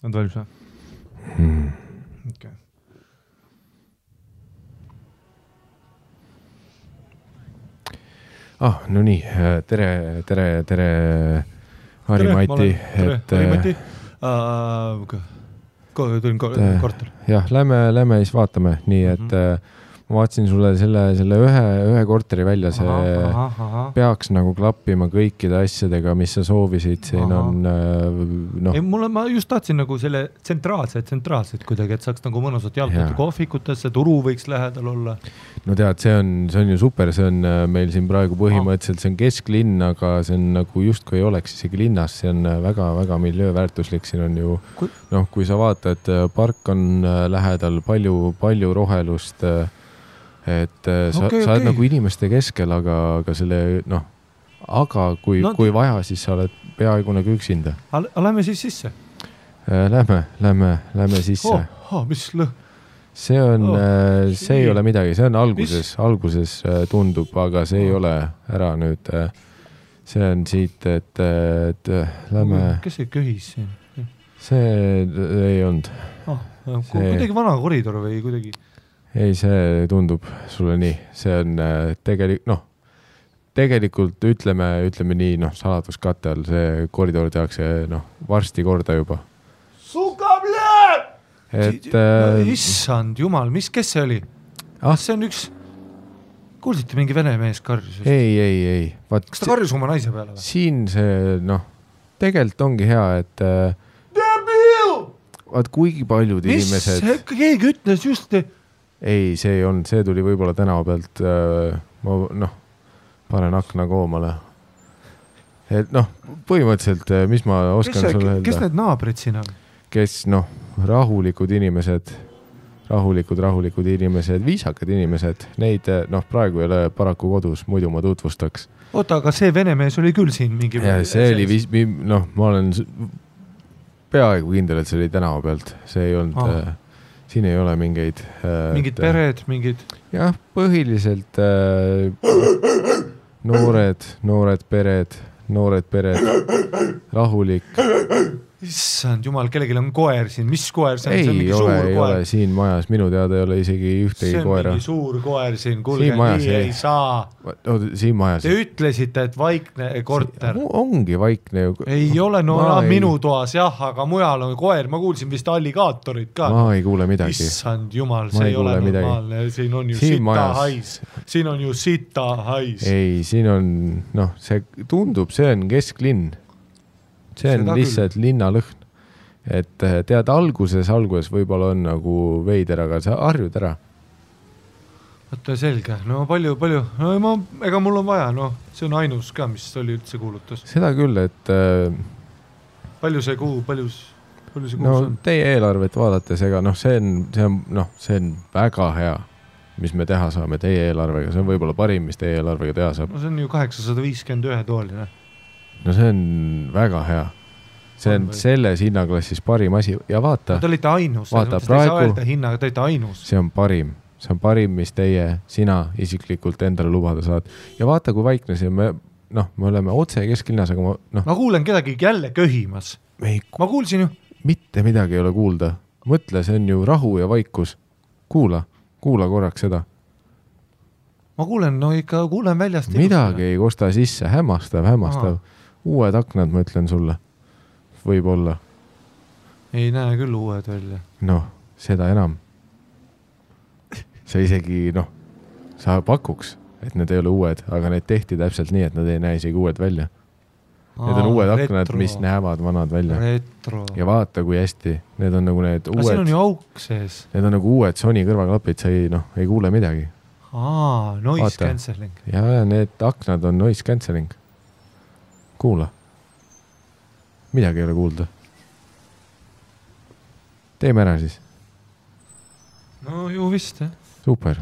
On valmis või? Okay. No nii, tere Harri-Mati. Harri-Mati. Tulin korter. Jah, lähme siis vaatame, nii et ma vaatasin sulle selle ühe korteri välja, see peaks nagu klappima kõikide asjadega, mis sa soovisid, siin on Ei, ma just tahtsin nagu selle tsentraalselt kuidagi, et saaks nagu mõnusat jalgata kohvikutesse, turu võiks lähedal olla. No tead, see on ju super, see on meil siin praegu põhimõtteliselt, see on kesklinn, aga see on nagu justkui ei oleks isegi linnas, see on väga-väga miljööväärtuslik, siin on ju, kui sa vaatad, park on lähedal, palju rohelust, et sa oled nagu inimeste keskel, aga selle, aga kui vaja, siis sa oled peaaegu nagu üksinda. Lähme siis sisse? Lähme sisse. Mis lõh? See ei ole midagi, see on alguses tundub, aga see ei ole ära nüüd. See on siit, et lähme... Kes see köhis siin? See ei olnud. Kuidagi vana koridor või kuidagi... Ei, see tundub sulle nii. See on tegelikult ütleme nii, saladuskatte all see koridor tehakse varsti korda juba. Issand jumal, kes see oli? See on üks... Kuulsite mingi vene mees karjus? Ei. Kas ta karjus oma naise peale või? Siin see, tegelikult ongi hea, et... Vaat kuigi paljud inimesed... Mis? Keegi ütles just... Ei, see ei olnud, see tuli võib-olla tänava pealt, ma panen akna koomale. Et põhimõtteliselt, mis ma oskan sulle öelda? Kes need naabrid siin on? Kes, rahulikud inimesed, viisakad inimesed, neid, praegu ei ole paraku kodus, muidu ma tutvustaks. Oota, aga see vene mees oli küll siin mingi... Ja see oli, ma olen peaaegu kindel, et see oli tänava pealt, see ei olnud... Siin ei ole mingeid... Mingid pered, mingid... Jah, põhiliselt noored pered, rahulik. Issand jumal, kellelgi on koer siin. Mis koer see on? Ei see on mingi suur koer. Ei ole siin majas. Minu teada ei ole isegi ühtegi koera. See on mingi suur koer siin. Kuulge, nii ei saa. Siin majas. Te ütlesite, et vaikne korter. Ongi vaikne. Ei ole, minu toas jah, aga mujal on koer. Ma kuulsin vist alligaatorid ka. Ma ei kuule midagi. Issand jumal, see ei ole normaalne. Siin on ju sita hais. Siin on ju sita hais. Ei, siin on, see tundub, see on kesklinn. See on lihtsalt linnalõhn. Et tead, alguses võib-olla on nagu veider, aga sa harjud ära. Võtta selge. Palju. Ega mul on vaja, see on ainus ka, mis oli üldse kuulutus. Seda küll, et... Palju see kuu on? Teie eelarvet vaadates, ega see on väga hea, mis me teha saame teie eelarvega. See on võib-olla parim, mis teie eelarvega teha saab. See on ju 851 tooline. See on väga hea. See on selles hinnaklassis parim asi. Ja vaata. Te olite ainus. Vaata, praegu. Te olite ainus. See on parim, mis sina isiklikult endale lubada saad. Ja vaata, kui vaikne see me oleme otse kesklinnas, aga ma kuulen kedagi jälle köhimas. Ma kuulsin ju. Mitte midagi ei ole kuulda. Mõtle, see on ju rahu ja vaikus. Kuula korraks seda. Ma kuulen väljast. Midagi ei kosta sisse, hämmastav. Uued aknad, ma ütlen sulle. Võib-olla. Ei näe küll uued välja. Seda enam. Sa isegi, sa pakuks, et need ei ole uued, aga need tehti täpselt nii, et nad ei näe isegi uued välja. Need on uued aknad, mis näevad vanad välja. Retro. Ja vaata, kui hästi. Need on nagu need uued... siin on ju auk sees. Need on nagu uued Sony kõrvaklapid, sa ei kuule midagi. Noise cancelling. Ja need aknad on noise cancelling. Kuula. Midagi ei ole kuulda. Teeme ära siis. Ju vist, jah. Super.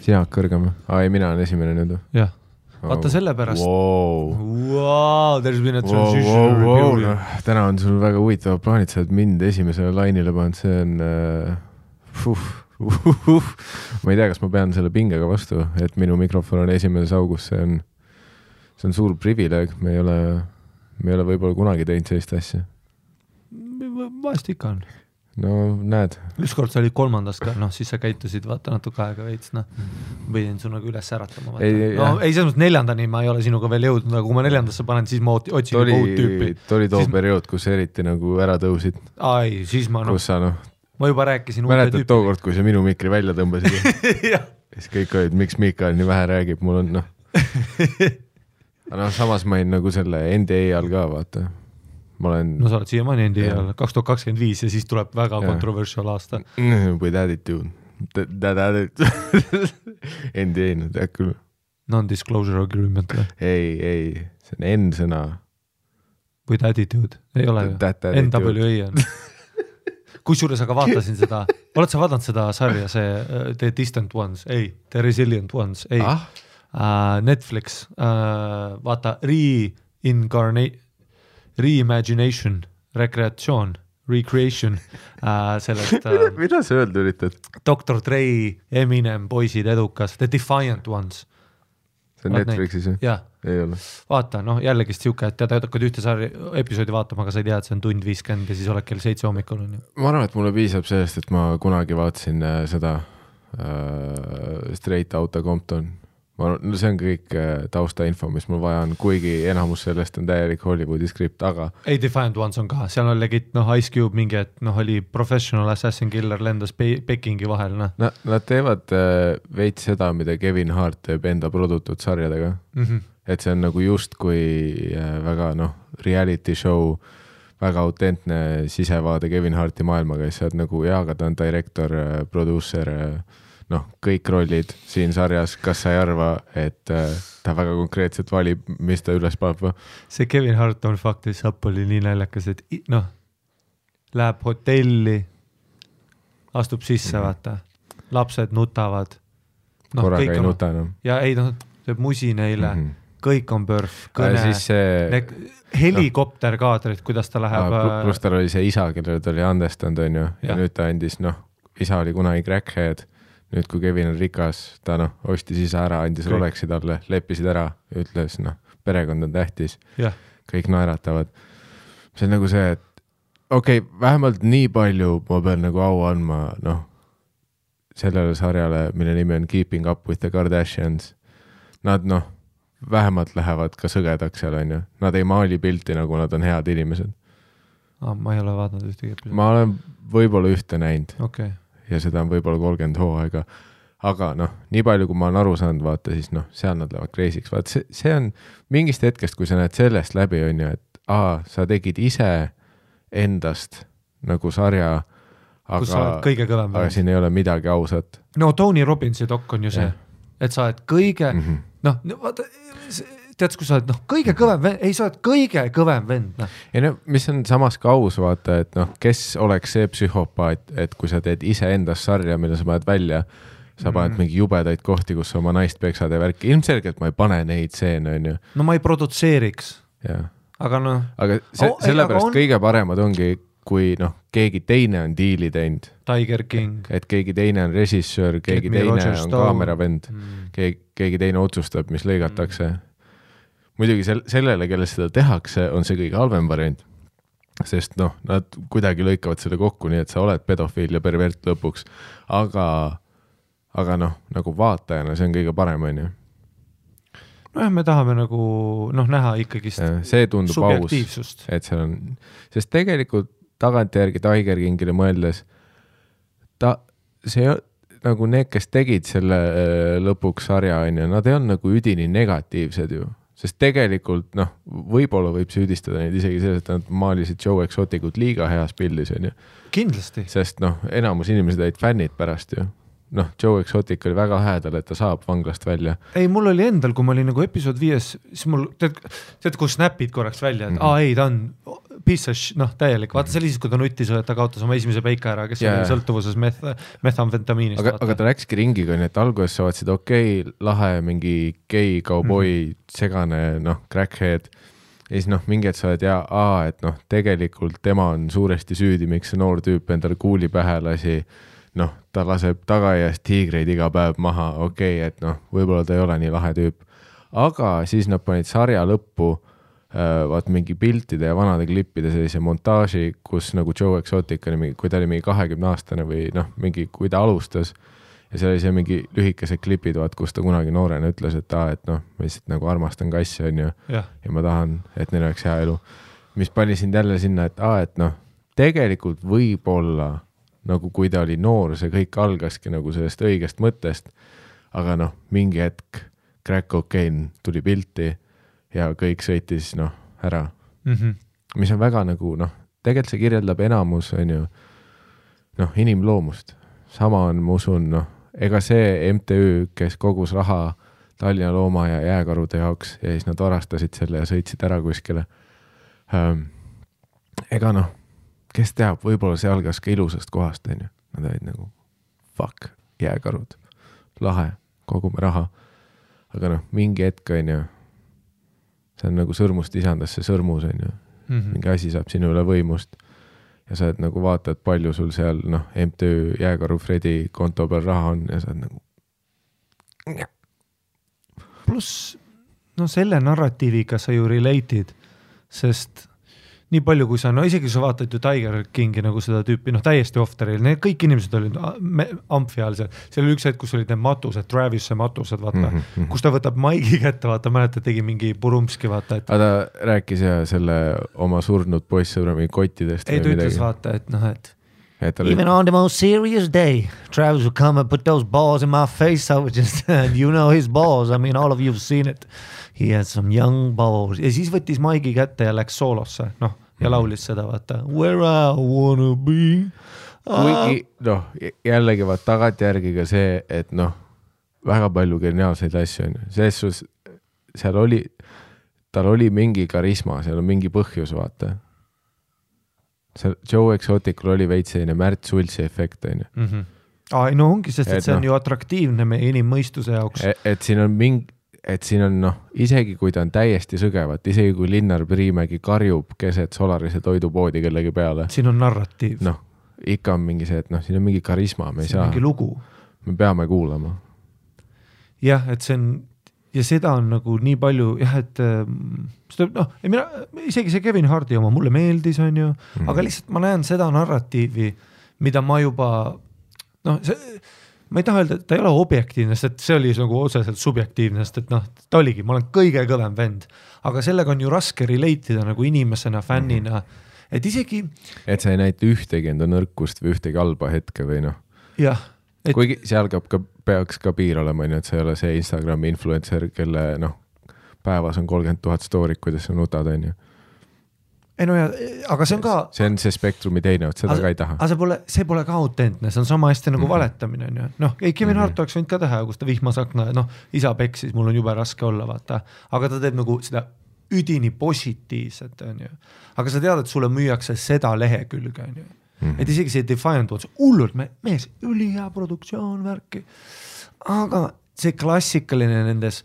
Jaak kõrgem. Ei, mina olen esimene nüüd. Jah. Vaata selle pärast. Wow, there's been a transition. Täna on sul väga huvitavad plaanid, sa oled mind esimesele lainile pannud, see on ma ei tea, kas ma pean selle pingega vastu, et minu mikrofon on esimeses augus, see on suur privileeg, me ei ole võib-olla kunagi teinud sellist asja. Vahest ikka on. No näed. Ükskord sa olid 3. ka, siis sa käitusid vaata natuke aega veits, võidin su nagu üles äratama. Ei, selles mõttes 4. ma ei ole sinuga veel jõudnud, aga kui ma 4. panen, siis ma otsin juba uut tüüpi. Oli too periood, kus eriti nagu ära tõusid. Ai, siis ma kus sa ma juba rääkisin uute tüüpi. Mäletad tookord, kui sa minu mikri välja tõmbasid? siis kõik olid, miks Mikael nii vähe räägib, mul on samas ma olin nagu selle NDA all ka, vaata. No sa oled siiamaani NDA all 2025 ja siis tuleb väga controversial aasta. With attitude. NDA, tead küll. Non-disclosure agreement. Ei, see on N-sõna. With attitude, ei ole ju. NWA on. Kusjuures aga vaatasin seda, oled sa vaadanud seda sarja, see The Distant Ones, ei, The Resilient Ones, ei, Netflix, vaata, reimagination, recreation sellest mida sa öelda üritad? Dr. Dre, Eminem, poisid, edukas, The Defiant Ones. See on Netflixis ju? Jah. Ei ole. Vaata, jällegist siuke, et tead hakkad ühte episoodi vaatama, aga sa ei tea, et see on 1:50 ja siis oled kell 7 hommikul. Ma arvan, et mulle piisab sellest, et ma kunagi vaatasin seda Straight Outta Compton. See on kõik taustainfo, mis mul vaja on, kuigi enamus sellest on täielik Hollywoodi skript, aga ei, Defiant Ones on ka, seal on legit, Ice Cube mingi, et oli professional assassin killer lendas Pekingi vahel. Nad teevad veits seda, mida Kevin Hart teeb enda produtud sarjadega. Et see on nagu just kui väga reality show, väga autentne sisevaade Kevin Harti maailmaga, siis sa oled nagu aga ta on direktor, producer, kõik rollid siin sarjas, kas sa ei arva, et ta väga konkreetselt valib, mis ta üles paneb? See Kevin Hart on faktis sapp oli nii näljakas, et läheb hotelli, astub sisse, vaata, lapsed nutavad. Korraga ei nuta enam. Ja ei, teeb musi neile, kõik on pörf, kõne, helikopterkaadrid, kuidas ta läheb. Plus tal oli see isa, kellele ta oli andestanud, on ju, ja nüüd ta andis, isa oli kunagi crackhead, nüüd kui Kevin on rikas, ta ostis isa ära, andis Rolexi talle, leppisid ära, ütles, perekond on tähtis, kõik naeratavad. See on nagu see, et vähemalt nii palju ma pean nagu au andma, sellele sarjale, mille nimi on Keeping Up with the Kardashians. Nad, vähemalt lähevad ka sõgedaks seal, on ju. Nad ei maali pilti, nagu nad on head inimesed. Ma ei ole vaadanud ühtegi episoodi. Ma olen võib-olla ühte näinud. Okay. Ja seda on võib-olla 30 hooaega. Aga nii palju, kui ma olen aru saanud, vaata, siis seal nad lähevad crazy'ks. Vaata, see on mingist hetkest, kui sa näed sellest läbi, on ju, et sa tegid ise endast nagu sarja, aga siin ei ole midagi ausat. Tony Robbinsi dok on ju see, et sa oled kõige, vaata, tead, kui sa oled kõige kõvem vend, ei, sa oled kõige kõvem vend. Ja mis on samas ka aus, vaata, et kes oleks see psühhopaat, et kui sa teed ise endast sarja, mille sa paned välja, sa paned mingi jubedaid kohti, kus sa oma naist peksad ja värki. Ilmselgelt ma ei pane neid seene, on ju. Ma ei produtseeriks. Aga Aga sellepärast kõige paremad ongi, kui keegi teine on diili teinud. Tiger King. Et keegi teine on režissöör, keegi teine on kaameravend, keegi teine otsustab, mis lõigatakse. Muidugi sellele, kelle seda tehakse, on see kõige halvem variant. Sest nad kuidagi lõikavad selle kokku, nii et sa oled pedofiil ja pervert lõpuks. Aga nagu vaatajana see on kõige parem, on ju. Me tahame nagu näha ikkagist see tundub subjektiivsust. Aus, et seal on, sest tegelikult tagantjärgi Tiger Kingile mõeldes see nagu need, kes tegid selle lõpuks sarja, on ju, nad ei on nagu üdini negatiivsed ju, sest tegelikult võib-olla võib süüdistada neid isegi selles, et nad maalisid Joe Exoticut liiga heas pildis, on ju. Kindlasti. Sest enamus inimesed olid fännid pärast ju. Joe Exotic oli väga häädal, et ta saab vanglast välja. Ei, mul oli endal, kui ma olin nagu episood 5, siis mul, tead, kui snapid korraks välja, et ei, ta on täielik, vaata see oli siis, kui ta nuttis, et ta kaotas oma esimese peika ära, kes oli sõltuvuses methamfetamiinist. Aga ta läkski ringiga, nii et alguses sa vaatasid, lahe, mingi gei, kauboi, segane, crackhead. Ja siis mingi, et sa oled et tegelikult tema on suuresti süüdi, miks see noor tüüp endale kuuli pähe lasi. Ta laseb tagaiast tiigreid iga päev maha, et võib-olla ta ei ole nii lahe tüüp. Aga siis nad panid sarja lõppu vaat mingi piltide ja vanade klippide sellise montaaži, kus nagu Joe Exotic oli, kui ta oli mingi 20-aastane või mingi, kui ta alustas ja seal oli see mingi lühikesed klipid, vaat, kus ta kunagi noorena ütles, et ma lihtsalt nagu armastan kassi, on ju, ja ma tahan, et neil oleks hea elu. Mis pani sind jälle sinna, et tegelikult võib-olla nagu kui ta oli noor, see kõik algaski nagu sellest õigest mõttest, aga mingi hetk crack cocaine tuli pilti ja kõik sõitis ära. Mis on väga nagu, tegelikult see kirjeldab enamus, on ju, inimloomust. Sama on, ma usun, ega see MTÜ, kes kogus raha Tallinna looma ja jääkarude jaoks ja siis nad varastasid selle ja sõitsid ära kuskile. Ega kes teab, võib-olla see algas ka ilusast kohast, on ju. Nad olid nagu, fuck, jääkarud, lahe, kogume raha. Aga mingi hetk, on ju, see on nagu sõrmust isandasse sõrmus, on ju. Mingi asi saab sinu üle võimust ja sa nagu vaatad, palju sul seal MTÜ Jääkaru Fredi konto peal raha on ja sa oled nagu pluss selle narratiiviga sa ju relate'id, sest nii palju, kui sa, isegi sa vaatad ju Tiger Kingi nagu seda tüüpi, täiesti off-teril, need kõik inimesed olid amfi all seal. Seal oli üks hetk, kus olid need matused, Travisse matused, vaata, kus ta võtab maigi kätte, vaata, mäletad, tegi mingi purumski, vaata. Aga ta rääkis ja selle oma surnud poissõbra mingi kottidest. Ei, ta ütles, vaata, et even on the most serious day, Travis would come and put those balls in my face, I would just, his balls, I mean, all of you have seen it. He had some young balls. Ja siis võttis maigi kätte ja läks soolosse, ja laulis seda, vaata, where I wanna be. Kuigi, jällegi vaat tagantjärgi ka see, et väga palju geniaalseid asju on. Selles seal oli, tal oli mingi karisma, seal on mingi põhjus, vaata. Joe Exoticul oli veits selline Märt Sultsi efekt, on ju. Ongi, sest et see on ju atraktiivne meie inimmõistuse jaoks. Et siin on mingi siin on isegi kui ta on täiesti sõgevat, isegi kui Linnar Priimägi karjub keset Solarise toidupoodi kellegi peale. Siin on narratiiv. Ikka on mingi see, et siin on mingi karisma, me ei saa. Mingi lugu. Me peame kuulama. Jah, et see on, ja seda on nagu nii palju, et isegi see Kevin Hardi oma mulle meeldis, on ju, aga lihtsalt ma näen seda narratiivi, mida ma juba, ma ei taha öelda, et ta ei ole objektiivne, sest see oli nagu otseselt subjektiivne, sest et ta oligi, ma olen kõige kõvem vend, aga sellega on ju raske relate'ida nagu inimesena, fännina, et isegi et sa ei näita ühtegi enda nõrkust või ühtegi halba hetke või jah. Kuigi seal peaks ka piir olema, et sa ei ole see Instagrami influencer, kelle päevas on 30 000 stoorit, kuidas sa nutad, on ju. Aga see on ka see on see spektrumi teine, et seda ka ei taha. Aga see pole ka autentne, see on sama hästi nagu valetamine, on ju. Kevin Hart oleks võinud ka teha, kus ta vihmasakna, isa peksis, mul on jube raske olla, vaata. Aga ta teeb nagu seda üdini positiivset, on ju. Aga sa tead, et sulle müüakse seda lehekülge, on ju. Et isegi see Defiant Ones, hullult, mees, ülihea produktsioon, värki. Aga see klassikaline nendes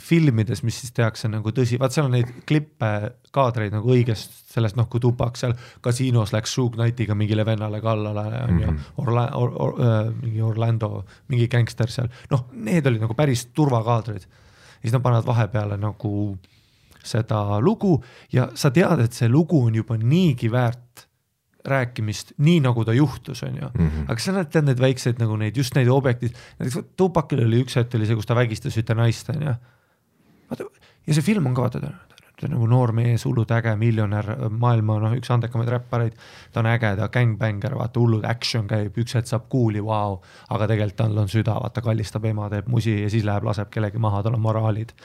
filmides, mis siis tehakse nagu tõsi, vaat seal on neid klippe, kaadreid nagu õigest sellest, kui Tupac seal kasiinos läks Suge Knightiga mingile vennale kallale, on ju, mingi Orlando, mingi gangster seal, need olid nagu päris turvakaadrid. Ja siis nad panevad vahepeale nagu seda lugu ja sa tead, et see lugu on juba niigi väärt rääkimist, nii nagu ta juhtus, on ju. Aga sa näed need väikseid nagu neid, just neid objektid. Näiteks Tupacil oli üks hetk, oli see, kus ta vägistas ühte naist, on ju. Ja see film on ka, ta on nagu noor mees, hullud äge, miljonär, maailma üks andekamaid räppareid. Ta on äge, ta gangbanger, vaata, hullud action käib, üks hetk saab kuuli, wow. Aga tegelikult tal on süda, vaata, kallistab ema, teeb musi ja siis läheb, laseb kellegi maha, tal on moraalid.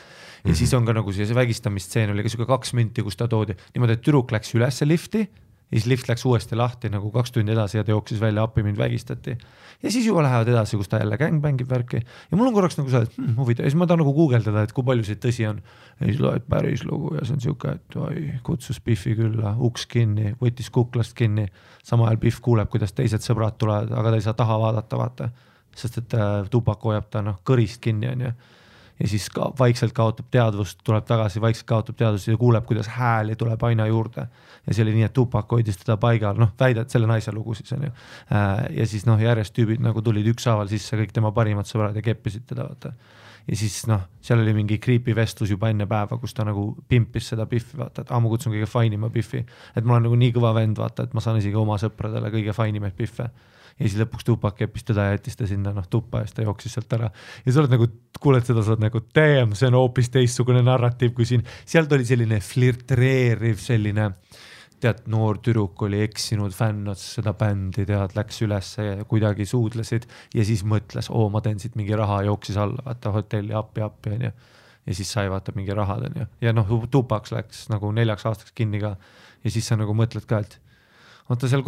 Ja siis on ka nagu see vägistamistseen oli ka 2 minti, kus ta toodi. Niimoodi, et tüdruk läks ülesse lifti, ja siis lift läks uuesti lahti nagu 2 tundi edasi ja ta jooksis välja appi, mind vägistati. Ja siis juba lähevad edasi, kus ta jälle gangbangib värki. Ja mul on korraks nagu see, et huvitav. Ja siis ma tahan nagu guugeldada, et kui palju see tõsi on. Ja siis loed päris lugu ja see on siuke, et oi, kutsus Biffi külla, uks kinni, võttis kuklast kinni. Sama ajal Biff kuuleb, kuidas teised sõbrad tulevad, aga ta ei saa taha vaadata, vaata. Sest et Tupac hoiab ta kõrist kinni on ju. Ja siis vaikselt kaotab teadvust, tuleb tagasi, vaikselt kaotab teadvust ja kuuleb, kuidas hääli tuleb aina juurde. Ja see oli nii, et Tupac hoidis teda paigal, väidad selle naise lugu siis on ju. Ja siis järjest tüübid nagu tulid ükshaaval sisse, kõik tema parimad sõbrad ja keppisid teda, vaata. Ja siis seal oli mingi creepy vestlus juba enne päeva, kus ta nagu pimpis seda Biffi, vaata, et ma kutsun kõige fainima Biffi. Et ma olen nagu nii kõva vend, vaata, et ma saan isegi oma sõpradele kõige fainimaid Biffe. Ja siis lõpuks Tupac keppis teda ja jättis ta sinna tuppa ja siis ta jooksis sealt ära. Ja sa oled nagu, kuuled seda, sa oled nagu, damn, see on hoopis teistsugune narratiiv kui siin. Sealt oli selline flirtreeriv selline, tead, noor tüdruk oli eksinud, fännas seda bändi, tead, läks üles ja kuidagi suudlesid ja siis mõtles, ma teen siit mingi raha, jooksis alla, vaata hotelli appi on ju. Ja siis sai vaata mingi rahad on ju. Ja Tupac läks nagu 4 aastaks kinni ka ja siis sa nagu mõtled ka, et vaata seal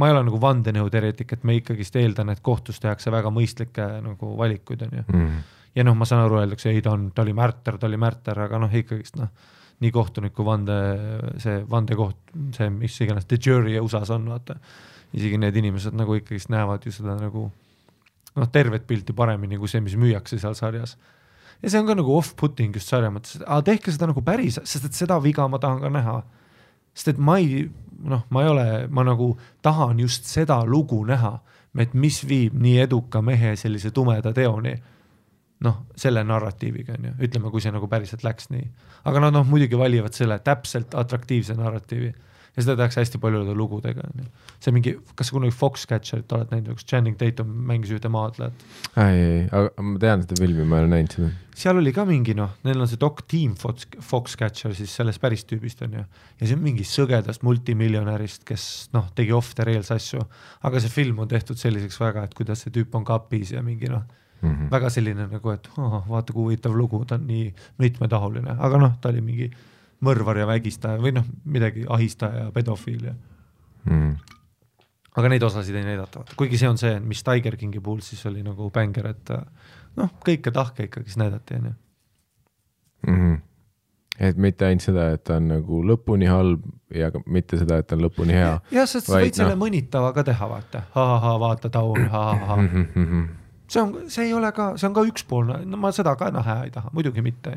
ma ei ole nagu vandenõuteoreetik, et me ikkagist eeldan, et kohtus tehakse väga mõistlikke nagu valikuid on ju. Ja ma saan aru, öeldakse, ei ta oli märter, aga ikkagist nii kohtuniku vandekoht, see mis iganes, the jury USA-s on, vaata. Isegi need inimesed nagu ikkagist näevad ju seda nagu tervet pilti paremini kui see, mis müüakse seal sarjas. Ja see on ka nagu off-putting just sarja mõttes, tehke seda nagu päris, sest et seda viga ma tahan ka näha. Sest et ma nagu tahan just seda lugu näha, et mis viib nii eduka mehe sellise tumeda teoni, selle narratiiviga on ju, ütleme, kui see nagu päriselt läks nii. Aga nad muidugi valivad selle täpselt atraktiivse narratiivi ja seda tehakse hästi paljude lugudega. See mingi, kas sa kunagi Foxcatcherit oled näinud, kus Channing Tatum mängis ühte maadlejat? Ei, aga ma tean seda filmi, ma olen näinud seda. Seal oli ka mingi, neil on see Doc Team Foxcatcher siis sellest päris tüübist on ju. Ja see on mingi sõgedast multimiljonärist, kes tegi off the rails asju, aga see film on tehtud selliseks väga, et kuidas see tüüp on kapis ja mingi väga selline nagu, et vaata kui huvitav lugu, ta on nii mitmetahuline, aga ta oli mingi mõrvar ja vägistaja või midagi ahistaja ja pedofiil. Aga neid osasid ei näidata. Kuigi see on see, mis Tiger Kingi puhul siis oli nagu bänger, et kõike tahke ikkagi näidati. Et mitte ainult seda, et ta on nagu lõpuni halb ja mitte seda, et ta on lõpuni hea. Ja sest sa võid selle mõnitava ka teha, vaata. Vaata taun, See ei ole ka, see on ka ükspoolne, ma seda ka hea ei taha, muidugi mitte.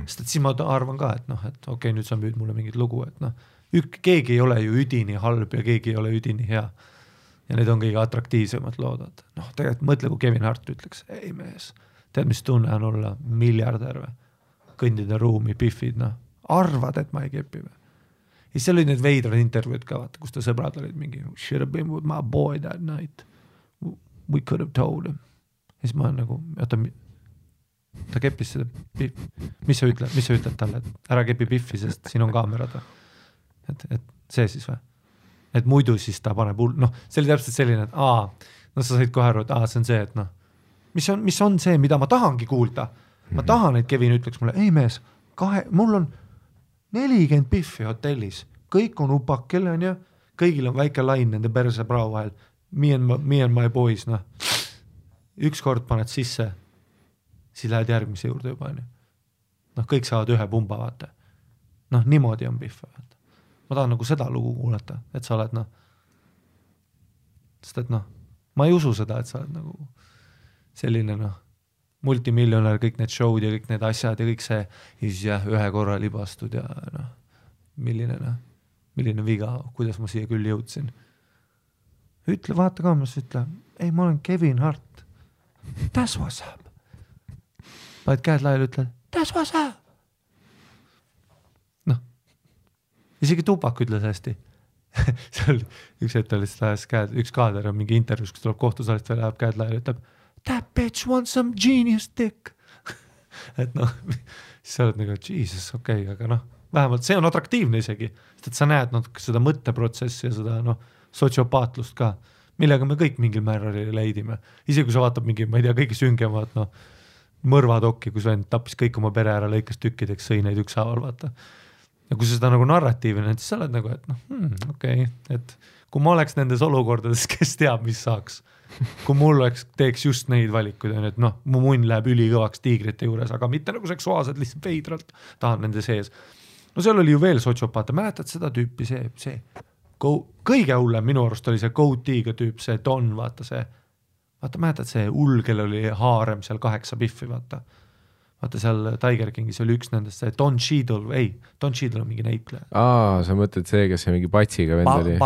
Sest et siis ma arvan ka, et okei, nüüd sa müüd mulle mingit lugu, et keegi ei ole ju üdini halb ja keegi ei ole üdini hea. Ja need on kõige atraktiivsemad loodad. Tegelikult mõtle, kui Kevin Hart ütleks, ei mees, tead, mis tunne on olla miljardär või? Kõndida ruumi, Biffid, arvad, et ma ei kepi või? Ja seal oli need veidrad intervjuud ka, vaata, kus ta sõbrad olid mingi, should have been with my boy that night. We could have told him. Ja siis ma olen nagu, ta keppis seda Biffi. Mis sa ütled talle, et ära kepi Biffi, sest siin on kaamerad. Et see siis või? Et muidu siis ta paneb see oli täpselt selline, et sa said kohe aru, et see on see, et mis on see, mida ma tahangi kuulda. Ma tahan, et Kevin ütleks mulle, ei mees, mul on 40 Biffi hotellis, kõik on upakil on ju, kõigil on väike lain nende perse prao vahel, me and my boys, ükskord paned sisse, siis lähed järgmise juurde juba. Kõik saavad ühe pumba, vaata. Niimoodi on Biff. Ma tahan nagu seda lugu kuulata, et sa oled, sest et ma ei usu seda, et sa oled nagu selline, multimiljonär, kõik need show'd ja kõik need asjad ja kõik see, ja siis ühe korra libastud ja milline viga, kuidas ma siia küll jõudsin. Ütle, vaata kaamas, ütle, ei, ma olen Kevin Hart. That's what's up. Paid käed laiali, ütled, that's what's up. Isegi Tupac ütles hästi. Seal üks hetk oli üks kaader on mingi intervjuus, kus tuleb kohtusaalist veel läheb käed laiali, ütleb, that bitch wants some genius dick. Et siis sa oled nagu, Jesus, okei, aga vähemalt see on atraktiivne isegi, sest et sa näed seda mõtteprotsessi ja seda sotsiopaatlust ka, millega me kõik mingil määral leidime. Isegi kui sa vaatab mingi, ma ei tea, kõige süngemad mõrvadokki, kus vend tappis kõik oma pere ära, lõikas tükkideks, sõi neid ükshaaval, vaata. ja kui sa seda nagu narratiivi näed, siis sa oled nagu, et okei, et kui ma oleks nendes olukordades, kes teab, mis saaks, kui mul teeks just neid valikuid, et noh, mu munn läheb ülikõvaks tiigrite juures, aga mitte nagu seksuaalselt, lihtsalt veidralt tahan nende sees. No seal oli ju veel sotsiopaate, mäletad seda tüüpi, see kõige hullem minu arust oli see Goateega tüüp, see Don, vaata, mäletad see hull, kellel oli haarem seal 8 biffi, vaata seal Tiger Kingis oli üks nendest, see Don Cheadle on mingi näitleja. Sa mõtled see, kes see mingi patsiga vend oli?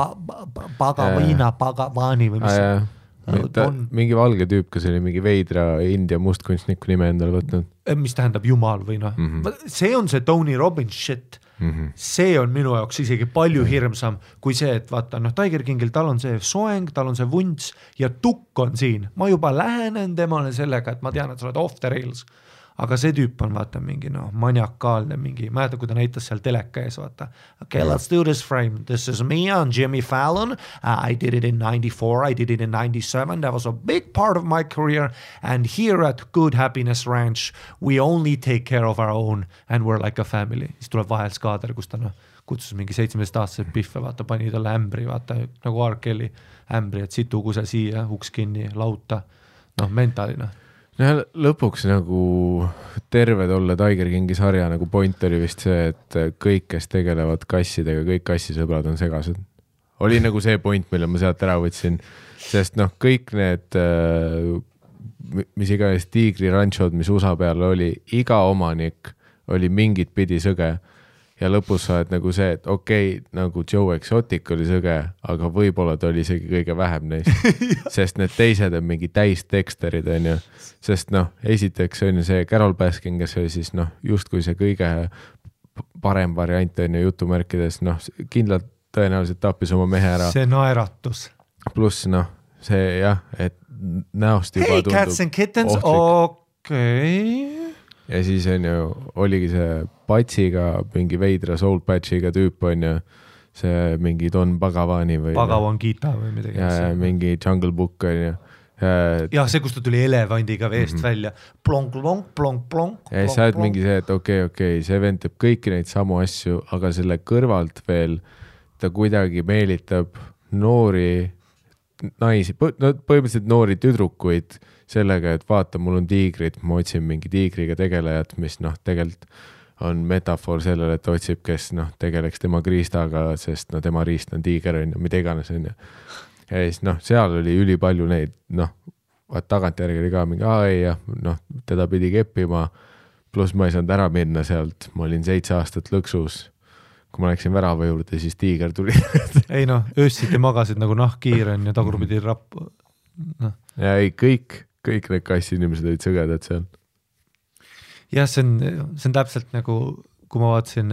Pagavani või mis see? Mingi valge tüüp, kes oli mingi veidra India mustkunstniku nime endale võtnud. Mis tähendab jumal või noh. See on see Tony Robbins shit. See on minu jaoks isegi palju hirmsam kui see, et vaata, Tiger Kingil tal on see soeng, tal on see vunts ja tukk on siin. Ma juba lähenen temale sellega, et ma tean, et sa oled off the rails. Aga see tüüp on vaata mingi maniakaalne mingi, ma jäta, kui ta näitas seal teleka ees, vaata. Okay, let's do this frame. This is me on Jimmy Fallon. I did it in 94, I did it in 97. That was a big part of my career. And here at Good Happiness Ranch, we only take care of our own and we're like a family. Siis tuleb vahel skaader, kus ta kutsus mingi 17-aastased piffe, vaata, pani talle ämbri, vaata, nagu R. Kelly ämbri, et situ kuse siia, uks kinni, lauta, mentaalina. Lõpuks nagu terved olla Tiger Kingi sarja nagu point oli vist see, et kõik, kes tegelevad kassidega, kõik kassisõbrad on segased. Oli nagu see point, mille ma sealt ära võtsin, sest kõik need, mis iganes tiigri ranchod, mis USA peal oli, iga omanik oli mingit pidi sõge. Ja lõpus sa oled nagu see, et okei, nagu Joe Exotic oli sõge, aga võib-olla ta oli isegi kõige vähem neist, sest need teised on mingi täisteksterid, on ju. Sest esiteks on ju see Carol Baskin, kes oli siis justkui see kõige parem variant on ju jutumärkides, kindlalt tõenäoliselt tappis oma mehe ära. See naeratus. Pluss see jah, et näost juba tundub cats and kittens, okei. Ja siis on ju, oligi see patsiga, mingi veidra soul patchiga tüüp on ju, see mingi Don Pagavani või Pagavan Gita või midagi. Ja mingi Jungle Book on ju. Ja see, kus ta tuli elevandiga veest välja. Plonk. Ja siis sa oled mingi see, et okei, see vend teeb kõiki neid samu asju, aga selle kõrvalt veel ta kuidagi meelitab noori naisi, põhimõtteliselt noori tüdrukuid sellega, et vaata, mul on tiigrid, ma otsin mingi tiigriga tegelejat, mis tegelikult on metafoor sellele, et otsib, kes tegeleks tema kriistaga, sest tema riist on tiiger, on ju, mida iganes on ju. Ja siis seal oli ülipalju neid, tagantjärgi oli ka mingi, teda pidi keppima, pluss ma ei saanud ära minna sealt, ma olin 7 aastat lõksus. Kui ma läksin värava juurde, siis tiiger tuli. Ei öössiti magasid nagu nahkkiiren ja tagurpidi rapp. Ja ei, kõik need kassinimesed olid sõgedad seal. Jah, see on täpselt nagu, kui ma vaatasin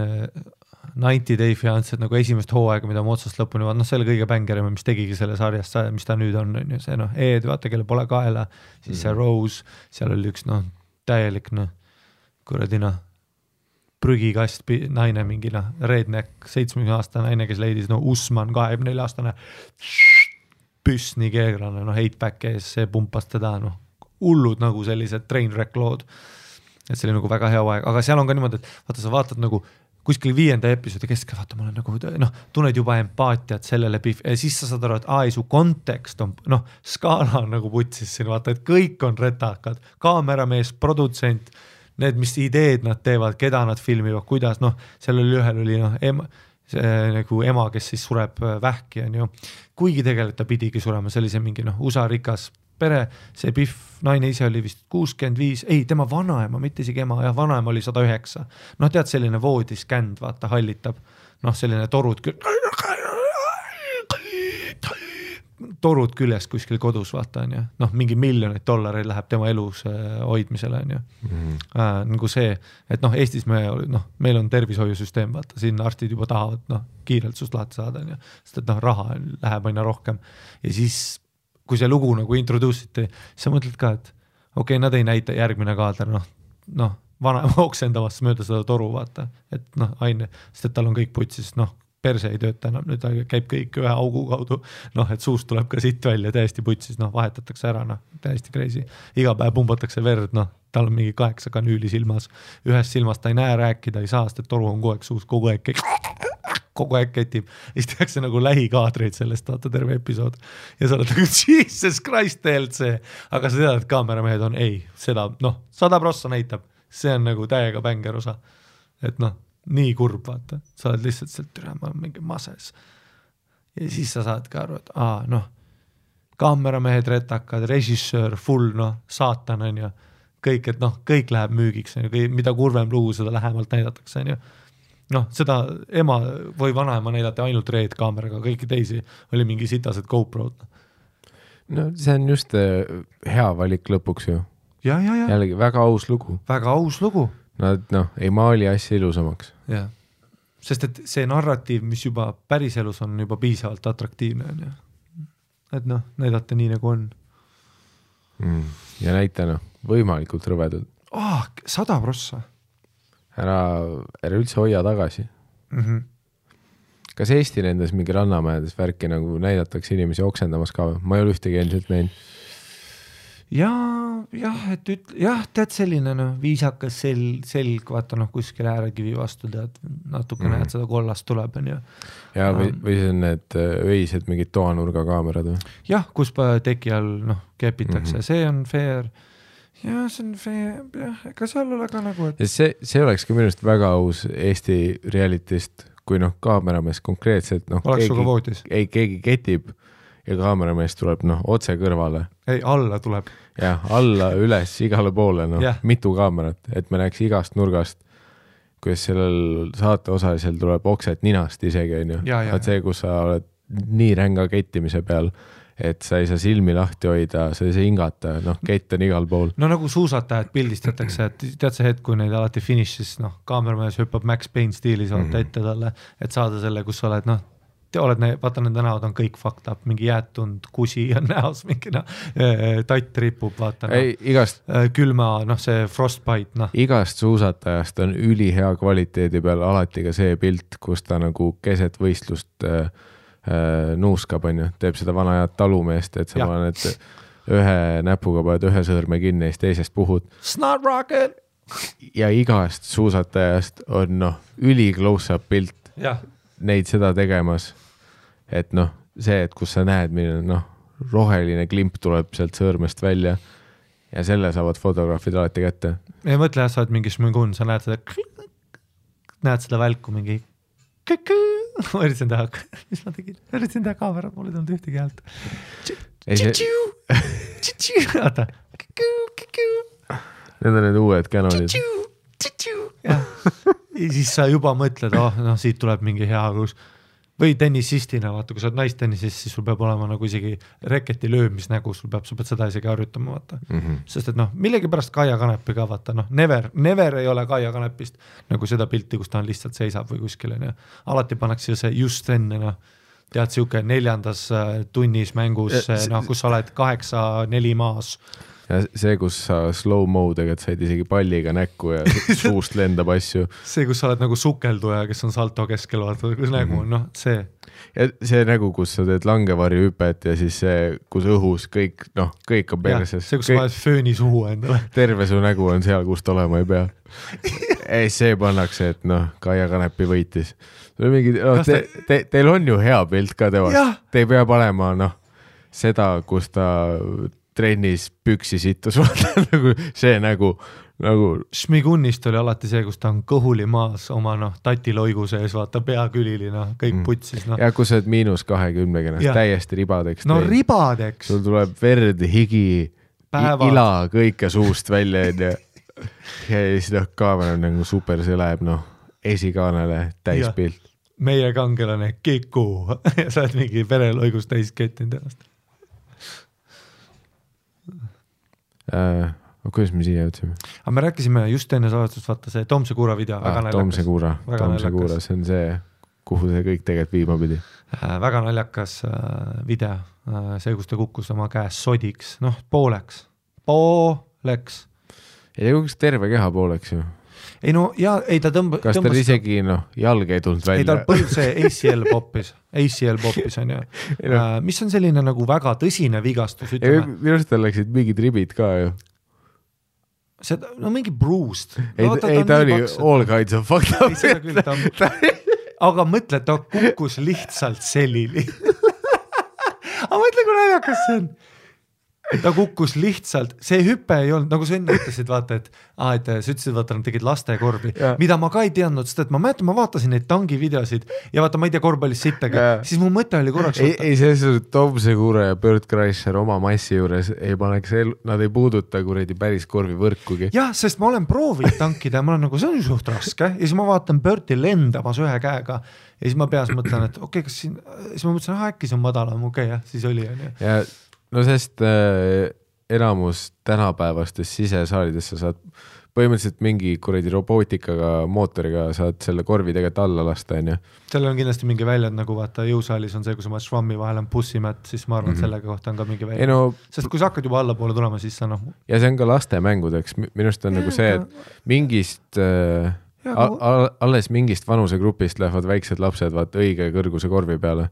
90 Day Fiancet nagu esimest hooaega, mida ma otsast lõpuni vaatan, see oli kõige bängerima, mis tegigi selle sarjast, mis ta nüüd on see Ed, vaata, kelle pole kaela, siis see Rose, seal oli üks täielik kuradina prügikast naine mingi redneck 70-aastane naine, kes leidis Usman 24-aastane püss nii keegrane, heitback ees, see pumpas teda, hullud nagu sellised trainwreck lood, et see oli nagu väga hea aeg, aga seal on ka niimoodi, et vaata, sa vaatad nagu kuskil 5. episoodi keskel, vaata, ma olen nagu, tunned juba empaatiat sellele ja siis sa saad aru, et su kontekst on, skaala on nagu putsis siin, vaata, et kõik on retakad, kaameramees, produtsent, need, mis ideed nad teevad, keda nad filmivad, kuidas, seal oli ühel oli see nagu ema, kes siis sureb vähki, on ju. Kuigi tegelikult ta pidigi surema, see oli see mingi USA rikas pere, see Biff naine ise oli vist 65, ei, tema vanaema, mitte isegi ema, jah, vanaema oli 109. Tead, selline voodiskänd, vaata, hallitab, selline torud küljest kuskil kodus, vaata, on ju. Mingi miljonid dollareid läheb tema elus hoidmisele, on ju. Nagu see, et Eestis meil on tervishoiusüsteem, vaata, siin arstid juba tahavad kiirelt sust lahti saada, on ju. Sest, et raha läheb aina rohkem. Ja siis kui see lugu nagu introduusiti, sa mõtled ka, et okei, nad ei näita järgmine kaader, vanaema oksendavast mööda seda toru, vaata, et aine, sest et tal on kõik putsis, perse ei tööta enam, nüüd käib kõik ühe augu kaudu, noh, et suust tuleb ka siit välja täiesti putsis, noh, vahetatakse ära, noh, täiesti crazy. Iga päev pumbatakse verd, noh, tal on mingi 8 kanüüli silmas, ühest silmast ta ei näe, rääkida ei saa, sest et toru on kogu aeg suus, kogu aeg ketib. Ja siis tehakse nagu lähikaadreid sellest, vaata terve episood. Ja sa oled nagu, Jesus Christ, TLC. Aga sa tead, et kaameramehed on, ei, seda, noh, 100% näitab. See on nagu täiega bänger osa. Et noh, nii kurb, vaata. Sa oled lihtsalt sealt türa, ma olen mingi mases. Ja siis sa saad ka aru, et noh, kaameramehed retakad, režissöör, full, noh, saatan on ju. Kõik, et noh, kõik läheb müügiks, mida kurvem lugu, seda lähemalt näidatakse, on ju. Noh, seda ema või vanaema näidati ainult Red kaameraga, kõiki teisi oli mingi sitased GoPro'd. No see on just hea valik lõpuks ju. Ja. Jällegi väga aus lugu. Väga aus lugu. Nad ei maali asja ilusamaks. Ja. Sest et see narratiiv, mis juba päris elus on juba piisavalt atraktiivne. On, ja. Et noh, näidata nii nagu on. Ja näita võimalikult rõvedad. 100%. Ära üldse hoia tagasi. Kas Eesti nendes mingi rannamajades värki nagu näidatakse inimesi oksendamas ka? Ma ei ole ühtegi endiselt näinud. Jah, tead selline viisakas selg, vaata kuskil äärekivi vastu tead, natuke näed seda kollast tuleb. Ja või see on need öised mingid toanurga kaamerad või? Jah, kus teki all kepitakse, see on fair. Ja see on fair, ega seal ole ka nagu, et... See oleks ka minust väga aus Eesti realitist, kui kaameramees konkreetselt keegi ketib ja kaameramees tuleb otse kõrvale. Ei, alla tuleb. Ja, alla, üles, igale poole, mitu kaamerat, et me näeks igast nurgast, kuidas sellel saate osalisel tuleb okset ninast isegi, on ju. Vaat see, kus sa oled nii ränga kettimise peal, et sa ei saa silmi lahti hoida, sa ei saa hingata, kett on igal pool. No nagu suusatajad pildistatakse, et tead see hetk, kui neid alati finišis, kaameramajas hüppab Max Payne stiilis vaata ette talle, et saada selle, kus sa oled, vaata nende näod on kõik fucked up, mingi jäätund, kusi on näos, mingi tatt ripub, vaata külma, see frostbite. Igast suusatajast on ülihea kvaliteedi peal alati ka see pilt, kus ta nagu keset võistlust nuuskab, on ju, teeb seda vana head talumeest, et sa paned ühe näpuga paned ühe sõõrme kinni ja teisest puhud. Snot rocket! Ja igast suusatajast on üli close-up pilt neid seda tegemas. Et see, et kus sa näed, milline roheline klimp tuleb sealt sõõrmest välja ja selle saavad fotograafid alati kätte. Ei mõtle, sa oled mingi šmõgun, sa näed seda välku mingi ma üritasin teha, mis ma tegin? Üritasin teha kaamera, mul ei tulnud ühtegi häält. Oota. Need on need uued Canonid. Ja siis sa juba mõtled, siit tuleb mingi hea kus. Või tennisistina, vaata, kui sa oled naistennisis, siis sul peab olema nagu isegi reketi löömisnägu, sa pead seda isegi harjutama, vaata. Sest et millegi pärast Kaia Kanepi ka, vaata, never ei ole Kaia Kanepist nagu seda pilti, kus ta on lihtsalt seisab või kuskil, alati pannakse see just enne, tead siuke 4. tunnis mängus, kus sa oled 8-4 maas. Ja see, kus sa slow-modega said isegi palliga näkku ja suust lendab asju. See, kus sa oled nagu sukelduja, kes on salto keskel, vaata, kus nägu on, see. Ja see nägu, kus sa teed langevarju hüpet ja siis see, kus õhus kõik on perses. See, kus sa paned fööni suhu endale. Terve su nägu on seal, kust olema ei pea. Ei, see pannakse, et Kaia Kanepi võitis. Teil on ju hea pilt ka teevast. Te ei pea panema seda, kus ta trennis püksi sittus, see nägu. Šmigunnist oli alati see, kus ta on kõhuli maas oma tatiloigu sees, vaata peakülili, kõik putsis. Ja kus sa oled -20, täiesti ribadeks. Ribadeks. Sul tuleb verd, higi, ila, kõike suust välja. Ja siis kaamera on nagu super, see läheb esikaanele täispilt. Meie kangelane Kiku ja sa oled mingi vereloigus täis kettinud ennast. Kuidas me siia jõudsime? Aga me rääkisime just enne saavastust, vaata see Tomse Kuura video. Tomse Kuura, see on see, kuhu see kõik tegelikult viima pidi. Väga naljakas video, see, kus ta kukkus oma käes sodiks, pooleks. Ei kukuks terve keha pooleks ju. ei no ja ei ta kas tal isegi jalg ei tulnud välja? Ei tal põlv see ACL poppis on ju. Mis on selline nagu väga tõsine vigastus, ütleme. Minu arust tal läksid mingid ribid ka ju. Seda, mingi bruised. Ei, ta oli all kinds of fucked up. Ei, seda küll, aga mõtle, ta kukkus lihtsalt selili. Aga mõtle, kui naljakas see on. Ta kukkus lihtsalt, see hüpe ei olnud, nagu sa enne ütlesid, vaata, et sa ütlesid, vaata, nad tegid lastekorvi, mida ma ka ei teadnud, sest et ma mäletan, ma vaatasin neid tangi videosid ja vaata, ma ei tea korvpallis sittagi, siis mu mõte oli korraks. Ei, see Tom Segura ja Bert Kreischer oma massi juures ei paneks, nad ei puuduta kuradi päris korvi võrkugi. Jah, sest ma olen proovinud tankida ja ma olen nagu, see on suht raske ja siis ma vaatan Berti lendamas ühe käega ja siis ma peas mõtlen, et okei, kas siin, siis ma mõtlesin, äkki see on madalam, okei, siis oli on ju. Ja no sest enamus tänapäevastes sisesaalides sa saad põhimõtteliselt mingi kuradi robootikaga, mootoriga saad selle korvi tegelikult alla lasta, on ju. Sellel on kindlasti mingi väljad, nagu vaata jõusaalis on see, kui sa maad švammi vahel on bussimätt, siis ma arvan, sellega kohta on ka mingi väljad. Sest kui sa hakkad juba allapoole tulema, siis sa Ja see on ka laste mängudeks. Minust on nagu see, et mingist alles mingist vanusegrupist lähevad väiksed lapsed vaat õige kõrguse korvi peale.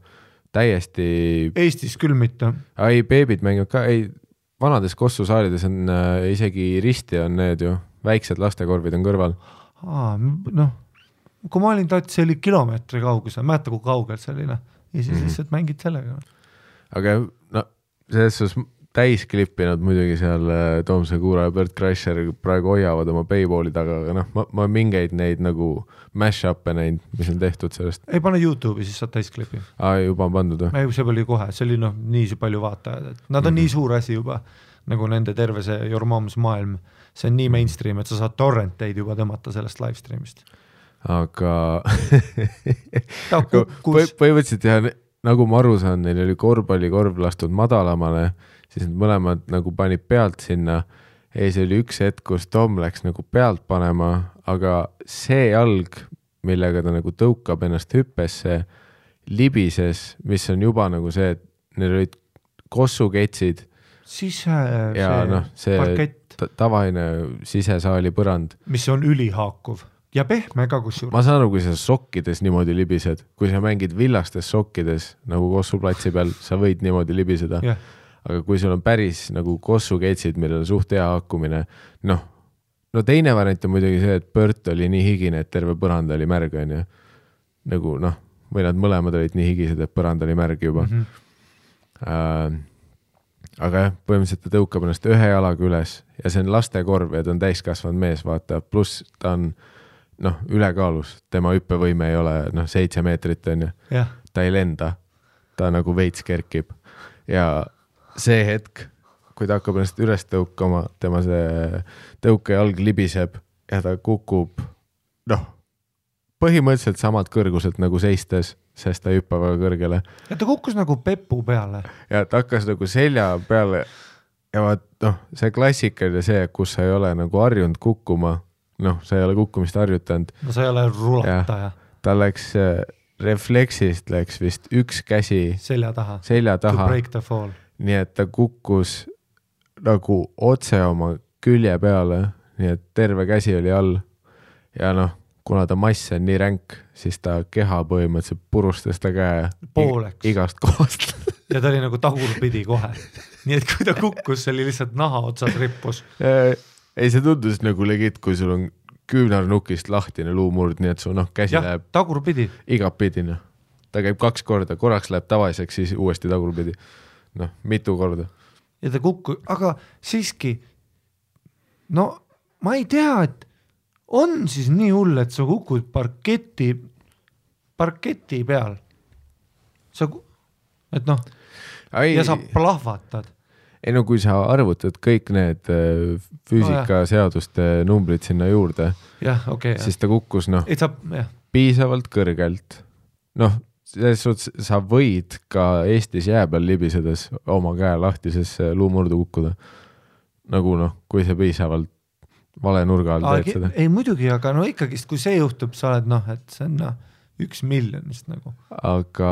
Täiesti... Eestis küll mitte. Ei, beebid mängivad ka, ei, vanades kossusaalides on isegi risti on need ju, väiksed lastekorvid on kõrval. Kui ma olin see oli kilomeetri kaugus, mäeta kui kaugelt selline, ja siis lihtsalt mängid sellega. Aga selles täis klippinud muidugi seal Tom Segura ja Bert Kreischer praegu hoiavad oma payballi taga, aga ma mingeid neid nagu mash-up'e neid, mis on tehtud sellest. Ei pane YouTube'i, siis saad täis klippi. Juba on pandud. See oli kohe, see oli nii palju vaatajad, et nad on nii suur asi juba, nagu nende terve see Your Mom's maailm, see on nii mainstream, et sa saad torrenteid juba tõmmata sellest livestreamist. Aga põhimõtteliselt jah, nagu ma aru saan, neil oli korvpallikorv lastud madalamale, siis need mõlemad nagu panid pealt sinna ja see oli üks hetk, kus Tom läks nagu pealt panema, aga see jalg, millega ta nagu tõukab ennast hüppesse, libises, mis on juba nagu see, et neil olid kossuketsid ja see tavaine sisesaali põrand. Mis on ülihaakuv ja pehme ka kusjuures. Ma saan aru, kui sa sokkides niimoodi libised, kui sa mängid villastes sokkides nagu kossuplatsi peal, sa võid niimoodi libiseda. Aga kui sul on päris nagu kossuketsid, millel on suht hea hakkumine, no teine variant on muidugi see, et Bert oli nii higine, et terve põrand oli märg, on ju. Nagu või nad mõlemad olid nii higised, et põrand oli märg juba. Aga jah, põhimõtteliselt ta tõukab ennast ühe jalaga üles ja see on lastekorv ja ta on täiskasvanud mees, vaata, pluss ta on ülekaalus, tema hüppevõime ei ole 7 meetrit, on ju. Ta ei lenda, ta nagu veits kerkib ja see hetk, kui ta hakkab ennast üles tõukama, tema see tõukejalg libiseb ja ta kukub, põhimõtteliselt samalt kõrguselt nagu seistes, sest ta hüppa väga kõrgele. Ja ta kukkus nagu pepu peale. Ja ta hakkas nagu selja peale ja vaat, see klassikaline see, kus sa ei ole nagu harjunud kukkuma, sa ei ole kukkumist harjutanud. Sa ei ole rulataja. Ta läks refleksist läks vist üks käsi selja taha. To break the fall. Nii et ta kukkus nagu otse oma külje peale, nii et terve käsi oli all ja kuna ta mass on nii ränk, siis ta keha põhimõtteliselt purustas ta käe pooleks. Igast kohast. Ja ta oli nagu tagurpidi kohe. Nii et kui ta kukkus, see oli lihtsalt naha otsas rippus. Ei, see tundus nagu legit, kui sul on küünarnukist lahtine luumurd, nii et su käsi läheb tagurpidi. Igapidi. Ta käib 2 korda, korraks läheb tavaliseks, siis uuesti tagurpidi. Mitu korda. Ja ta aga siiski, ma ei tea, et on siis nii hull, et sa kukud parketi peal. Ja sa plahvatad. Ei kui sa arvutad kõik need füüsikaseaduste numbrid sinna juurde, siis ta kukkus piisavalt kõrgelt. Sa võid ka Eestis jää peal libisedes oma käe lahtises luumurdu kukkuda. Nagu kui see piisavalt vale nurga all teed seda. Ei muidugi, aga ikkagist, kui see juhtub, sa oled et see on 1 miljonist nagu. Aga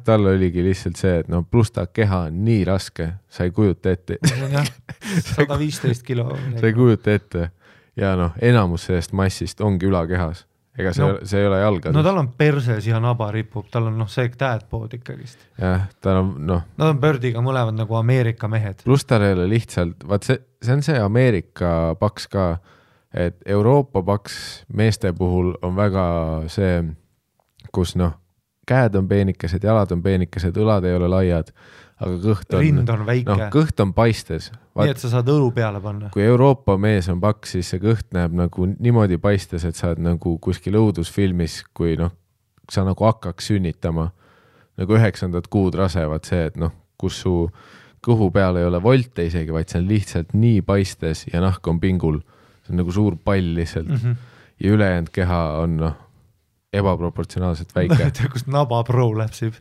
tal oligi lihtsalt see, et pluss ta keha on nii raske, sa ei kujuta ette. 115 kilo. Sa ei kujuta ette. ja noh, enamus sellest massist ongi ülakehas. Ega see ei ole jalgades. No tal on perses ja naba ripub, tal on see dad-pood ikkagist. Jah, tal on Nad on Birdiga mõlevad nagu Ameerika mehed. Plus tal ei ole lihtsalt, vaat see on see Ameerika paks ka, et Euroopa paks meeste puhul on väga see, kus käed on peenikesed, jalad on peenikesed, õlad ei ole laiad, aga kõht on, rind on väike. Kõht on paistes. Nii, et sa saad õlu peale panna. Kui Euroopa mees on paks, siis see kõht näeb nagu niimoodi paistes, et sa oled nagu kuskil õudusfilmis, kui sa nagu hakkaks sünnitama nagu 9. kuud rasevad see, et kus su kõhu peal ei ole volte isegi, vaid see on lihtsalt nii paistes ja nahk on pingul. See on nagu suur pall lihtsalt. Ja ülejäänud keha on ebaproportsionaalselt väike. Kust naba pro läpsib.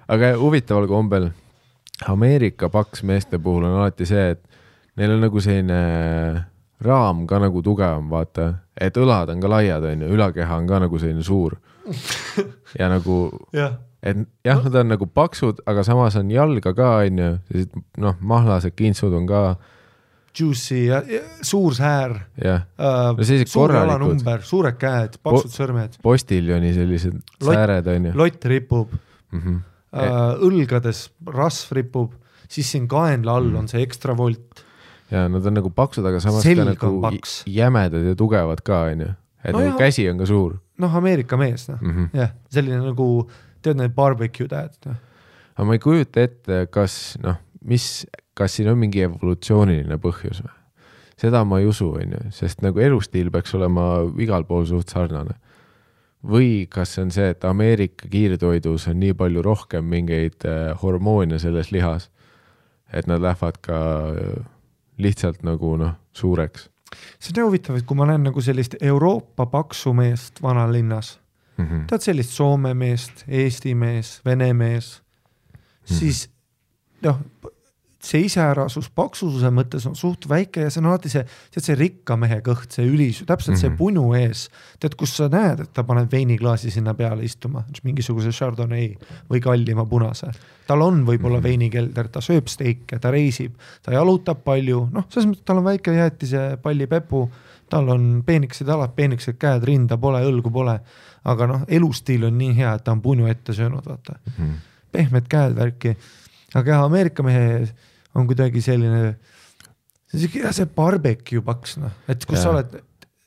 Aga huvitaval kombel Ameerika paks meeste puhul on alati see, et neil on nagu selline raam ka nagu tugevam, vaata, et õlad on ka laiad, ülakeha on ka nagu selline suur. Ja nagu, et jah, nad on nagu paksud, aga samas on jalga ka, mahlased kintsud on ka juicy ja suur säär, suur jalanumber, suured käed, paksud sõrmed. Postiljoni sellised sääred on. Lott ripub, õlgades rasv ripub, siis siin kaenla all on see ekstra volt. Ja nad on nagu paksud, aga samas selg ka nagu paks. Jämedad ja tugevad ka, et nagu käsi on ka suur. Ameerika mees, jah, selline nagu, tead need barbecue tähed. Aga ma ei kujuta ette, kas siin on mingi evolutsiooniline põhjus või? Seda ma ei usu, sest nagu elustiil peaks olema igal pool suht sarnane. Või kas on see, et Ameerika kiirtoidus on nii palju rohkem mingeid hormoone selles lihas, et nad lähevad ka lihtsalt nagu suureks. See on huvitav, et kui ma näen nagu sellist Euroopa paksu meest vanalinnas, tead sellist Soome meest, Eesti mees, Vene mees, siis see iseärasus paksuse mõttes on suht väike ja see on alati see rikka mehe kõht, see ülisu, täpselt see punu ees. Tead, kus sa näed, et ta paneb veiniklaasi sinna peale istuma, mingisuguse Chardonnay või kallima punase. Tal on võib-olla veinikelder, ta sööb steike, ta reisib, ta jalutab palju, selles mõttes tal on väike jäätise palli pepu, tal on peenikesed jalad, peenikesed käed, rinda pole, õlgu pole, aga elustiil on nii hea, et ta on punu ette söönud, vaata. Pehmed käed värki. Aga Ameerika mehe on kuidagi selline, see barbecue paks, et kus sa oled.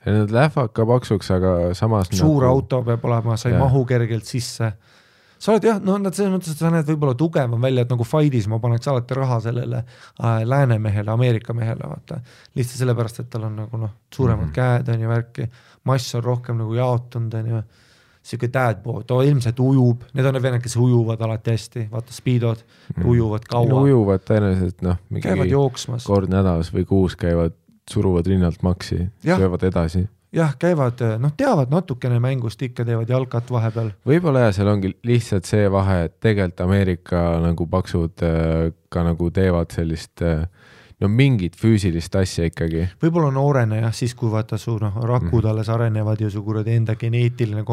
Nad lähevad ka paksuks, aga samas suur auto peab olema, sa ei mahu kergelt sisse. Sa oled nad selles mõttes, et sa näed võib-olla tugevam välja, et nagu fight'is ma paneks alati raha sellele läänemehele, Ameerika mehele, vaata. Lihtsalt sellepärast, et tal on nagu suuremad käed on ja värki, mass on rohkem nagu jaotunud on ja siuke dad-pood, ilmselt ujub, need on need, kes ujuvad alati hästi, vaata speedod, ujuvad kaua. Ujuvad tõenäoliselt, käivad jooksmas. Kord nädalas või kuus käivad, suruvad rinnalt maksi, söövad edasi. Jah, käivad, teavad natukene mängust, ikka teevad jalkat vahepeal. Võib-olla seal ongi lihtsalt see vahe, et tegelikult Ameerika nagu paksud ka nagu teevad sellist mingit füüsilist asja ikkagi. Võib-olla noorene siis kui vaata su rakud alles arenevad ja su kuradi enda geneetiline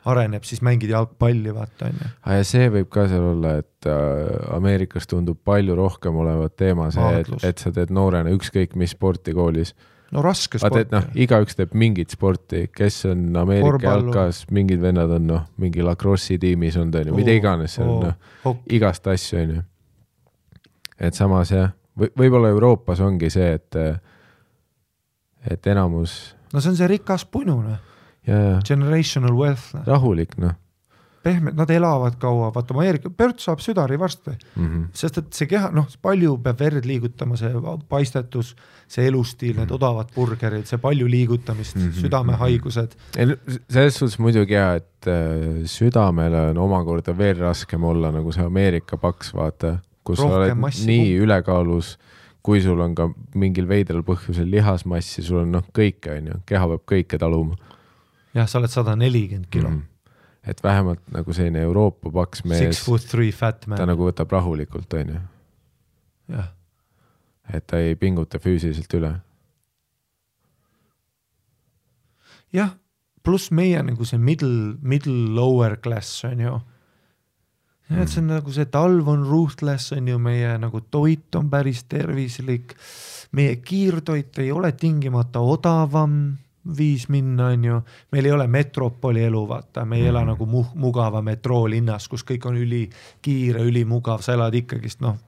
areneb, siis mängid jalgpalli, vaata. Ja see võib ka seal olla, et Ameerikas tundub palju rohkem olevat teema see, et sa teed noorena ükskõik mis sporti koolis. Raske sporti. Igaüks teeb mingit sporti, kes on Ameerika jalkas, mingid vennad on mingi lacrossi tiimis on, mida iganes, igast asju on. Et samas võib-olla Euroopas ongi see, et enamus. See on see rikas punune. Generational wealth. Rahulik, Pehmed, nad elavad kaua, vaata Ameerika, Pört saab südari varsti. Sest et see keha, palju peab verd liigutama, see paistetus, see elustiil, need odavad burgerid, see palju liigutamist, südamehaigused. Selles suhtes muidugi et südamele on omakorda veel raskem olla, nagu see Ameerika paks, vaata. Kus sa oled nii ülekaalus, kui sul on ka mingil veidral põhjusel lihasmassi, sul on kõike, keha peab kõike taluma. Jah, sa oled 140 kilo. Et vähemalt nagu selline Euroopa paks mees, 6'3" fat man. Ta nagu võtab rahulikult, Jah. Et ta ei pinguta füüsiliselt üle. Jah, pluss meie nagu see middle lower class on ju. et see on nagu see talv on ruthless, on ju, meie nagu toit on päris tervislik, meie kiirtoit ei ole tingimata odavam viis minna, on ju, meil ei ole metropoli elu, vaata, me ei ela nagu mugava metroolinnas, kus kõik on ülikiire, ülimugav, sa elad ikkagist, noh,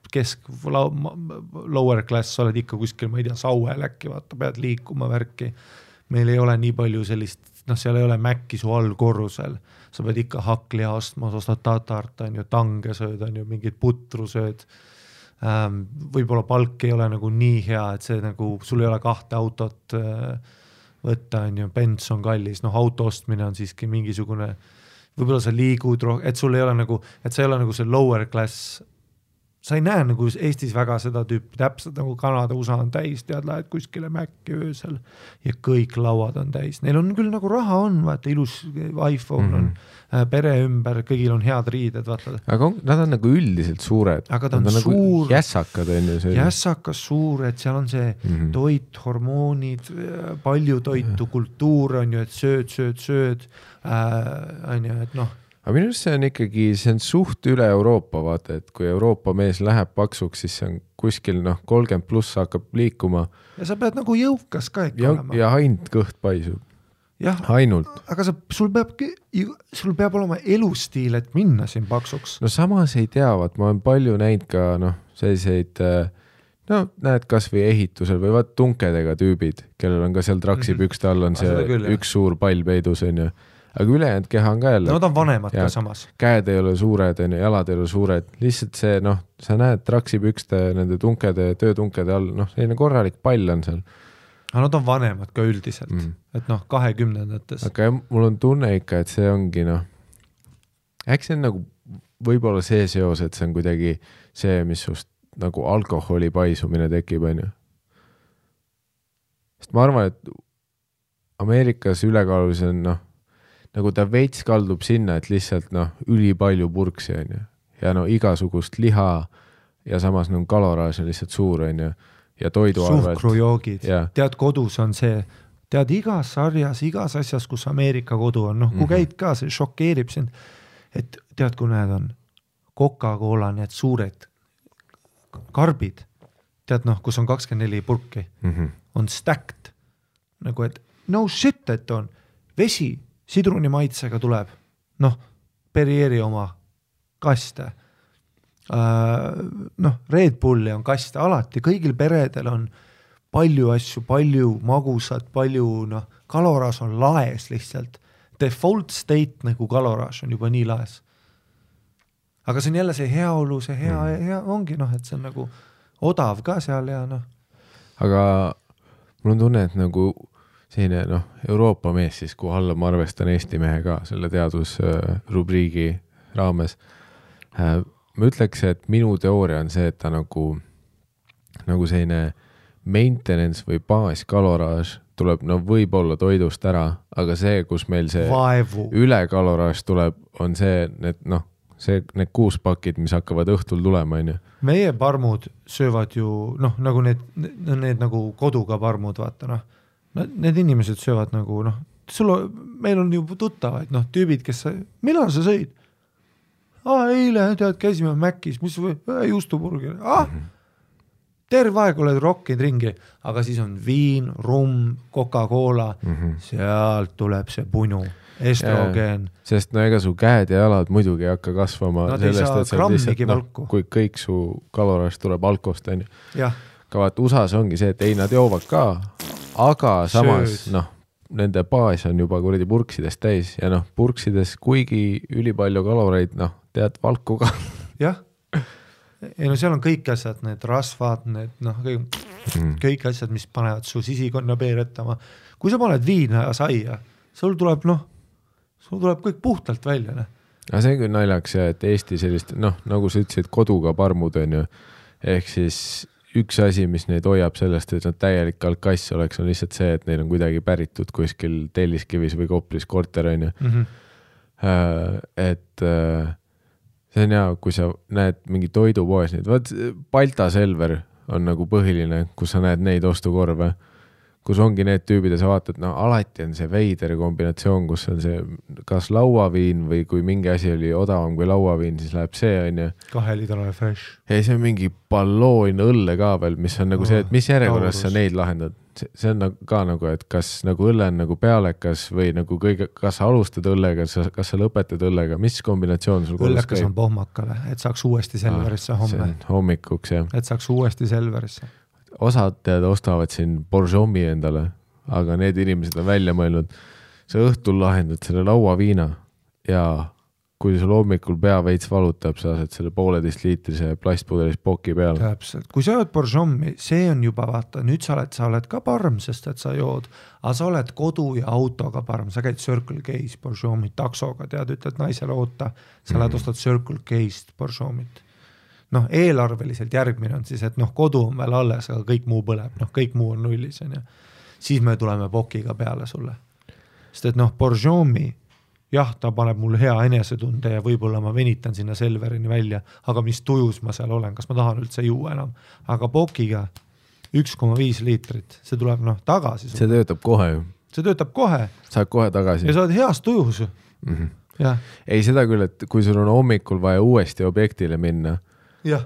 lower class, sa oled ikka kuskil, ma ei tea, Sauel äkki, vaata, pead liikuma värki. Meil ei ole nii palju sellist, noh, seal ei ole mäkki su all korrusel, sa pead ikka hakli astma, sa ostad tatart, on ju, tange sööd, on ju, mingid putru sööd. Võib-olla palk ei ole nagu nii hea, et see nagu, sul ei ole 2 autot võtta, on ju, bens on kallis, noh, auto ostmine on siiski mingisugune, võib-olla sa liigud, et sul ei ole nagu, et sa ei ole nagu see lower class, sa ei näe nagu Eestis väga seda tüüpi, täpselt nagu Kanada, USA on täis, tead, lähed kuskile mäkki öösel ja kõik lauad on täis. Neil on küll nagu raha on, vaata, ilus iPhone on, pere ümber, kõigil on head riided, vaata. Aga nad on nagu üldiselt suured. Aga ta on suur. Nagu jässakad on ju see. Jässakas suured, seal on see toit, hormoonid, palju toitu, kultuur on ju, et sööd, on ju, et noh. Aga minu arust see on ikkagi, see on suht üle Euroopa, vaata, et kui Euroopa mees läheb paksuks, siis see on kuskil, noh, 30 pluss hakkab liikuma. Ja sa pead nagu jõukas ka ikka olema. Ja ainult kõht paisub. Jah, ainult. Aga sul peab olema elustiil, et minna siin paksuks. No samas ei teavad, ma olen palju näinud ka, noh, selliseid, no näed kas või ehitusel või vaat tunkedega tüübid, kellel on ka seal traksipükste all on see küll, üks suur pall peidus, on ju. Aga ülejäänud keha on ka jälle. No nad on vanemad ka samas. Käed ei ole suured, jalad ei ole suured. Lihtsalt see, noh, sa näed traksipükste, nende tunkede, töötunkede all, noh, selline korralik pall on seal. Aga nad on vanemad ka üldiselt, et noh, 20-ndates. Aga mul on tunne ikka, et see ongi, noh, äkki see on nagu võib-olla see seos, et see on kuidagi see, mis just nagu alkoholi paisumine tekib, on ju. Sest ma arvan, et Ameerikas ülekaalus on, noh, nagu ta veits kaldub sinna, et lihtsalt noh, üli palju purksi on ju. Ja no igasugust liha ja samas no, kaloraaž on lihtsalt suur on ju. Ja toiduarvelt. Suhkrujoogid. Tead, kodus on see, tead igas sarjas, igas asjas, kus Ameerika kodu on, noh, kui käid ka, see šokeerib sind, et tead, kui need on Coca-Cola, need suured karbid, tead noh, kus on 24 purki, on stacked, nagu et no shit, et on vesi, sidruni maitsega tuleb, noh, Perrieri oma kaste, noh, Red Bulli on kaste, alati, kõigil peredel on palju asju, palju magusat, palju, noh, kaloraaž on laes lihtsalt, default state nagu kaloraaž on juba nii laes. Aga see on jälle see heaolu, see hea ongi, noh, et see on nagu odav ka seal ja noh. Aga mul on tunne, et nagu selline, noh, Euroopa mees siis, kuhu alla ma arvestan Eesti mehe ka selle teadusrubriigi raames. Ma ütleks, et minu teooria on see, et ta nagu selline maintenance või baaskaloraaž tuleb, no võib-olla toidust ära, aga see, kus meil see ülekaloraaž tuleb, on see, need 6 pakid, mis hakkavad õhtul tulema, on ju. Meie parmud söövad ju, noh, nagu need nagu koduga parmud, vaata, noh. Need inimesed söövad nagu, noh, meil on juba tuttavaid, noh, tüübid, kes millal sa sõid? Eile, tead, käisime Mäkkis, mis juustuburger. Terve aeg oled rokkinud ringi, aga siis on viin, rum, Coca-Cola, sealt tuleb see punu, estrogen. Sest no ega su käed ja jalad muidugi ei hakka kasvama. Nad ei saa grammigi valku. Kui kõik su kaloraaž tuleb alkost, on ju. Jah. Ka vaat USAs ongi see, et ei, nad joovad ka, aga samas, noh, nende baas on juba kuradi purksidest täis ja noh, purksides kuigi ülipalju kaloreid, noh, tead valku ka. Jah. Ei no seal on kõik asjad, need rasvad, need, noh, kõik asjad, mis panevad su sisikonna peeretama. Kui sa paned viina ja saia, sul tuleb kõik puhtalt välja, ne? Aga see küll naljaks, et Eesti sellist, noh, nagu sa ütlesid, koduga parmud on ju, ehk siis üks asi, mis neid hoiab sellest, et nad täielik alkass oleks, on lihtsalt see, et neil on kuidagi päritud kuskil Telliskivis või Koplis korter, on ju. Et see on hea, kui sa näed mingi toidupoes, vaat Balta Selver on nagu põhiline, kus sa näed neid ostukorve, kus ongi need tüübid ja sa vaatad, no alati on see veider kombinatsioon, kus on see kas lauaviin või kui mingi asi oli odavam kui lauaviin, siis läheb see, on ju. 2-litrane fresh. Ja see on mingi balloon õlle ka veel, mis on nagu see, et mis järjekorras sa neid lahendad. See on ka nagu, et kas nagu õlle on nagu pealekas või nagu kõige, kas sa alustad õllega, kas sa lõpetad õllega, mis kombinatsioon sul kodus õllekas on pohmakale, et saaks uuesti Selverisse homme. Hommikuks, jah. Et saaks uuesti Selverisse. Osad ostavad siin Borjomi endale, aga need inimesed on välja mõelnud, sa õhtul lahendad selle lauaviina ja kui sul hommikul pea veits valutab, sa saad selle 1,5 liitrise plastpudelis poki peale. Täpselt. Kui sa jood Borjomi, see on juba, vaata, nüüd sa oled ka parm, sest et sa jood, aga sa oled kodu ja autoga parm, sa käid Circle K-s Borjomi taksoga, tead, ütled naisele oota, sa lähed ostad Circle K-st Borjomit. Noh, eelarveliselt järgmine on siis, et noh, kodu on veel alles, aga kõik muu põleb, noh, kõik muu on nullis, on ju. Siis me tuleme pokiga peale sulle. Sest et noh, Borjomi, jah, ta paneb mul hea enesetunde ja võib-olla ma venitan sinna Selverini välja, aga mis tujus ma seal olen, kas ma tahan üldse juua enam. Aga pokiga 1,5 liitrit, see tuleb noh tagasi. See töötab kohe ju. See töötab kohe. Saad kohe tagasi. Ja sa oled heas tujus. Ja. Ei seda küll, et kui sul on hommikul vaja uuesti objektile minna, jah.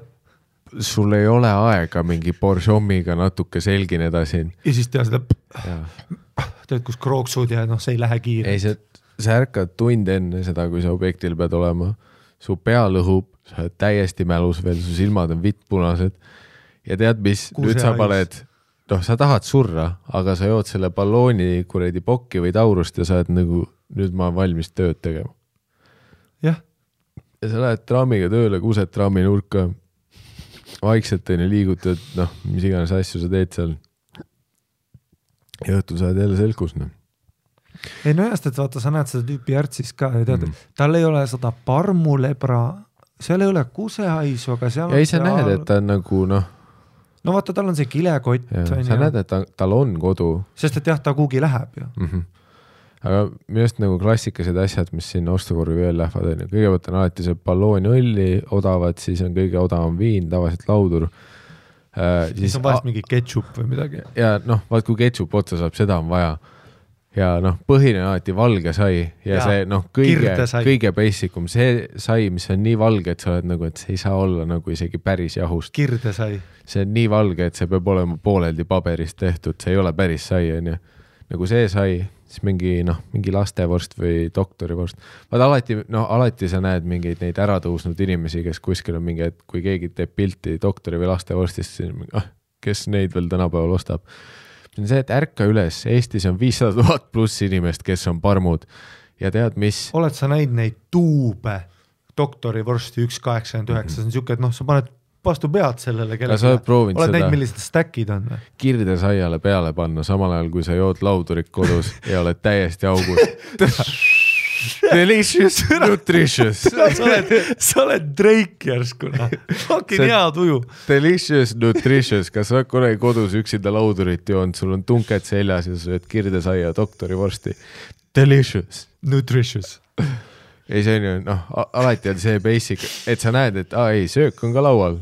Sul ei ole aega mingi Borjomiga natuke selgineda siin. Ja siis teha seda teed, kus krooksud ja noh, see ei lähe kiire. Ei, sa ärkad tund enne seda, kui sa objektil pead olema. Su pea lõhub, sa oled täiesti mälus veel, su silmad on vittpunased. Ja tead, mis nüüd sa paned, noh, sa tahad surra, aga sa jood selle ballooni kuredi pokki või taurust ja sa oled nagu, nüüd ma olen valmis tööd tegema. Jah. Ja sa lähed traamiga tööle, kused traami nurka, vaikselt liigutad, noh, mis iganes asju sa teed seal. Ja õhtul sa oled jälle selkus, noh. Ei no jäst, et vaata, sa näed seda tüüpi järtsis ka ja tead, tal ei ole seda parmulebra, seal ei ole kusehaisu, aga seal ja ei sa näed, et ta on nagu noh. No vaata, tal on see kilekott. Sa näed, et tal on kodu. Sest et jah, ta kuhugi läheb ju. Aga minust nagu klassikased asjad, mis siin ostukorvi veel lähevad, kõigepealt on alati see balloon õlli odavad, siis on kõige odavam viin, tavaliselt laudur. Siis on vahest mingi ketšup või midagi. Ja noh, vaat kui ketšup otsa saab, seda on vaja. Ja noh, põhine on alati valge sai ja see noh, kõige basicum, see sai, mis on nii valge, et sa oled nagu, et see ei saa olla nagu isegi päris jahust. Kirde sai. See on nii valge, et see peab olema pooleldi paberist tehtud, see ei ole päris sai, on ju. Nagu see sai, siis mingi lastevorst või doktorivorst. Vaat alati sa näed mingeid neid äratõusnud inimesi, kes kuskil on mingi, et kui keegi teeb pilti doktori või lastevorstist, siis kes neid veel tänapäeval ostab. See on see, et ärka üles, Eestis on 500 000 pluss inimest, kes on parmud ja tead, mis? Oled sa näinud neid tuube doktorivorsti 1,89, see on siuke, et noh, sa paned vastu pead sellele kellele. Oled näinud, millised stackid on? Kirde saiale peale panna, samal ajal kui sa jood laudurit kodus ja oled täiesti augus. Delicious, nutritious. Sa oled Drake järskuna. Fucking hea tuju. Delicious, nutritious. Kas sa oled kodus üksinda laudurit joonud, sul on tunked seljas ja sa sööd kirde saia doktorivorsti. Delicious. Nutritious. Ei, see on ju, noh, alati on see basic, et sa näed, et ei, söök on ka laual.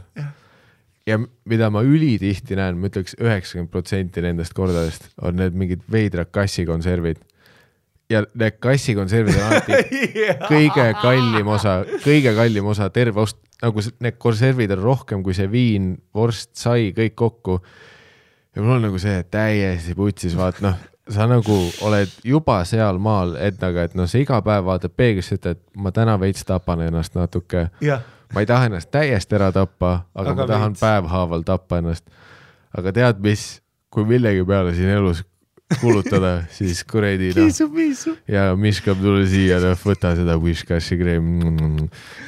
Ja mida ma ülitihti näen, ma ütleks 90% nendest kordadest on need mingid veidrad kassikonservid. Ja need kassikonservid on alati kõige kallim osa terve ost, nagu need konservid on rohkem kui see viin, vorst, sai, kõik kokku. Ja mul on nagu see täiesti putsis, vaat noh, sa nagu oled juba seal maal, et noh, sa iga päev vaatad peeglisse, et ma täna veits tapan ennast natuke. Ja. Ma ei taha ennast täiesti ära tappa, aga ma tahan päevhaaval tappa ennast. Aga tead mis, kui millegi peale siin elus kulutada, siis kuredi ja miskab tule siia, võta seda Wishcashi kreem.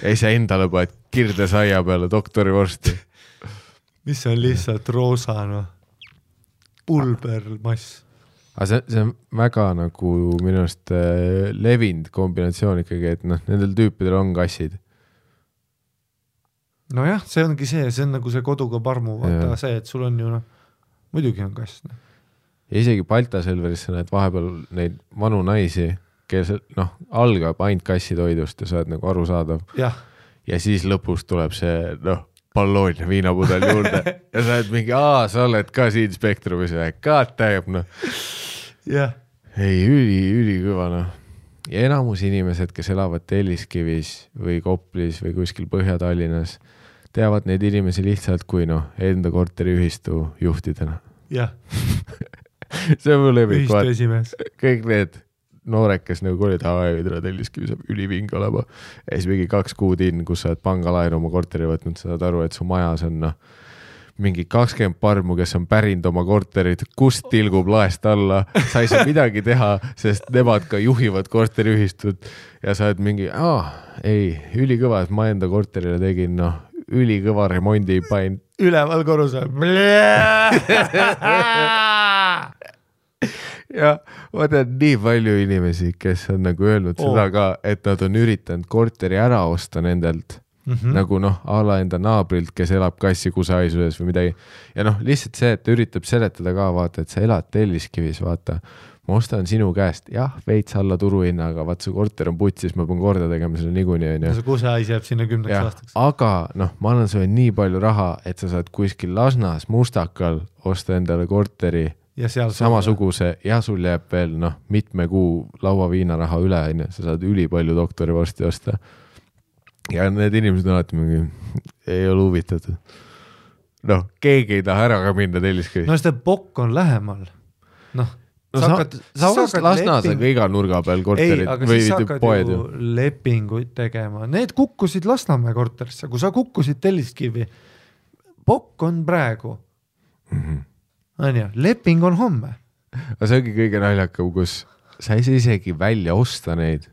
Ei sa endale paned kirde saia peale doktorivorsti. Mis on lihtsalt roosa, no? Pulbermass. Aga see on väga nagu minust levinud kombinatsioon ikkagi, et noh, nendel tüüpidel on kassid. No jah, see ongi see on nagu see koduga parmu, vaata see, et sul on ju noh, muidugi on kass. Ja isegi Balta Selverisse näed vahepeal neid vanu naisi, kes noh, algab ainult kassitoidust ja sa oled nagu arusaadav. Ja. Ja siis lõpus tuleb see, noh, Palloonia viinapudel juurde ja sa oled mingi, sa oled ka siin Spektrumis või, God damn, jah. Ei, üli kõva, Ja enamus inimesed, kes elavad Telliskivis või Koplis või kuskil Põhja-Tallinnas, teavad neid inimesi lihtsalt kui enda korteriühistu juhtidena. Jah. See on mul lemmik. Ühistu esimees. Kõik need noored, kes olid, Telliskivi saab üliving olema. Ja siis mingi 2 kuud kus sa oled pangalaenu oma korteri võtnud, sa saad aru, et su majas on mingi 20 parmu, kes on pärinud oma korterit, kust tilgub laest alla, sa ei saa midagi teha, sest nemad ka juhivad korteriühistut ja sa oled mingi, ülikõva, et ma enda korterile tegin, ülikõva remondi pain. Üleval korrusel. Ja ma tean nii palju inimesi, kes on öelnud seda ka, et nad on üritanud korteri ära osta nendelt. Nagu ala enda naabrilt, kes elab Kassi-Kusaisuses või midagi. Ja lihtsalt see, et üritab seletada ka, vaata, et sa elad Telliskivis, vaata. Ma ostan sinu käest, veits alla turuhinnaga, vaat su korter on putsis, ma pean korda tegema selle niikuinii. See Kusais jääb sinna 10 aastaks. Aga ma annan sulle nii palju raha, et sa saad kuskil Lasnas, Mustakal osta endale korteri ja samasuguse ja sul jääb veel mitme kuu lauaviinaraha üle, sa saad üli palju doktorivorsti osta. Ja need inimesed on alati mingi, ei ole huvitatud. Keegi ei taha ära ka minna Telliskivi. Seda Pokk on lähemal. Sa hakkad Lasnas iga nurga peal korterid või poed. Lepinguid tegema. Need kukkusid Lasnamäe korterisse. Kui sa kukkusid Telliskivi, Pokk on praegu. Leping on homme. Aga see ongi kõige naljakam, kus sa ei saa isegi välja osta neid.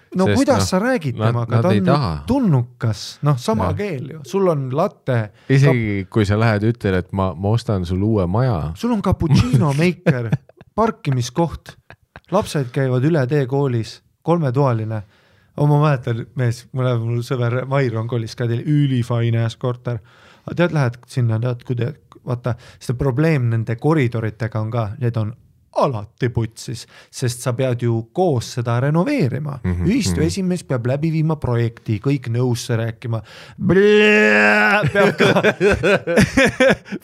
Sest, kuidas sa räägid temaga, ta on tulnukas, sama keel ju, sul on latte. Isegi kui sa lähed ütled, et ma ostan sul uue maja. Sul on cappuccino maker, parkimiskoht, lapsed käivad üle tee koolis, 3-toaline. Ma mäletan, mul sõver Mairon koolis ka teil ülifaine korter. Tead, lähed sinna, vaata, seda probleem nende koridoritega on ka, need on alati putsis, sest sa pead ju koos seda renoveerima. Ühistu esimees peab läbi viima projekti, kõik nõusse rääkima.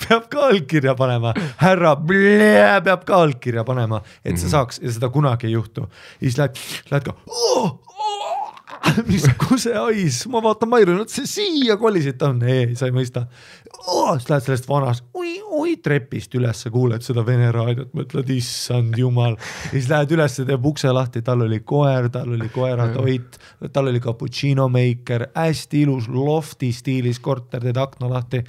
Peab ka allkirja panema. Härra peab ka allkirja panema, et sa saaks, ja seda kunagi ei juhtu. Ja siis lähed ka, mis kuse hais, ma vaatan Mairu, see siia kolisid on, sa ei mõista. Siis lähed sellest vanast, trepist üles, kuuled seda Vene raadiot, mõtled, issand jumal. Ja siis lähed üles, teeb ukse lahti, tal oli koer, tal oli koeratoit, tal oli cappuccino maker, hästi ilus lofti stiilis korter, teed akna lahti.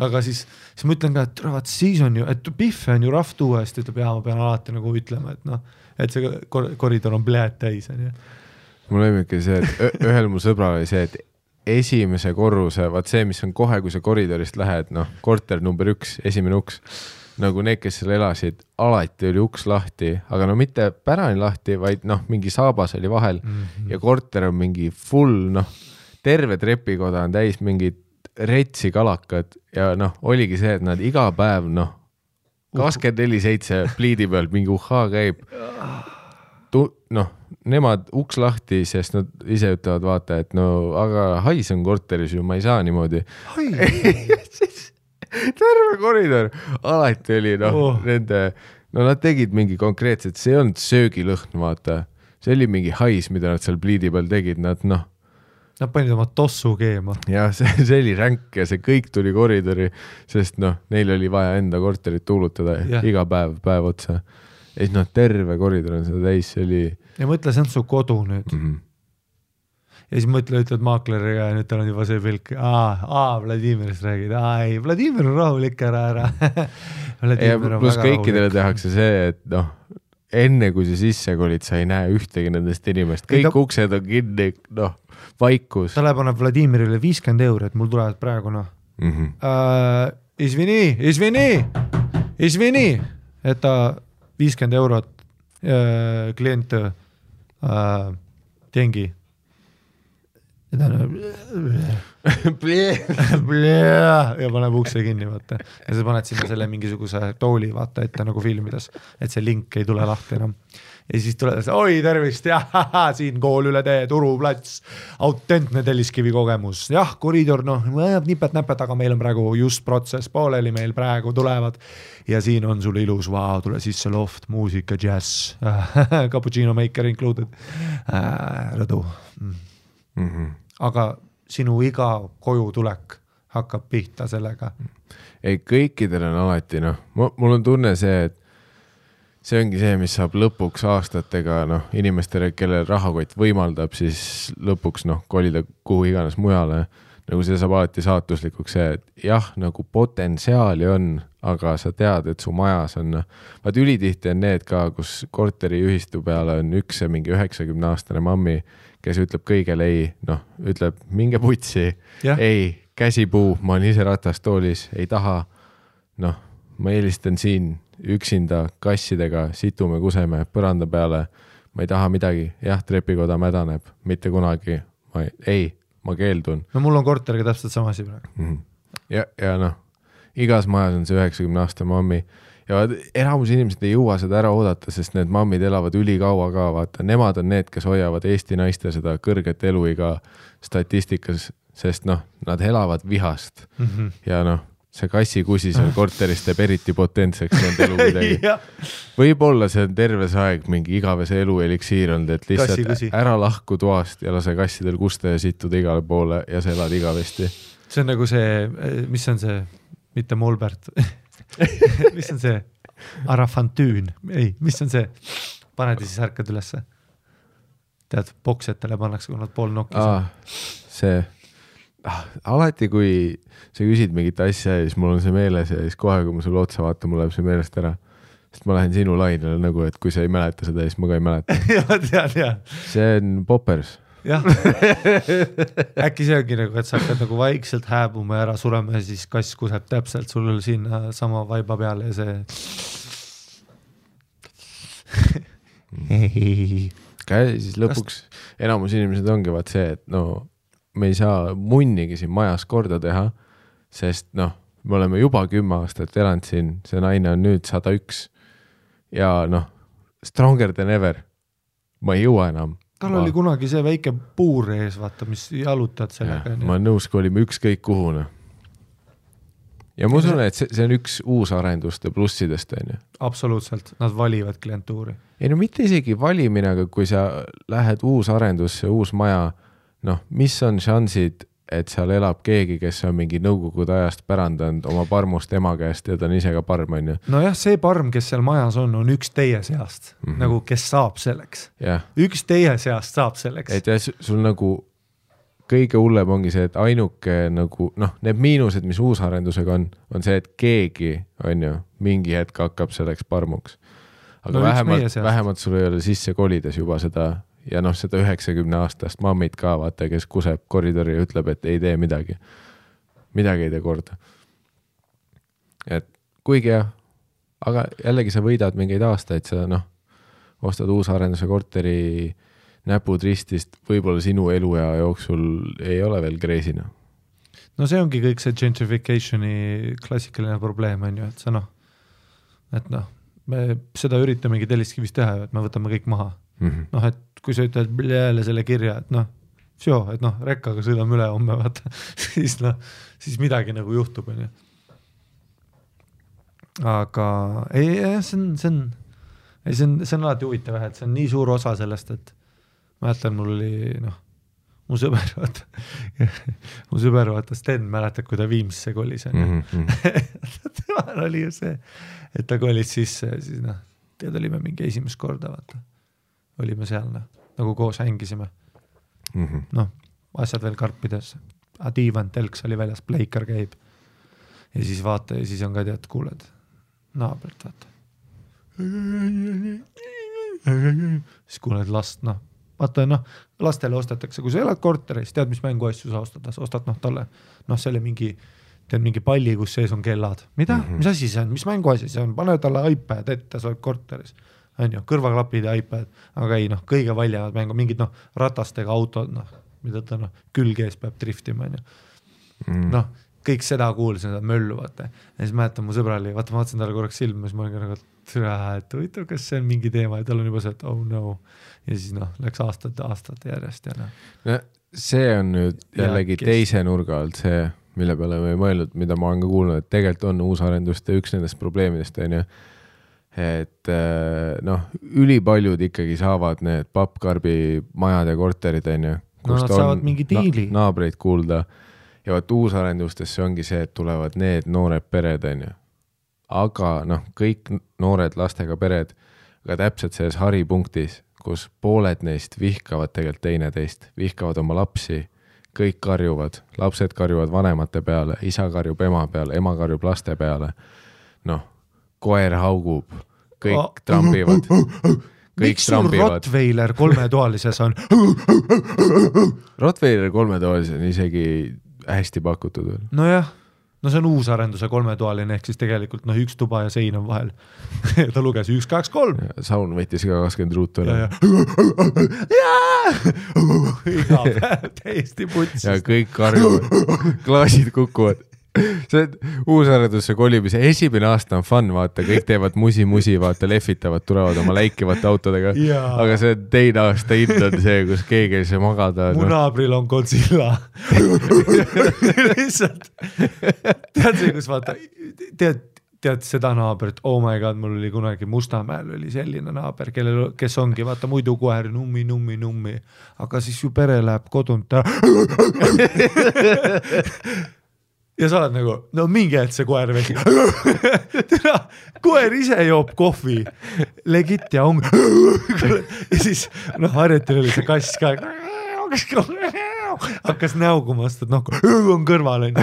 Aga siis ma ütlen ka, et siis on ju, et Pihve on ju rahv tuuest, ütleb, ma pean alati nagu ütlema, et see koridor on pläät täis. Mul on ikka see, et ühel mu sõbral oli see, et esimese korruse, vaat see, mis on kohe, kui sa koridorist lähed, korter number 1, esimene uks, nagu need, kes seal elasid, alati oli uks lahti, aga mitte pärani lahti, vaid mingi saabas oli vahel ja korter on mingi full, terve trepikoda on täis mingid retsi kalakad ja oligi see, et nad iga päev 24/7 pliidi peal mingi uhhaa käib. Nemad uks lahti, sest nad ise ütlevad, vaata, et aga hais on korteris ju, ma ei saa niimoodi. Terve koridor. Alati oli nende, nad tegid mingi konkreetselt, see on söögilõhn, vaata. See oli mingi hais, mida nad seal pliidi peal tegid, nad panid oma tossu keema. Ja see oli ränk ja see kõik tuli koridori, sest neil oli vaja enda korterit tuulutada iga päev otsa. Ja siis terve koridor on seda täis, see oli... Ja mõtle, see on su kodu nüüd. Ja siis ütled maakleriga ja nüüd tal on juba see pilk. Vladimirist räägid. Ei, Vladimir on rahulik ära. Ja plus kõikidele tehakse see, et enne kui sa sisse kolid, sa ei näe ühtegi nendest inimest. Kõik uksed on kinni, vaikus. Ta läheb Vladimirile 50 €, et mul tulevad praegu, Izvini, et ta 50 € klient tengi. ja ta on ja paneb ukse kinni, vaata. Ja sa paned sinna selle mingisuguse tooli, vaata ette nagu filmides, et see link ei tule lahti enam. Ja siis tuleb, oi tervist, siin kool üle tee, Turuplats, autentne Telliskivi kogemus. Jah, koridor, nipet-näpet, aga meil on praegu just protsess pooleli, meil praegu tulevad. Ja siin on sul ilus, tule sisse loft, muusika, jazz, cappuccino maker included, rõdu. Aga sinu iga koju tulek hakkab pihta sellega. Ei, kõikidel on alati, mul on tunne see, et see ongi see, mis saab lõpuks aastatega inimestele, kellel rahakott võimaldab, siis lõpuks kolida kuhu iganes mujale. Nagu see saab alati saatuslikuks see, et jah, nagu potentsiaali on, aga sa tead, et su majas on, vaat ülitihti on need ka, kus korteriühistu peale on üks mingi 90-aastane mammi, kes ütleb kõigele ei, ütleb minge putsi, ei, käsipuu, ma olen ise ratastoolis, ei taha, ma eelistan siin üksinda kassidega, situme, kuseme, põranda peale, ma ei taha midagi, jah, trepikoda mädaneb, mitte kunagi, ma keeldun. No mul on korteriga täpselt sama asi praegu. Ja igas majas on see 90-aastane mammi ja enamus inimesed ei jõua seda ära oodata, sest need mammid elavad ülikaua ka, vaata, nemad on need, kes hoiavad Eesti naiste seda kõrget eluiga statistikas, sest nad elavad vihast ja see kassikusi seal korteris teeb eriti potentseks nende elu midagi. Võib-olla see on terve see aeg mingi igavese elu eliksiir olnud, et lihtsalt ära lahku toast ja lase kassidel kusta ja situda igale poole ja sa elad igavesti. See on nagu see, mis on see, mitte Molbert, mis on see Arafantüün, mis on see, paned ja siis ärkad ülesse. Tead, boksetele pannakse, kui nad pool nokkis. See alati, kui sa küsid mingit asja ja siis mul on see meeles ja siis kohe, kui ma sulle otsa vaatan, mul läheb see meelest ära. Sest ma lähen sinu lainele nagu, et kui sa ei mäleta seda, siis ma ka ei mäleta. See on Poppers. Jah. Äkki see ongi nagu, et sa hakkad nagu vaikselt hääbuma ja ära surema ja siis kass kuseb täpselt sul sinna sama vaiba peale ja see siis lõpuks enamus inimesed ongi vaat see, et me ei saa munnigi siin majas korda teha, sest me oleme juba 10 aastat elanud siin, see naine on nüüd 101 ja stronger than ever. Ma ei jõua enam. Tal oli kunagi see väike puur ees, vaata, mis jalutad sellega. Ma nõus, kui olime ükskõik kuhune. Ja ma usun, et see on üks uus arenduste plussidest. Absoluutselt, nad valivad klientuuri. Ei mitte isegi valimine, aga kui sa lähed uus arendusse, uus maja, mis on šansid, et seal elab keegi, kes on mingi nõukogude ajast pärandanud oma parmust ema käest ja ta on ise ka parm, on ju? Nojah, see parm, kes seal majas on üks teie seast, nagu kes saab selleks. Üks teie seast saab selleks. Et sul nagu kõige hullem ongi see, et ainuke nagu, need miinused, mis uusarendusega on see, et keegi, on ju, mingi hetk hakkab selleks parmuks. Aga vähemalt sul ei ole sisse kolides juba seda ja seda 90-aastast mammid ka, vaata, kes kuseb koridori ja ütleb, et ei tee midagi. Midagi ei tee korda. Et kuigi jah, aga jällegi sa võidad mingeid aastaid, sa ostad uusarenduse korteri näpud ristist, võib-olla sinu eluea jooksul ei ole veel kreisina. No see ongi kõik see gentrificationi klassikaline probleem, on ju, et sa me seda üritamegi Telliskivis teha, et me võtame kõik maha. Et kui sa ütled jälle selle kirja, et rekkaga sõidame üle homme, vaata, siis midagi nagu juhtub. Aga see on alati huvitav, et see on nii suur osa sellest, et ma jätan, mul oli mu sõber vaata Sten, mäletad, kui ta Viimsisse kolis. Temal oli ju see, et ta kolis sisse, siis tead olime mingi esimest korda, vaata. Olime seal, nagu koos hängisime. Asjad veel karpides. Diivan, telks oli väljas, pleikar käib. Ja siis vaata, ja siis on ka tead, kuuled naabelt, vaata. Siis kuuled last, vaata, lastele ostetakse, kui sa elad korteris, tead, mis mänguasju sa ostad talle, selle mingi palli, kus sees on kellad. Mida? Mis asi see on? Mis mänguasi see on? Pane talle iPad ette, sa oled korteris. On ju, kõrvaklapid ja iPad, aga ei, kõige valjavad mängu, mingid ratastega autod, mida ta külgees peab driftima, noh, kõik seda kuulsin, seda möllu, vaata. Ja siis mäletan, mu sõbra oli, vaata, ma vaatasin talle korraks silma, siis ma olin nagu, et huvitav, kas see on mingi teema ja tal on juba see, et oh no. Ja siis läks aastate järjest ja no, see on nüüd jällegi teise nurga alt see, mille peale me ei mõelnud, mida ma olen ka kuulnud, et tegelikult on uusarenduste üks nendest probleemidest, on ju. Et noh, ülipaljud ikkagi saavad need pappkarbi majad ja korterid, on ju. No nad saavad mingi diili. Naabreid kuulda. Ja vaat uusarendustesse ongi see, et tulevad need noored pered, on ju. Aga noh, kõik noored lastega pered, aga täpselt selles haripunktis, kus pooled neist vihkavad tegelikult teineteist, vihkavad oma lapsi, kõik karjuvad, lapsed karjuvad vanemate peale, isa karjub ema peale, ema karjub laste peale. Noh, koer haugub, kõik trambivad. Miks sul Rottweiler 3-toalises on? Rottweiler 3-toalises on isegi hästi pakutud veel. No jah, no see on uusarenduse 3-toaline, ehk siis tegelikult üks tuba ja sein on vahel. Ta luges 1, 2, 3. Saun võttis ka 20 ruutu üle. Iga päev täiesti putsist. Ja kõik karjuvad, klaasid kukuvad. See uusarendusse kolimise esimene aasta on fun, vaata, kõik teevad musi, vaata, lehvitavad, tulevad oma läikivate autodega, aga see teine aasta hind on see, kus keegi ei saa magada. Mu naabril on Godzilla. Lihtsalt. Tead see, kus vaata, tead seda naabrit, oh my god, mul oli kunagi Mustamäel oli selline naaber, kes ongi, vaata, muidu koer nummi, aga siis ju pere läheb kodunt. Ja sa oled nagu, no mingi hetk see koer vesi. Koer ise joob kohvi, legit ja on. Ja siis, harjutil oli see kass ka. Hakkas näugumast, et on kõrval.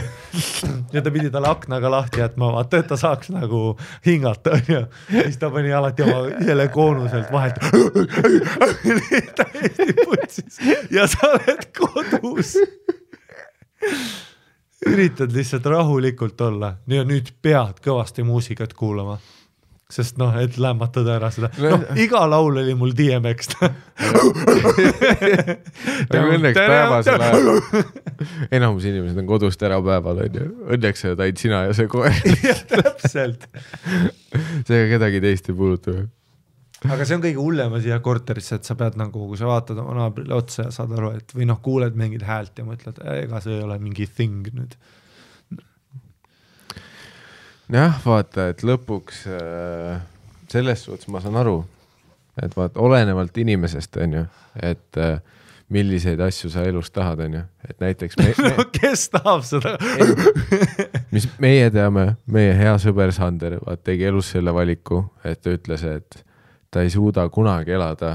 Ja ta pidi talle aknaga lahti jätma, vaata, et ta saaks nagu hingata. Ja siis ta pani alati oma selle koonuselt vahelt. Täiesti putsis. Ja sa oled kodus. Üritad lihtsalt rahulikult olla ja nüüd pead kõvasti muusikat kuulama, sest et lämmatada ära seda. Iga laul oli mul DMX. Õnneks päevasel ajal. Enamus inimesed on kodust ära päeval. Õnneks sa taid sina ja see koer. Täpselt. See kedagi teist ei puuduta. Aga see on kõige hullema siia korterisse, et sa pead kui sa vaatad oma naabrile otsa ja saad aru, et või kuuled mingid häält ja mõtled, ega see ei ole mingi thing nüüd. Jah, vaata, et lõpuks selles suhtes ma saan aru, et vaata, olenevalt inimesest, on ju, et milliseid asju sa elus tahad, on ju, et näiteks kes tahab seda? Mis meie teame, meie hea sõber Sander tegi elus selle valiku, et ta ütles, et ta ei suuda kunagi elada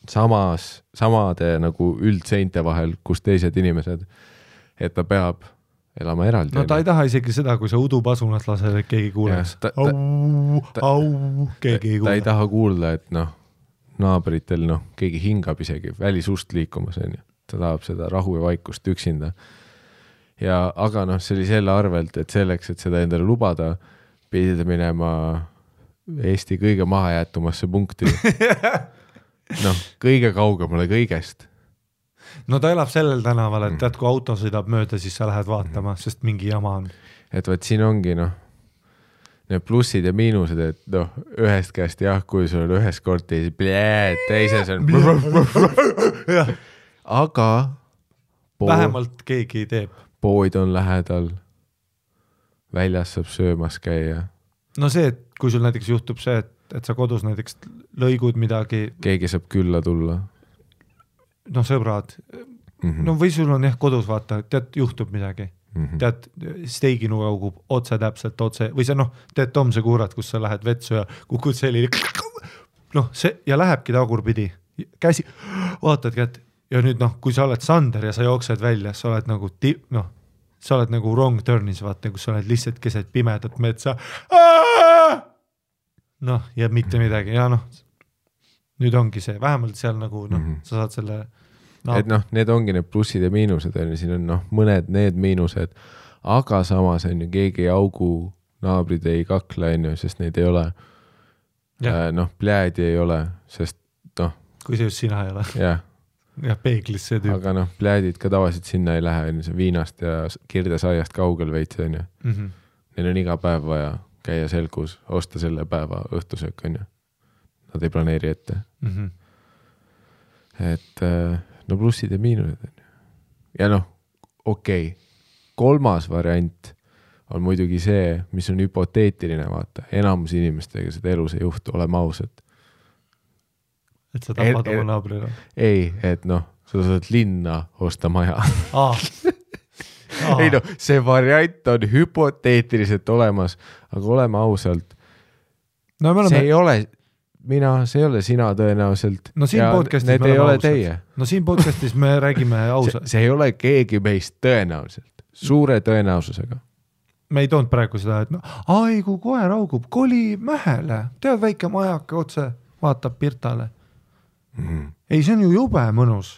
samade nagu üldseinte vahel, kus teised inimesed, et ta peab elama eraldi. No ta ei taha isegi seda, kui sa udupasunat lased, et keegi kuuleks. Keegi ei kuule. Ta ei taha kuulda, et naabritel keegi hingab isegi välisust liikumas, on ju. Ta tahab seda rahu ja vaikust üksinda. Aga see oli selle arvelt, et selleks, et seda endale lubada, pidid minema Eesti kõige mahajäetumasse punkti. Kõige kaugemale kõigest. No ta elab sellel tänaval, et tead, kui auto sõidab mööda, siis sa lähed vaatama, sest mingi jama on. Et võt siin ongi need plussid ja miinused, et ühest käest kui sul on ühes kortis, teises on aga vähemalt keegi teeb. Pood on lähedal, väljas saab söömas käia. No see, et kui sul näiteks juhtub see, et sa kodus näiteks lõigud midagi. Keegi saab külla tulla. Sõbrad. Või sul on kodus vaata, tead, juhtub midagi. Tead, steiginu kaugub otse täpselt otse. Või see, tead, Tom, see kuurat, kus sa lähed vetsu ja kukud selline. Ja lähebki tagurpidi. Käsi, vaatad kätt. Ja nüüd, kui sa oled Sander ja sa jooksed välja, sa oled sa oled nagu wrong turnis, vaata, kus sa oled lihtsalt keset pimedat metsa. Ja mitte midagi. Ja nüüd ongi see, vähemalt seal sa saad selle... Et need ongi need plussid ja miinused, siin on mõned need miinused, aga samas on ju keegi augu, naabrid ei kakle, sest neid ei ole. Pljäädi ei ole, sest kui see just sina ei ole. Jah. jah, peeglis see tüüp. Aga noh, pläädid ka tavaliselt sinna ei lähe, see viinast ja kirdesaiast kaugel veits, on ju. Neil on iga päev vaja käia selgus, osta selle päeva õhtusöök, on ju. Nad ei planeeri ette. Et no plussid ja miinused, on ju. Ja noh, okei. Kolmas variant on muidugi see, mis on hüpoteetiline, vaata. Enamus inimestega seda elus ei juhtu, oleme ausad. Et sa tapad oma naabrile? Ei, et noh, sa saad linna osta maja. Ei noh, see variant on hüpoteetiliselt olemas, aga oleme ausalt. No, see ei ole see ei ole sina tõenäoliselt. No siin podcastis me oleme ausalt. No siin podcastis me räägime ausalt. See ei ole keegi meist tõenäoliselt. Suure tõenäosusega. Me ei toonud praegu seda, et ai, kui koer augub, koli mähele. Tead, väike majake otse, vaatab Pirtale. Ei, see on ju jube mõnus.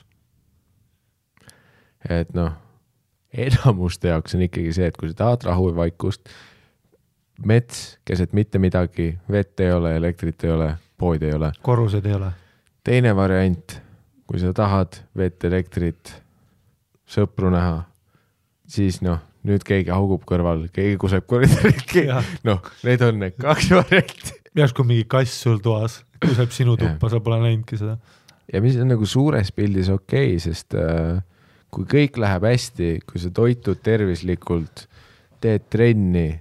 Et noh, enamuste jaoks on ikkagi see, et kui sa tahad rahu ja vaikust, mets, keset mitte midagi, vett ei ole, elektrit ei ole, pood ei ole. Korrused ei ole. Teine variant, kui sa tahad vett, elektrit, sõpru näha, siis noh, nüüd keegi haugub kõrval, keegi kuseb koridoriski. Noh, need on need 2 varianti. Järsku mingi kass sul toas, kuseb sinu tuppa, sa pole näinudki seda. Ja mis on nagu suures pildis okei, sest kui kõik läheb hästi, kui sa toitud tervislikult, teed trenni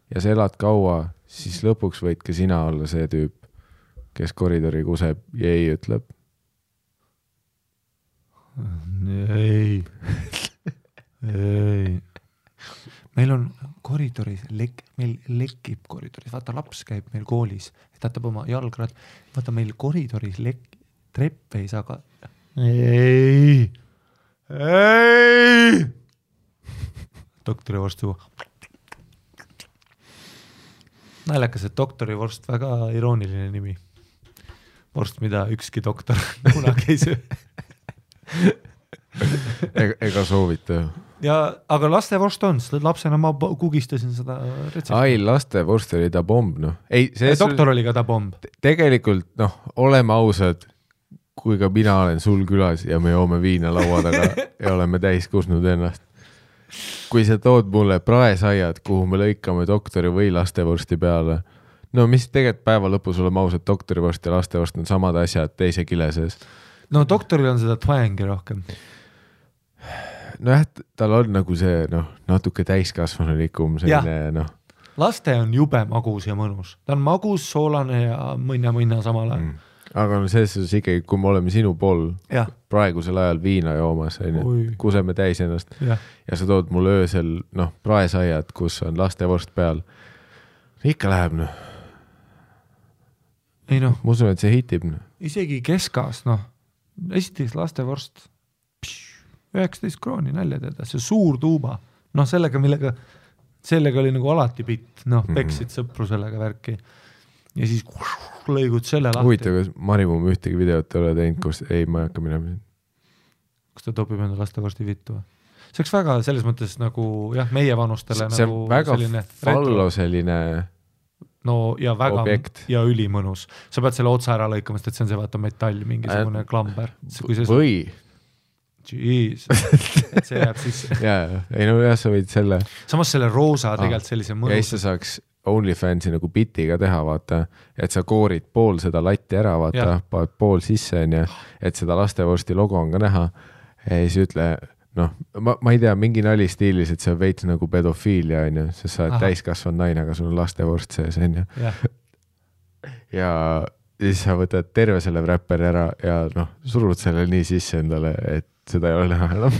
ja sa elad kaua, siis lõpuks võid ka sina olla see tüüp, kes koridori kuseb ja ei ütleb. Ei. Meil on koridoris, meil lekib koridoris, vaata laps käib meil koolis, tätab oma jalgrad, vaata meil koridoris trepp ei saa ka. Ei. Doktorivorst juba. Naljakas, et doktorivorst, väga irooniline nimi. Vorst, mida ükski doktor kunagi ei söö. Ega soovita. Ja, aga lastevorst on, lapsena ma kugistasin seda retsepti. Ai, lastevorst oli ta bomb, noh. Ei, doktor oli ka ta bomb. Tegelikult, noh, oleme ausad, kui ka mina olen sul külas ja me joome viina laua taga ja oleme täis kusnud ennast. Kui sa tood mulle praesaiad, kuhu me lõikame doktori või lastevorsti peale, no mis tegelikult päeva lõpus oleme ausad, doktorivorst ja lastevorst on samad asjad teise kile sees. No doktoril on seda twangi rohkem. No jah, tal on nagu see natuke täiskasvanulikum selline, Laste on jube magus ja mõnus. Ta on magus, soolane ja mõnna samal ajal. Aga selles ikkagi, kui me oleme sinu pool praegusel ajal viina joomas, kuseme täis ennast ja sa tood mulle öösel praesaiad, kus on lastevorst peal. Ikka läheb, Ei ma usun, et see hitib. Isegi keskas, esiteks lastevorst 19 krooni nälja teada, see suur tuuba, sellega oli nagu alati pitt, peksid sõpru sellega värki ja siis lõigud selle lahti. Huvitav, kas Marimum ühtegi videot ei ole teinud, kus ei, ma ei hakka minema. Kas ta topib enda lastevorsti vittu? See oleks väga selles mõttes nagu, meie vanustele see nagu väga selline fallo selline ja väga objekt. Ja ülimõnus. Sa pead selle otsa ära lõikamast, et see on see vaata metall, mingisugune klamber. Või Jeez, et see jääb sisse. Sa võid selle. Samas selle roosa tegelikult sellise mõnus. Ja siis sa saaks OnlyFansi nagu bitiga teha, vaata, et sa koorid pool seda latti ära, vaata, paned pool sisse, et seda lastevorsti logo on ka näha. Ja siis ütle, ma ei tea, mingi nali stiilis, et see on veits nagu pedofiilia, sest sa oled täiskasvanud naine, aga sul on lastevorst sees, ja siis sa võtad terve selle wrapperi ära ja surud selle nii sisse endale, et seda ei ole näha enam.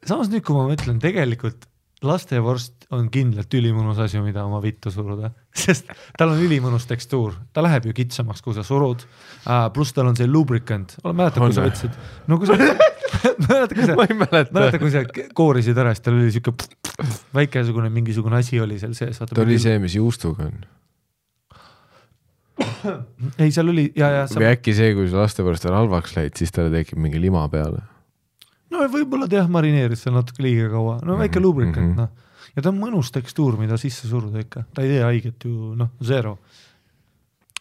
Samas nüüd, kui ma mõtlen, tegelikult lastevorst on kindlalt ülimõnus asju, mida oma vittu suruda, sest tal on ülimõnus tekstuur, ta läheb ju kitsamaks, kui sa surud, pluss tal on see lubricant, mäletad, kui sa võtsid, mäletad, kui sa koorisid ära, siis tal oli siuke väikesugune mingisugune asi oli seal sees. Ta oli see, mis juustuga on. Ei, seal oli või äkki see, kui sa lastevorst on halvaks läid, siis talle tekib mingi lima peale. Võib-olla marineeris seal natuke liiga kaua. Väike lubricant, Ja ta on mõnus tekstuur, mida sisse suruda ikka. Ta ei tee haiget ju, zero.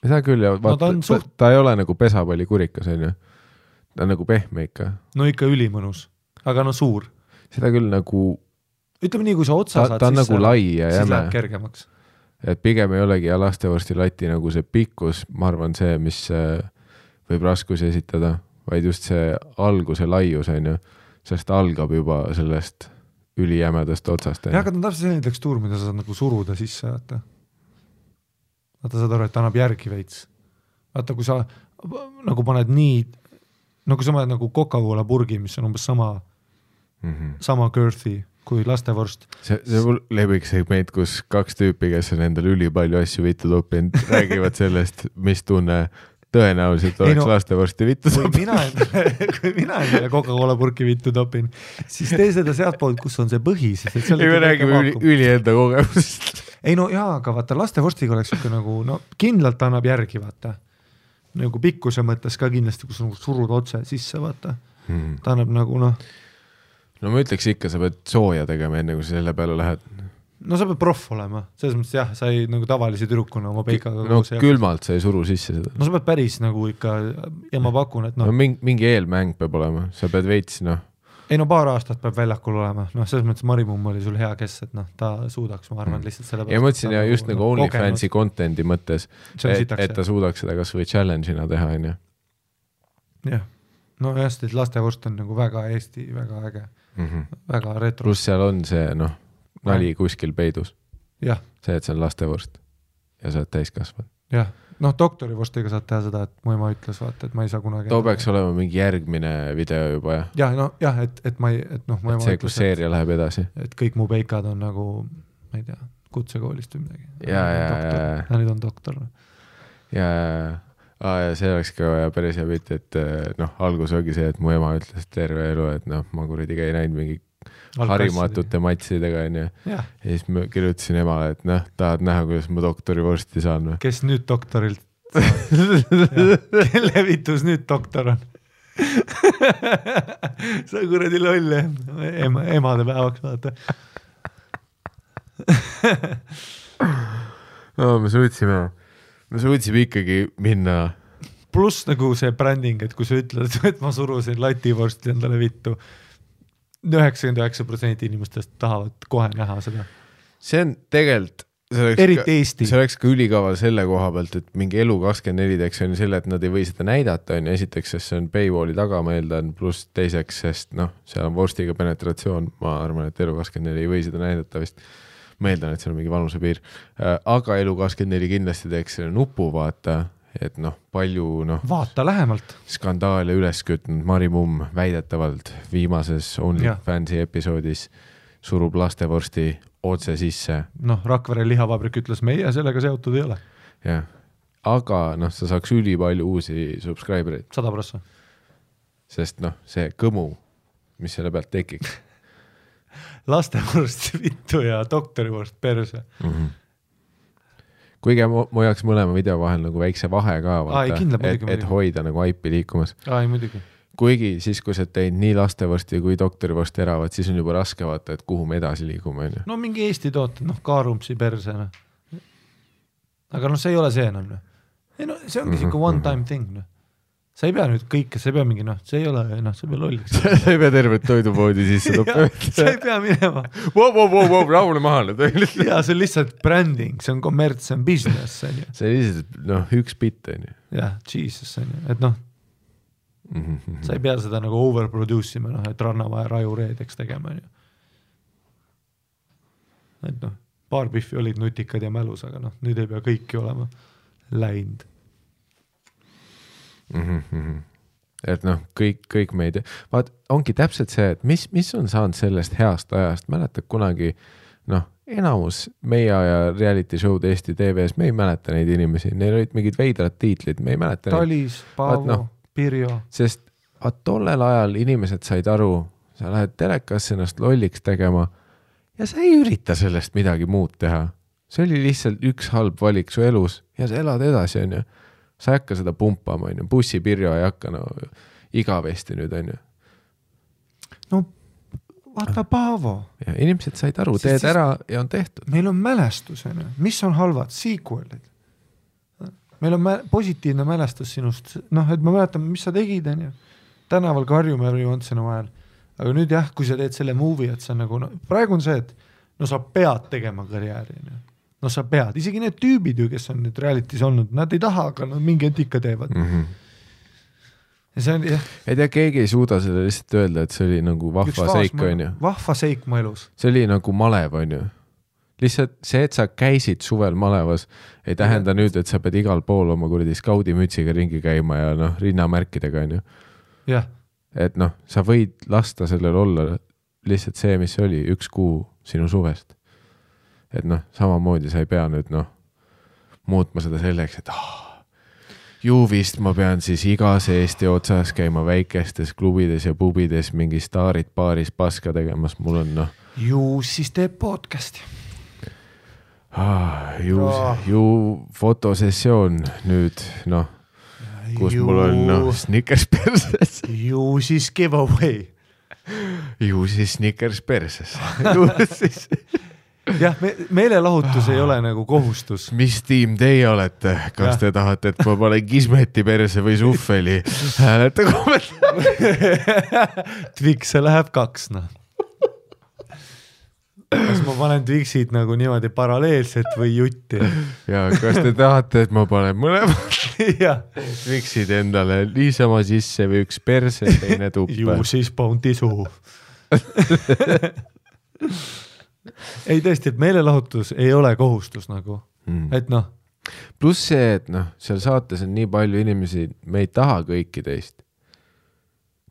Seda küll, ja ta ei ole nagu pesapalli kurikas, on ju. ta on nagu pehme ikka. No ikka ülimõnus, aga no suur. Seda küll nagu... Ütleme nii, kui sa otsa saad ta on nagu lai ja siis jäme. läheb kergemaks. Et pigem ei olegi ja lastevorsti lati nagu see pikkus, ma arvan see, mis võib raskusi esitada, vaid just see alguse laius, on ju, sest algab juba sellest ülijämedast otsast. Ja, aga ta on täpselt selline tekstuur, mida sa saad nagu suruda sisse, vaata saad aru, et ta annab järgi veits. Vaata, kui sa nagu paned nii, no kui sa paned nagu Coca-Cola purgi, mis on umbes sama girthy kui lastevorst. See lemmik segment, kus 2 tüüpi, kes on endal ülipalju asju vittu toppinud, räägivad sellest, mis tunne tõenäoliselt oleks lastevorsti vittu toppinud. Kui mina endale Coca-Cola purki vittu topin, siis tee seda sealt poolt, kus on see põhi. Me räägime üli enda kogemusest. Ei no jaa, aga vaata, lastevorstiga oleks ikka nagu, no kindlalt annab järgi, vaata. Nagu pikkuse mõttes ka kindlasti, kus nagu surud otse sisse, vaata. Ta annab nagu, noh. No ma ütleks ikka, sa pead sooja tegema enne, kui sa selle peale lähed. No sa pead proff olema. Selles mõttes jah, sa ei nagu tavalisi tüdrukuna oma peikaga. No külmalt sa ei suru sisse seda. No sa pead päris nagu ikka, ja ma pakun, et no mingi eelmäng peab olema. Sa pead veits, noh. Ei no paar aastat peab väljakul olema. No selles mõttes Marimumm oli sul hea kes, et noh, ta suudaks, ma arvan, lihtsalt selle ja mõtlesin ja just nagu OnlyFansi contenti mõttes, et ta suudaks seda kas või challenge'ina teha, on ju. Jah. No just, et lastevorst on nagu väga Eesti, väga äge. Väga retro. Plus seal on see, noh, nali kuskil peidus. Jah. See, et see on lastevorst ja sa oled täiskasvad. Jah. Noh, doktorivorstiga saad teha seda, et mu ema ütles, vaata, et ma ei saa kunagi... Too peaks olema mingi järgmine video juba, jah? Jah, no jah, et ma ei... Et noh, mu ema see, kus seeria läheb edasi. Et kõik mu peikad on nagu, ma ei tea, kutsekoolist või midagi. Ja nüüd on doktor. Ja see oleks ka päris hea pilt, et noh, algus ongi see, et mu ema ütles terve elu, et noh, ma kuradi ei näinud mingi harimatute matsidega, on ju. Ja siis ma kirjutasin emale, et noh, tahad näha, kuidas ma doktorivorsti saan. Kes nüüd doktorilt saab? Kelle vitus nüüd doktor on? Sa kuradi loll, emade päevaks vaata. No, me suutsime ikkagi minna. Plus nagu see bränding, et kui sa ütled, et ma surusin lativorsti endale vittu, 99% inimestest tahavad kohe näha seda. See on tegelikult, eriti Eesti. See oleks ka ülikaval selle koha pealt, et mingi Elu24 teeks on selle, et nad ei või seda näidata, on esiteks, sest see on paywalli taga, ma eeldan, pluss teiseks, sest noh, seal on vorstiga penetratsioon, ma arvan, et Elu24 ei või seda näidata vist. Ma eeldan, et see on mingi vanuse piir. Aga Elu24 kindlasti teeks selle nupu, vaata, et noh, palju noh... Vaata lähemalt. Skandaale üles kütnud Marimumm väidetavalt viimases OnlyFansi episoodis surub lastevorsti otse sisse. Noh, Rakvere lihavabrik ütles, meie sellega seotud ei ole. Jah, aga noh, sa saaks üli palju uusi subscribereid. 100%. Sest noh, see kõmu, mis selle pealt tekiks. Lastevorst vittu ja doktorivorst perse. Kuigi ma jaks mõlema video vahel nagu väikse vahe ka, vaata, et hoida nagu aipi liikumas. Ai, muidugi. Kuigi siis, kui sa teid nii lastevorsti kui doktorivorsti eravad, siis on juba raske vaata, et kuhu me edasi liigume. No mingi Eesti tooted, noh, Kaarumpsi perse. Aga noh, see ei ole see enam. Ei, no, see ongi siuke one time thing. No. Sa ei pea nüüd kõike, sa ei pea mingi, noh, see ei ole, noh, sa ei pea lolliks. Sa ei pea tervet toidupoodi sisse toppa. Sa ei pea minema. Rahule mahale. Ja see on lihtsalt branding, see on kommerts, see on business. See on lihtsalt, noh, üks bitt, on ju. Jah, Jesus, on ju. Et noh, sa ei pea seda nagu overproduce ima, noh, et Rannavaja rajureedeks tegema, on ju. Et noh, paar pihvi olid nutikad ja mälus, aga noh, nüüd ei pea kõiki olema läinud. Et noh, kõik meid vaat, ongi täpselt see, et mis on saanud sellest heast ajast, mäletad kunagi noh, enamus meie aja reality show'd Eesti TV-s, me ei mäleta neid inimesi, neil olid mingid veidrad tiitlid, me ei mäleta Talis, Paavo, Pirjo, sest tollel ajal inimesed said aru, sa lähed telekasse ennast lolliks tegema ja sa ei ürita sellest midagi muud teha, see oli lihtsalt üks halb valik su elus ja sa elad edasi, on ju. Sa ei hakka seda pumpama, on ju. Bussipirjo ei hakka igavesti nüüd, on ju. No, vaata Paavo. Ja inimesed said aru, teed ära ja on tehtud. Meil on mälestus, on ju. Mis on halvad? Sequelid. Meil on positiivne mälestus sinust. Noh, et ma mäletan, mis sa tegid, on ju. tänaval karjume every once in a while, aga nüüd jah, kui sa teed selle movie, et sa nagu, no praegu on see, et no sa pead tegema karjääri, no sa pead, isegi need tüübid ju, kes on nüüd reality's olnud, nad ei taha, aga nad mingi etika teevad. Ja see on, jah. Ei tea, keegi ei suuda selle lihtsalt öelda, et see oli nagu vahva seik, on ju. Vahva seik mu elus. See oli nagu malev, on ju. Lihtsalt see, et sa käisid suvel malevas, ei tähenda nüüd, et sa pead igal pool oma kuradi skaudimütsiga ringi käima ja noh, rinnamärkidega, on ju. Jah. Et noh, sa võid lasta sellel olla lihtsalt see, mis oli 1 kuu sinu suvest. Et noh, samamoodi sa ei pea nüüd noh, muutma seda selleks, et ju vist ma pean siis igas Eesti otsas käima väikestes klubides ja pubides mingi staarid paaris paska tegemas, mul on noh. Ju siis teeb podcasti. Ju fotosessioon nüüd, noh, kus mul on noh, Snickers perses. Ju siis giveaway. Ju siis Snickers perses. Ju siis. Jah, meelelahutus ei ole nagu kohustus. Mis tiim teie olete? Kas te tahate, et ma panen Kismeti perse või Suffeli? Hääleta kommentaari. Twix'e läheb 2, noh. Kas ma panen Twixid nagu niimoodi paralleelselt või jutti? Ja kas te tahate, et ma panen mõlemad Twixid endale niisama sisse või üks perse, teine tuppe? Ju siis Bounty suhu. Ei tõesti, et meelelahutus ei ole kohustus nagu, et noh. Plus see, et noh, seal saates on nii palju inimesi, me ei taha kõiki teist.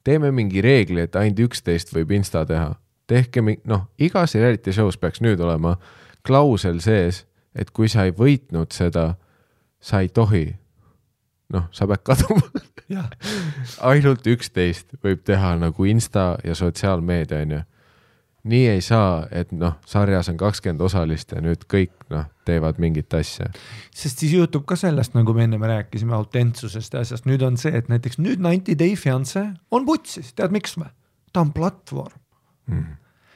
Teeme mingi reegli, et ainult 11 võib Insta teha. Tehke, noh, igas reality show's peaks nüüd olema klausel sees, et kui sa ei võitnud seda, sa ei tohi. Noh, sa pead kaduma. Ainult 11 võib teha nagu Insta ja sotsiaalmeedia, on ju. Nii ei saa, et noh, sarjas on 20 osalist ja nüüd kõik noh, teevad mingit asja. Sest siis juhtub ka sellest, nagu me enne me rääkisime autentsusest ja asjast. Nüüd on see, et näiteks nüüd 90 Day Fiancé on putsis. Tead miks me? Ta on platvorm.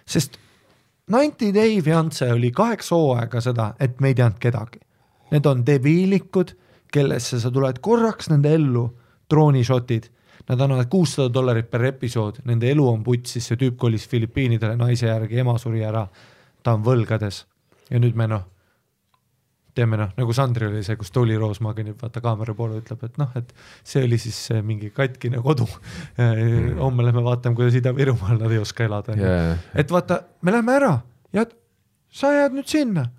Sest 90 Day Fiancé oli 8 hooaega seda, et me ei teadnud kedagi. Need on debiilikud, kellesse sa tuled korraks nende ellu, troonishotid. Nad annavad $600 per episood, nende elu on putsis, see tüüp kolis Filipiinidele naise järgi, ema suri ära, ta on võlgades. Ja nüüd me noh, teeme noh, nagu Sandri oli see, kus Tuli Roos magenib, vaata kaamera poole ütleb, et noh, et see oli siis mingi katkine kodu. Homme lähme vaatame, kuidas Ida-Virumaal nad ei oska elada. Et vaata, me lähme ära ja sa jääd nüüd sinna.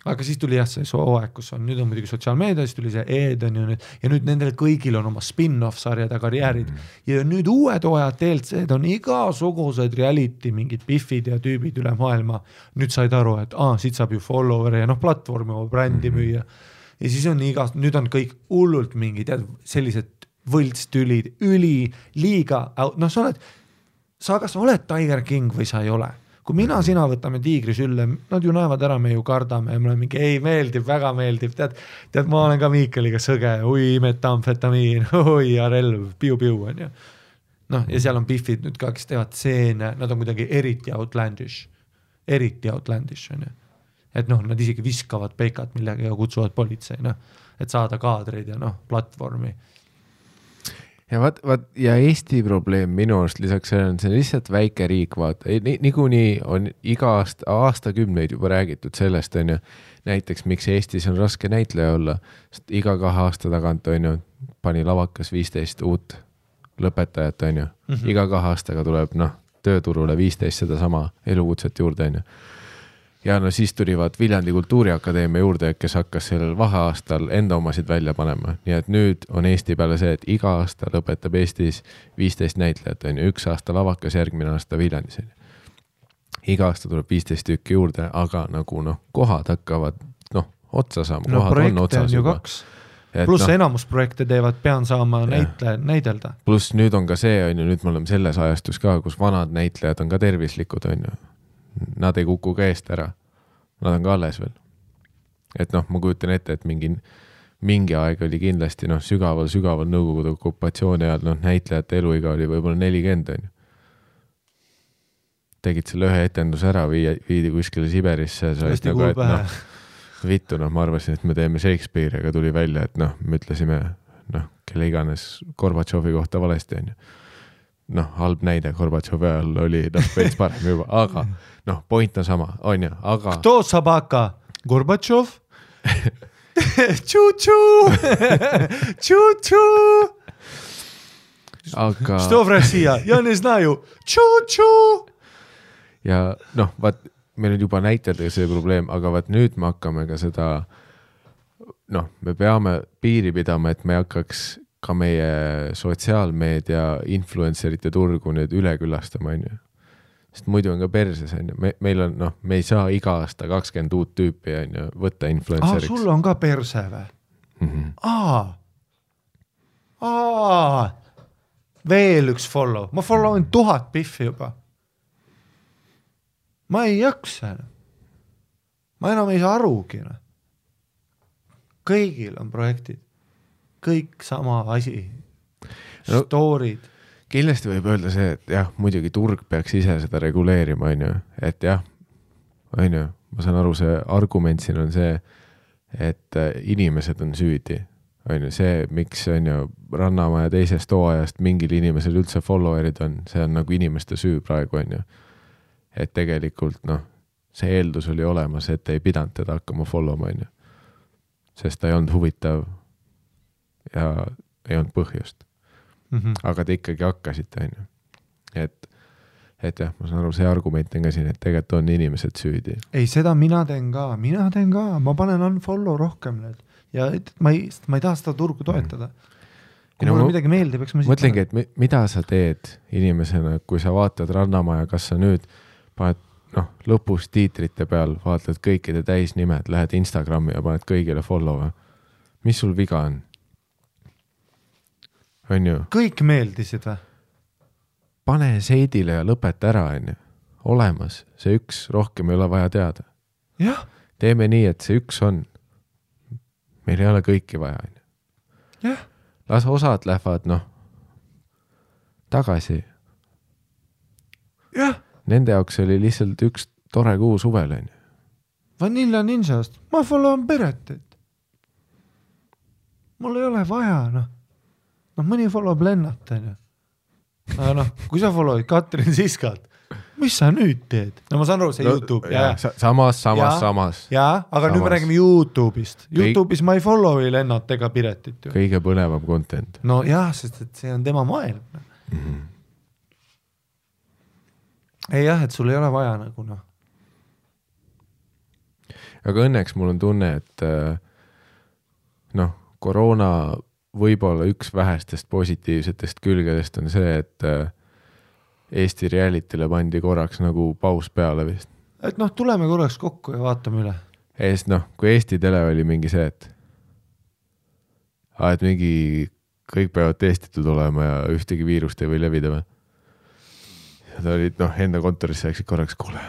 Aga siis tuli jah see hooaeg, kus on, nüüd on muidugi sotsiaalmeedia, siis tuli see Eden ja nüüd nendel kõigil on oma spin-off sarjad ja karjäärid. Ja nüüd uued hooajad TLC-d on igasugused reality, mingid biffid ja tüübid üle maailma. Nüüd said aru, et siit saab ju follower ja noh, platvormi oma brändi müüa. Ja siis on nüüd on kõik hullult mingid sellised võltstülid, liiga, noh sa kas oled Tiger King või sa ei ole. Kui mina, sina võtame tiigri sülle, nad ju näevad ära, me ju kardame ja me oleme mingi, ei meeldib, väga meeldib, tead ma olen ka Miikeliga sõge, metamfetamiin, relv, piu-piu on ju. Noh, ja seal on biffid nüüd ka, kes teevad seene, nad on kuidagi eriti outlandish on ju. Et noh, nad isegi viskavad peikat millega ja kutsuvad politsei, noh, et saada kaadreid ja noh, platvormi. Ja ja Eesti probleem minu arust lisaks sellele on see lihtsalt väike riik, vaata. Niikuinii on iga aastakümneid juba räägitud sellest, on ju. Näiteks, miks Eestis on raske näitleja olla. Sest iga 2 aasta tagant, on ju, pani lavakas 15 uut lõpetajat, on ju. Iga 2 aastaga tuleb, noh, tööturule 15 seda sama elukutset juurde, on ju. Ja no siis tulivad Viljandi Kultuuriakadeemia juurde, kes hakkas sellel vaheaastal enda omasid välja panema. Nii et nüüd on Eesti peale see, et iga aasta lõpetab Eestis 15 näitlejat, on ju, 1 aasta lavakas, järgmine aasta Viljandis. Iga aasta tuleb 15 tükki juurde, aga nagu noh, kohad hakkavad noh, otsa saama. No projekte on ju 2. Plus enamus projekte teevad, pean saama näidelda. Plus nüüd on ka see, on ju, nüüd me oleme selles ajastus ka, kus vanad näitlejad on ka tervislikud, on ju. Nad ei kuku ka eest ära. Nad on ka alles veel. Et noh, ma kujutan ette, et mingi aeg oli kindlasti noh, sügaval nõukogude okupatsiooni ajal noh, näitlejate eluiga oli võib-olla 40, on ju. Tegid selle ühe etenduse ära, viidi kuskile Siberisse. Nagu, et, noh, vittu, noh, ma arvasin, et me teeme Shakespeare, aga tuli välja, et noh, me ütlesime, noh, kelle iganes Gorbatšovi kohta valesti, on ju. halb näide Gorbatšovi ajal oli veits parem juba, aga point on sama, on ju, aga Kto sabaka? Gorbatšov? Tšu-tšu! Tšu-tšu! aga Što v Rossija? Ja ne znaju. Tšu-tšu! ja vaat, meil on juba näiteldega see probleem, aga vaat nüüd me hakkame ka seda, me peame piiri pidama, et me hakkaks ka meie sotsiaalmeedia influencerite turgu nüüd üle külastama, on ju. Sest muidu on ka perses, on ju. Meil on, me ei saa iga aasta 20 uut tüüpi, on ju, võtta influenceriks. Sul on ka perse või? Veel üks follow. Ma followin 1000 piffi juba. Ma ei jaksa. Ma enam ei saa arugi. Kõigil on projektid. Kõik sama asi. Storid. Kindlasti võib öelda see, et jah, muidugi turg peaks ise seda reguleerima, on ju. Et jah, on ju, ma saan aru, see argument siin on see, et inimesed on süüdi. On ju, see, miks on ju Rannamaja teisest hooajast mingil inimesel üldse followerid on, see on nagu inimeste süü praegu, on ju. Et tegelikult, see eeldus oli olemas, et ei pidanud teda hakkama followma, on ju. Sest ta ei olnud huvitav ja ei olnud põhjust. Aga te ikkagi hakkasite, on ju. Et jah, ma saan aru, see argument on ka siin, et tegelikult on inimesed süüdi. Ei, seda mina teen ka, ma panen unfollow rohkem nüüd. Ja ma ei taha seda turgu toetada. Kui mulle midagi meeldib, eks ma mõtlengi, et mida sa teed inimesena, kui sa vaatad Rannamaja, kas sa nüüd paned, lõpus tiitrite peal vaatad kõikide täisnimed, lähed Instagrami ja paned kõigile follow. Mis sul viga on? On ju? Kõik meeldisid või? Pane seidile ja lõpeta ära, on ju. Olemas, see üks rohkem ei ole vaja teada. Jah. Teeme nii, et see üks on. Meil ei ole kõiki vaja, on ju. Jah. Las osad lähevad, tagasi. Jah. Nende jaoks oli lihtsalt üks tore kuu suvel, on ju. Vanilla Ninjast. Ma followin Peretit. Mul ei ole vaja, mõni followb Lennart, on ju. Aga kui sa followid Katrin Siskat, mis sa nüüd teed? Ma saan aru, see YouTube. Samas. Jaa, aga nüüd me räägime YouTube'ist. YouTube'is ma ei follow'i Lennart ega Piretit. Kõige põnevam content. Jah, sest et see on tema maailm. Ei jah, et sul ei ole vaja nagu Aga õnneks mul on tunne, et koroona võib-olla üks vähestest positiivsetest külgedest on see, et Eesti realitile pandi korraks nagu paus peale vist. Et tuleme korraks kokku ja vaatame üle. Kui Eesti tele oli mingi see, et mingi kõik peavad testitud olema ja ühtegi viirust ei või levida või. Ja ta olid, enda kontorisse läksid korraks, kuule,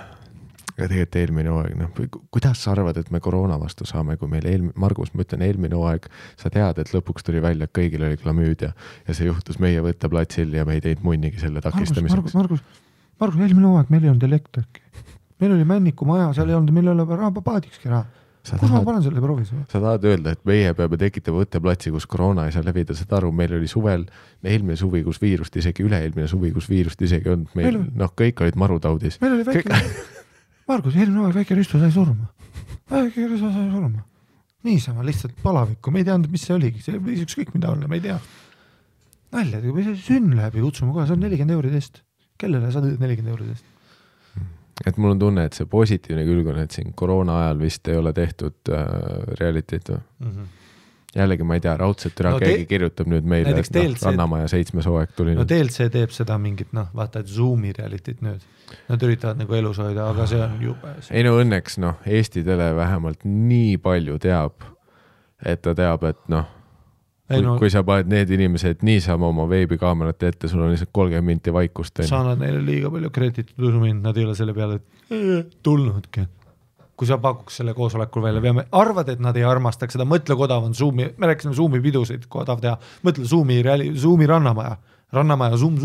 ja tegelikult eelmine hooaeg, kuidas sa arvad, et me koroona vastu saame, kui meil Margus, ma ütlen, eelmine hooaeg, sa tead, et lõpuks tuli välja, et kõigil oli klamüüd ja see juhtus meie võtteplatsil ja me ei teinud munnigi selle takistamiseks. Margus, eelmine hooaeg meil ei olnud elektrik. Meil oli Männiku maja, seal ei olnud, meil ei ole paadikski raha. Kus ma panen selle proovis? Sa tahad öelda, et meie peame tekitama võtteplatsi, kus koroona ei saa levida, seda aru, meil oli suvel, eelmine suvi, kus viirust isegi, üle-eelmine suvi, kus viirust isegi on, meil kõik olid marutaudis. Meil oli väike, Margus, eelmine hooaeg väike ristu sai surma. Niisama lihtsalt palavikku, me ei teadnud, mis see oligi, see võis ükskõik mida olla, me ei tea. Nalja, kui sünn läheb ja kutsume kohe, see on 40 euridest. Kellele sa tõid 40 euridest? Et mul on tunne, et see positiivne külg on, et siin koroona ajal vist ei ole tehtud realitit või? Jällegi ma ei tea, raudselt keegi kirjutab nüüd meile, et Rannamaja 7. hooaeg tuli. DLC teeb seda mingit, vaata, et Zoomi realitit nüüd. Nad üritavad nagu elus hoida, aga see on jube. Ei õnneks, Eesti tele vähemalt nii palju teab, et ta teab, et kui sa paned need inimesed niisama oma veebikaamerate ette, sul on lihtsalt 30 minti vaikust. Sa annad neile liiga palju kreditit usumind, nad ei ole selle peale tulnudki. Kui sa pakuks selle koosolekul välja, arvad, et nad ei armastaks seda, mõtle, kui odav on Zoomi, me rääkisime Zoomi pidusid, kui odav teha, mõtle Zoomi Rannamaja Zoom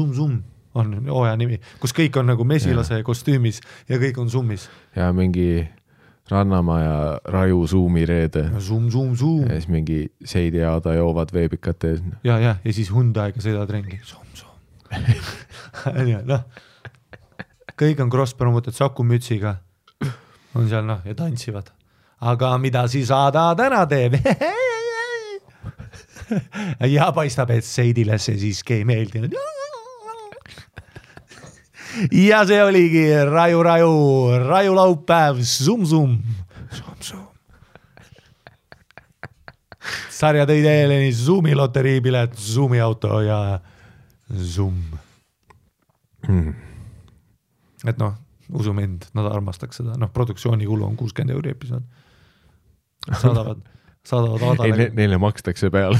on hooaja nimi, kus kõik on nagu mesilase kostüümis ja kõik on Zoomis. Ja mingi Rannamaja raju Zoomi reede. Zoom. Ja siis mingi Seidi Aada joovad veebikate. Ja siis Hyundai'ga sõidavad ringi. Zoom. noh, kõik on cross-promoted Saku Mütsiga, on seal noh ja tantsivad. Aga mida siis Aada täna teeb? Ja paistab, et Seidile see siiski ei meeldinud. Ja see oligi Raju laupäev, Zoom. Sarja tõi teile nii Zoomi loteriipilet, Zoomi auto ja Zoom. Et noh, usu mind, nad armastaks seda. Noh, produktsiooni kulu on 60 € episood. Saadavad Aadale. Neile makstakse peale.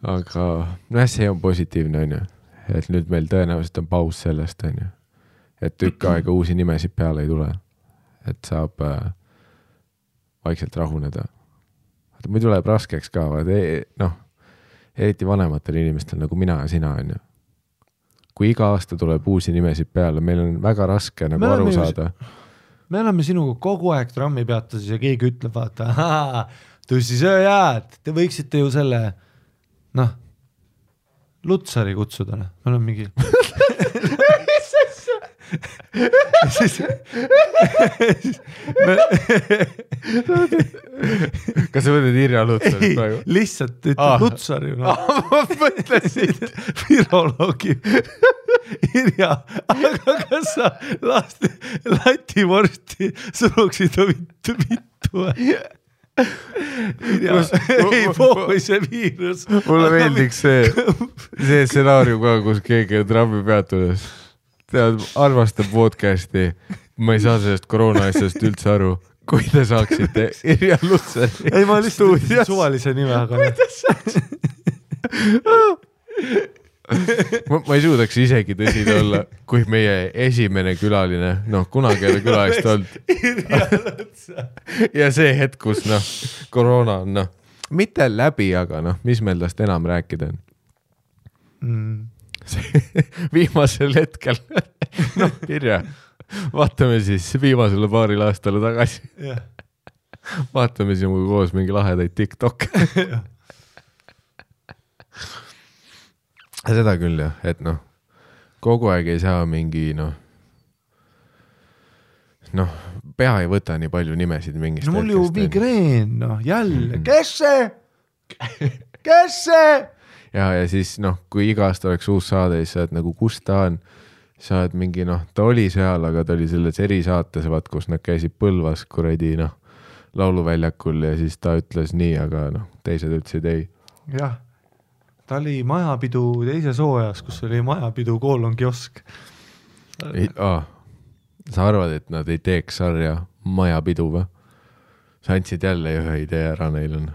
Aga noh, see on positiivne, on ju. Et nüüd meil tõenäoliselt on paus sellest, on ju. Et tükk aega uusi nimesid peale ei tule. Et saab vaikselt rahuneda. Või tuleb raskeks ka, noh, eriti vanematel inimestel nagu mina ja sina, on ju. Kui iga aasta tuleb uusi nimesid peale, meil on väga raske nagu aru saada. Me oleme sinuga kogu aeg trammi peatasis ja keegi ütleb, vaata, tussisööjad, te võiksite ju selle, noh, Lutsari kutsuda, noh, me oleme mingi... Kas sa mõtled Irja Lutsari praegu? Lihtsalt ütleb Lutsari. Ma mõtlesin viroloogi Irja, aga kas sa lativorsti suruksid vittu? Irja, ei poovi see viirus. Mulle meeldiks see stsenaarium ka, kus keegi on trammi peatudes. Tead, armastab podcasti. Ma ei saa sellest koroona asjast üldse aru. Kui te saaksite Irja Lutsari. Ei, ma lihtsalt suvalise nime, aga... Kui te saaksite? Ma ei suudaks isegi tõsine olla, kui meie esimene külaline, noh, kunagi ei ole külalist olnud. Ja see hetk, kus, noh, koroona on, noh, mitte läbi, aga, noh, mis meil tast enam rääkida on? Viimasel hetkel, noh, Irja, vaatame siis viimasele paaril aastale tagasi. Vaatame sinuga koos mingi lahedaid TikTok. Seda küll jah, et noh, kogu aeg ei saa mingi, noh, pea ei võta nii palju nimesid mingist no mul ju migreen, noh, jälle, kes see? Ja siis, noh, kui iga aasta oleks uus saade, siis sa oled nagu, kus ta on? Sa oled mingi, noh, ta oli seal, aga ta oli selles erisaates, vaat, kus nad käisid Põlvas, kuradi, noh, lauluväljakul ja siis ta ütles nii, aga, noh, teised ütlesid ei. Jah, ta oli majapidu teises hooajas, kus oli majapidu kiosk. Sa arvad, et nad ei teeks sarja majapidu või? Sa andsid jälle ühe idee ära neil on.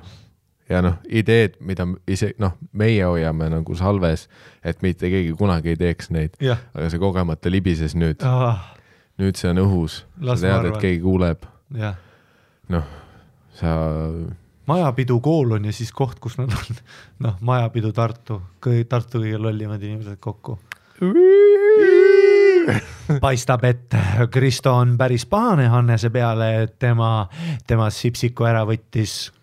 Ja noh, ideed, mida ise, noh, meie hoiame nagu salves, et mitte keegi kunagi ei teeks neid, aga see kogemata libises nüüd. Nüüd see on õhus. Sa tead, et keegi kuuleb. Noh, sa... Majapidu koolon ja siis koht, kus nad on. Noh, majapidu Tartu kõige lollimad inimesed kokku. Paistab, et Kristo on päris pahane Hannese peale, et tema sipsiku ära võttis.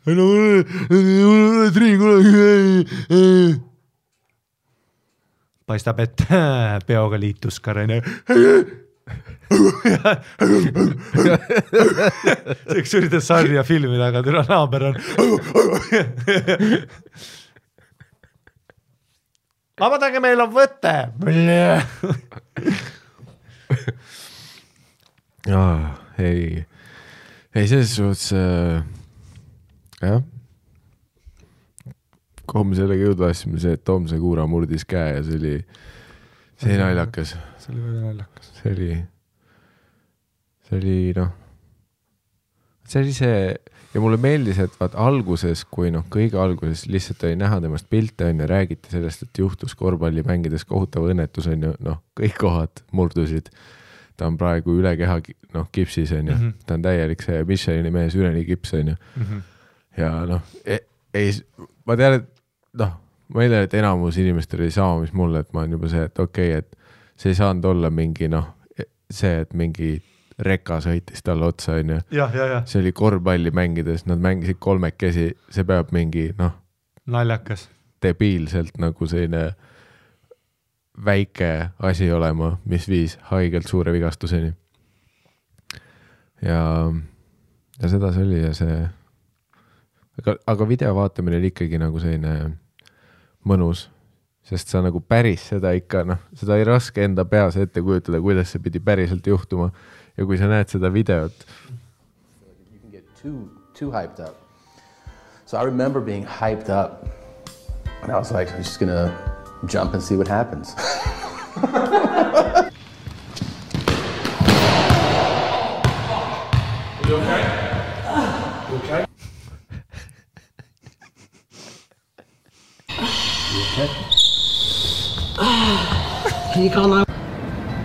Paistab, et peoga liitus Karene. Seks üritas sarja filmida, aga türa naaber on. Vabadage, meil on võtte. Ei, selles suhtes jah, kuhu me sellega jõudvasime, see, et Tomse Kuura murdis käe ja see oli naljakas. See oli väga naljakas. See oli noh, see oli see ja mulle meeldis, et vaat alguses, kui noh, kõige alguses lihtsalt oli näha temast pilte on ja räägiti sellest, et juhtus korvpalli mängides kohutav õnnetus on ju, noh, kõik kohad murdusid. Ta on praegu üle keha, noh, kipsis on ju, ta on täielik see Michelini mees üleni kips on ju. Ja noh, ma tean, et noh, ma ei tea, et enamus inimestel ei sama, mis mulle, et ma on juba see, et okei, et see ei saanud olla mingi noh, see, et mingi reka sõitis talle otsa on ju. See oli korvpalli mängides, nad mängisid kolmekesi, see peab mingi noh. Naljakas. debiilselt nagu selline väike asi olema, mis viis haigelt suure vigastuseni. Ja seda see oli ja see aga video vaatamine oli ikkagi nagu selline mõnus, sest sa nagu päris seda ikka, seda ei raske enda peas ette kujutada, kuidas see pidi päriselt juhtuma ja kui sa näed seda videot. You can get too hyped up. So I remember being hyped up and I was like, I'm just gonna jump and see what happens. You okay? You okay? You okay? Can you call now?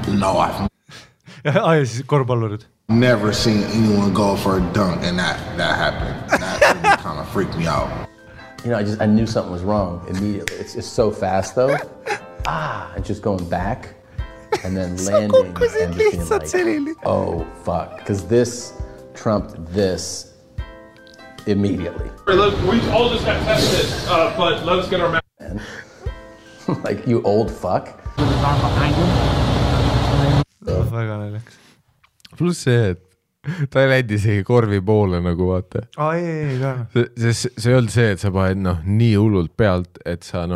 No, I've siis korvpallurid. never seen anyone go for a dunk and that happened. That really kind of freaked me out. You know, I knew something was wrong immediately. It's so fast though. And just going back and then landing and just being like, oh fuck, because this trumped this immediately. We all just got tested, but let us get our And like, you old fuck. Väga näljaks. Plus see, et ta ei läinud isegi korvi poole nagu vaata. Ei. See ei olnud see, et sa paned nii hullult pealt, et sa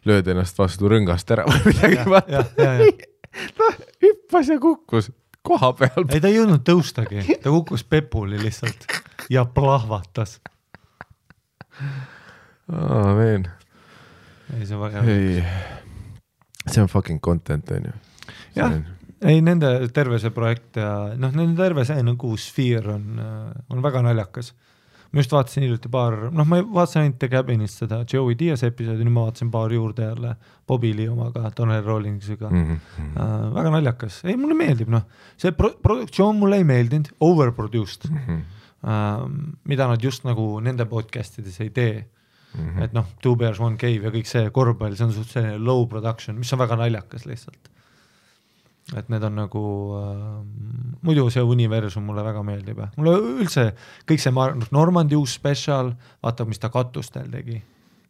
lööd ennast vastu rõngast ära või midagi vaata. Ta hüppas ja kukkus koha peal. Ei, ta ei jõudnud tõustagi. Ta kukkus pepuli lihtsalt ja plahvatas. Veen. Ei, see on väga hea. See on fucking content, on ju. Jah, ei, nende terve see projekt ja nende terve see nagu sfeer on väga naljakas. Ma just vaatasin hiljuti ma vaatasin ainult The Cabinist seda Joey Diaz episoodi, nüüd ma vaatasin paar juurde jälle Bobby Lee omaga, Donnell Rawlingsiga. Väga naljakas. Ei, mulle meeldib, see produktsioon mulle ei meeldinud, overproduced, mida nad just nagu nende podcastides ei tee. Et Two Bears, One Cave ja kõik see korvpall, see on suht selline low production, mis on väga naljakas lihtsalt. Et need on nagu muidu see universum mulle väga meeldib. Mulle üldse kõik see Normandi uus special, vaata, mis ta katustel tegi.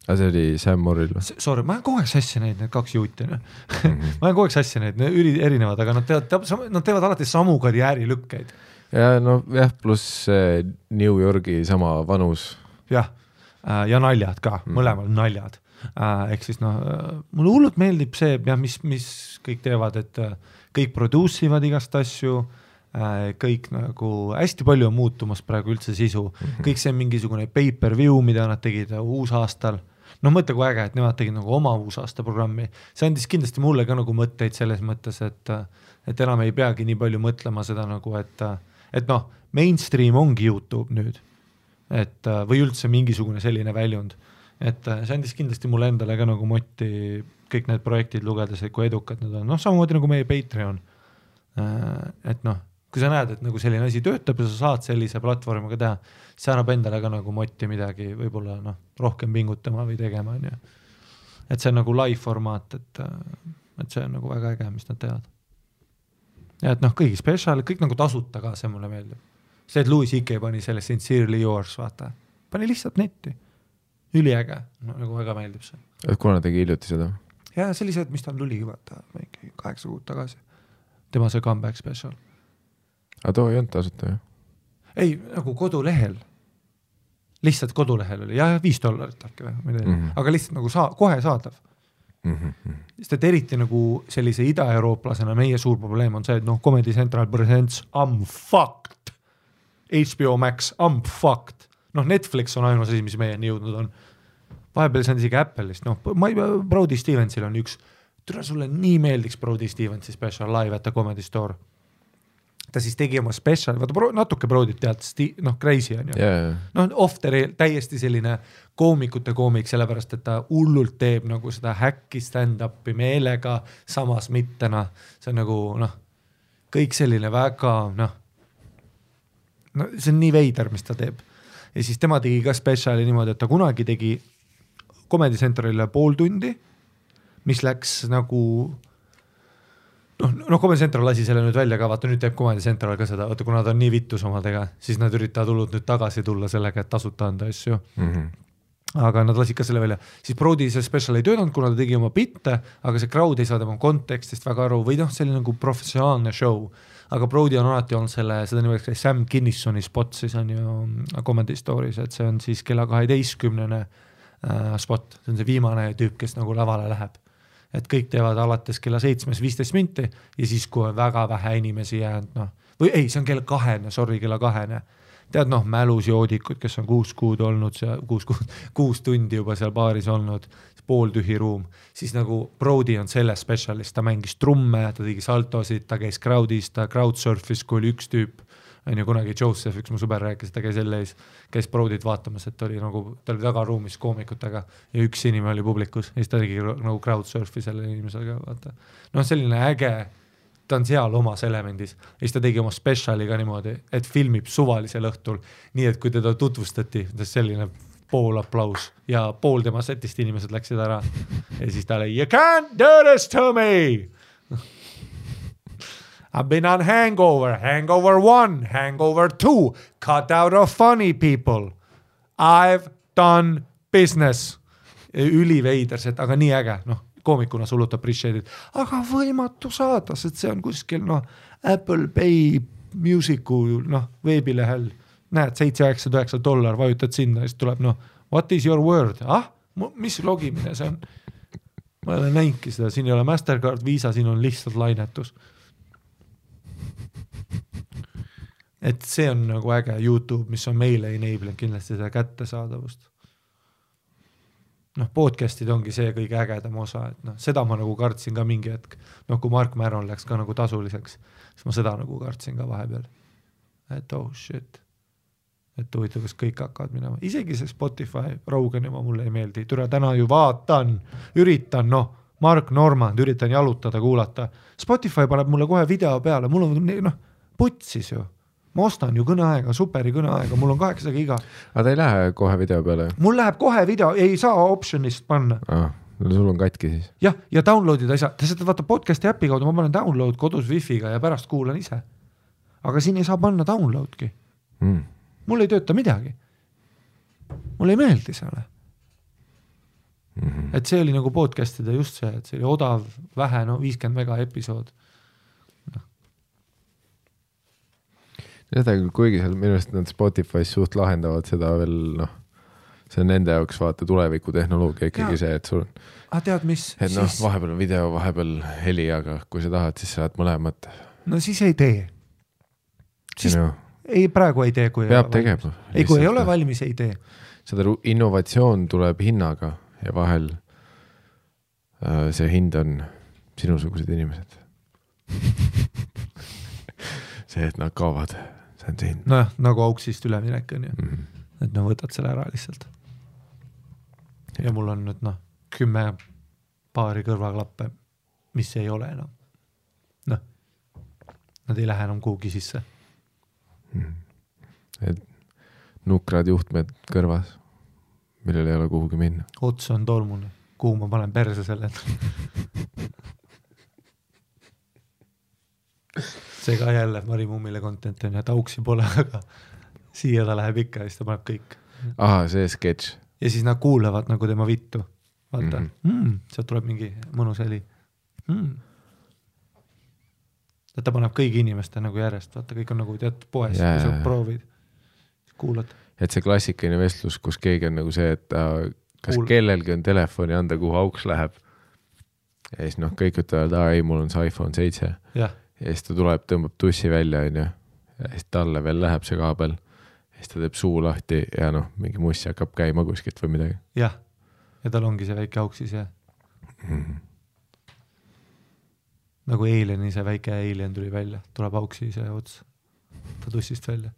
See oli Sam Morrill. Sorry, ma olen kogu aeg sassi neid, need kaks juuti. Ma olen kogu aeg sassi neid, need erinevad, aga nad teevad alati samu karjäärilükkeid. Ja pluss New Yorgi sama vanus. Jah, ja naljad ka, mõlemal naljad. Ehk siis mulle hullult meeldib see, mis kõik teevad, et kõik produusivad igast asju, kõik nagu hästi palju on muutumas praegu üldse sisu. Kõik see mingisugune pay-per-view, mida nad tegid uusaastal. Mõtle kui äge, et nemad tegid nagu oma uusaasta programmi. See andis kindlasti mulle ka nagu mõtteid selles mõttes, et enam ei peagi nii palju mõtlema seda nagu, et mainstream ongi YouTube nüüd. Või üldse mingisugune selline väljund. Et see andis kindlasti mulle endale ka nagu motti kõik need projektid lugedes, et kui edukad need on. Samamoodi nagu meie Patreon. Et kui sa näed, et nagu selline asi töötab ja sa saad sellise platvormiga teha, see annab endale ka nagu motti midagi võib-olla rohkem pingutama või tegema. Et see on nagu live formaat, et see on nagu väga äge, mis nad teevad. Ja et kõigi special, kõik nagu tasuta ka, see mulle meeldib. See, et Louis C.K. pani selle Sincerely Yours, vaata. Pani lihtsalt netti. Üliäge, nagu väga meeldib see. Et kuna tegi hiljuti seda? Ja see oli see, mis tal tuli vaata 8 kuud tagasi. Tema see comeback special. Aga too ei olnud tasuta, jah? Ei, nagu kodulehel. Lihtsalt kodulehel oli. Ja $5 äkki või. Aga lihtsalt nagu kohe saadav. Sest et eriti nagu sellise ida-eurooplasena meie suur probleem on see, et Comedy Central presents I'm fucked. HBO Max, I'm fucked. Netflix on ainus asi, mis meieni jõudnud on. Vahepeal see on isegi Apple'ist. Brody Stevensil on üks, türa sulle nii meeldiks Brody Stevensi special live at the Comedy Store. Ta siis tegi oma special, vaata natuke Brodyt tead, crazy on ju. Off the rail, täiesti selline koomikute koomik, sellepärast, et ta hullult teeb nagu seda häkki stand-upi meelega, samas mittena. See on nagu, kõik selline väga, see on nii veider, mis ta teeb. Ja siis tema tegi ka speciali niimoodi, et ta kunagi tegi Comedy Centralile 0,5 tundi, mis läks nagu Comedy Central lasi selle nüüd välja ka, vaata nüüd teeb Comedy Central ka seda, vaata kuna ta on nii vittus omadega, siis nad üritavad hullult nüüd tagasi tulla sellega, et tasuta anda asju. aga nad lasid ka selle välja. Siis Brody see special ei töötanud, kuna ta tegi oma bitte, aga see crowd ei saa tema kontekstist väga aru või noh, see oli nagu professionaalne show. Aga Brody on alati olnud seda nimelt Sam Kinnissoni spot, siis on ju Comedy Stories, et see on siis kella 12 spot, see on see viimane tüüp, kes nagu lavale läheb. Et kõik teevad alates kella 7:15 minti ja siis, kui on väga vähe inimesi jäänud, noh, või ei, see on kella 2, tead noh, mälus joodikud, kes on 6 kuud olnud, 6 tundi juba seal baaris olnud, pooltühi ruum, siis nagu Brody on selle spetsialist, ta mängis trumme, ta tegi saltosid, ta käis crowdis, ta crowdsurfis, kui oli üks tüüp, on ju kunagi Joseph, üks mu sõber rääkis, ta käis jälle käis Brodyt vaatamas, et ta oli tagaruumis koomikutega ja üks inimene oli publikus ja siis ta tegi nagu crowdsurfi selle inimesega, vaata. No selline äge, ta on seal omas elemendis ja siis ta tegi oma speciali ka niimoodi, et filmib suvalisel õhtul, nii et kui teda tutvustati, selline pool aplaus ja pool tema setist inimesed läksid ära ja siis ta oli, you can't do this to me. I've been on Hangover 1, Hangover 2, cut out of funny people. I've done business. Üliveiders, et aga nii äge, noh, koomikuna sullut appreciated, aga võimatu saada, sest see on kuskil, noh, Apple Pay Musicu, noh, veebilehel, näed, $7-9 vajutad sinna ja siis tuleb, noh, what is your word? Mis logimine see on? Ma ei ole näinki seda, siin ei ole Mastercard, Visa, siin on lihtsalt lainetus. Et see on nagu äge YouTube, mis on meile enablenud kindlasti seda kättesaadavust. Noh, podcastid ongi see kõige ägedam osa, et noh, seda ma nagu kartsin ka mingi hetk, noh, kui Mark Maron läks ka nagu tasuliseks, siis ma seda nagu kartsin ka vahepeal, et oh shit, et huvitav, kas kõik hakkavad minema, isegi see Spotify, Rogan juba mulle ei meeldi, türa täna ju üritan, noh, Mark Normand, üritan jalutada, kuulata, Spotify paneb mulle kohe video peale, mul on, noh, putsis ju. Ma ostan ju kõneaega, superi kõneaega, mul on 8 giga. Aga ta ei lähe kohe video peale? Mul läheb kohe video, ei saa optionist panna. Sul on katki siis? Jah, ja downloadida ei saa. Ta seda vaata podcasti äpi kaudu, ma panen download kodus wifi'ga ja pärast kuulan ise. Aga siin ei saa panna downloadki. Mul ei tööta midagi. Mul ei meeldi selle. Et see oli nagu podcastida just see, et see oli odav, vähe, no 50 mega episood. Seda küll, kuigi seal minu arust nad Spotify's suht lahendavad seda veel, noh, see on nende jaoks vaata tuleviku tehnoloogia ikkagi see, et sul on tead, mis? Et noh, vahepeal on video, vahepeal heli, aga kui sa tahad, siis saad mõlemat. No siis ei tee. Siis ei, praegu ei tee, kui peab tegema. Ei, kui ei ole valmis, ei tee. Seda innovatsioon tuleb hinnaga ja vahel see hind on sinusugused inimesed. See, et nad kaovad. See on see hind. Nojah, nagu auksist üleminek on ju. Et no võtad selle ära lihtsalt. Ja mul on nüüd 10 paari kõrvaklappe, mis ei ole enam. Noh, nad ei lähe enam kuhugi sisse. Et nukrad juhtmed kõrvas, millel ei ole kuhugi minna. Ots on tolmune, kuhu ma panen perse selle. See ka jälle Mari Mummile content on ja tauksi pole, aga siia ta läheb ikka ja siis ta paneb kõik. Aha, see sketš. Ja siis nad kuulevad nagu tema vittu. Vaata, sealt tuleb mingi mõnus heli. Ta paneb kõigi inimeste nagu järjest, vaata, kõik on nagu tead poes, kui sa proovid, kuulad. Et see klassikaline vestlus, kus keegi on nagu see, et kas kellelgi on telefoni anda, kuhu auks läheb. Ja siis kõik ütlevad, ei, mul on see iPhone 7. Jah. Ja siis ta tuleb, tõmbab tussi välja, ja siis talle veel läheb see kaabel. Ja siis ta teeb suu lahti ja mingi mussi hakkab käima kuskilt või midagi. Jah, ja tal ongi see väike auksis ja nagu Alieni see väike Alien tuli välja, tuleb auksi see ots, ta tussist välja.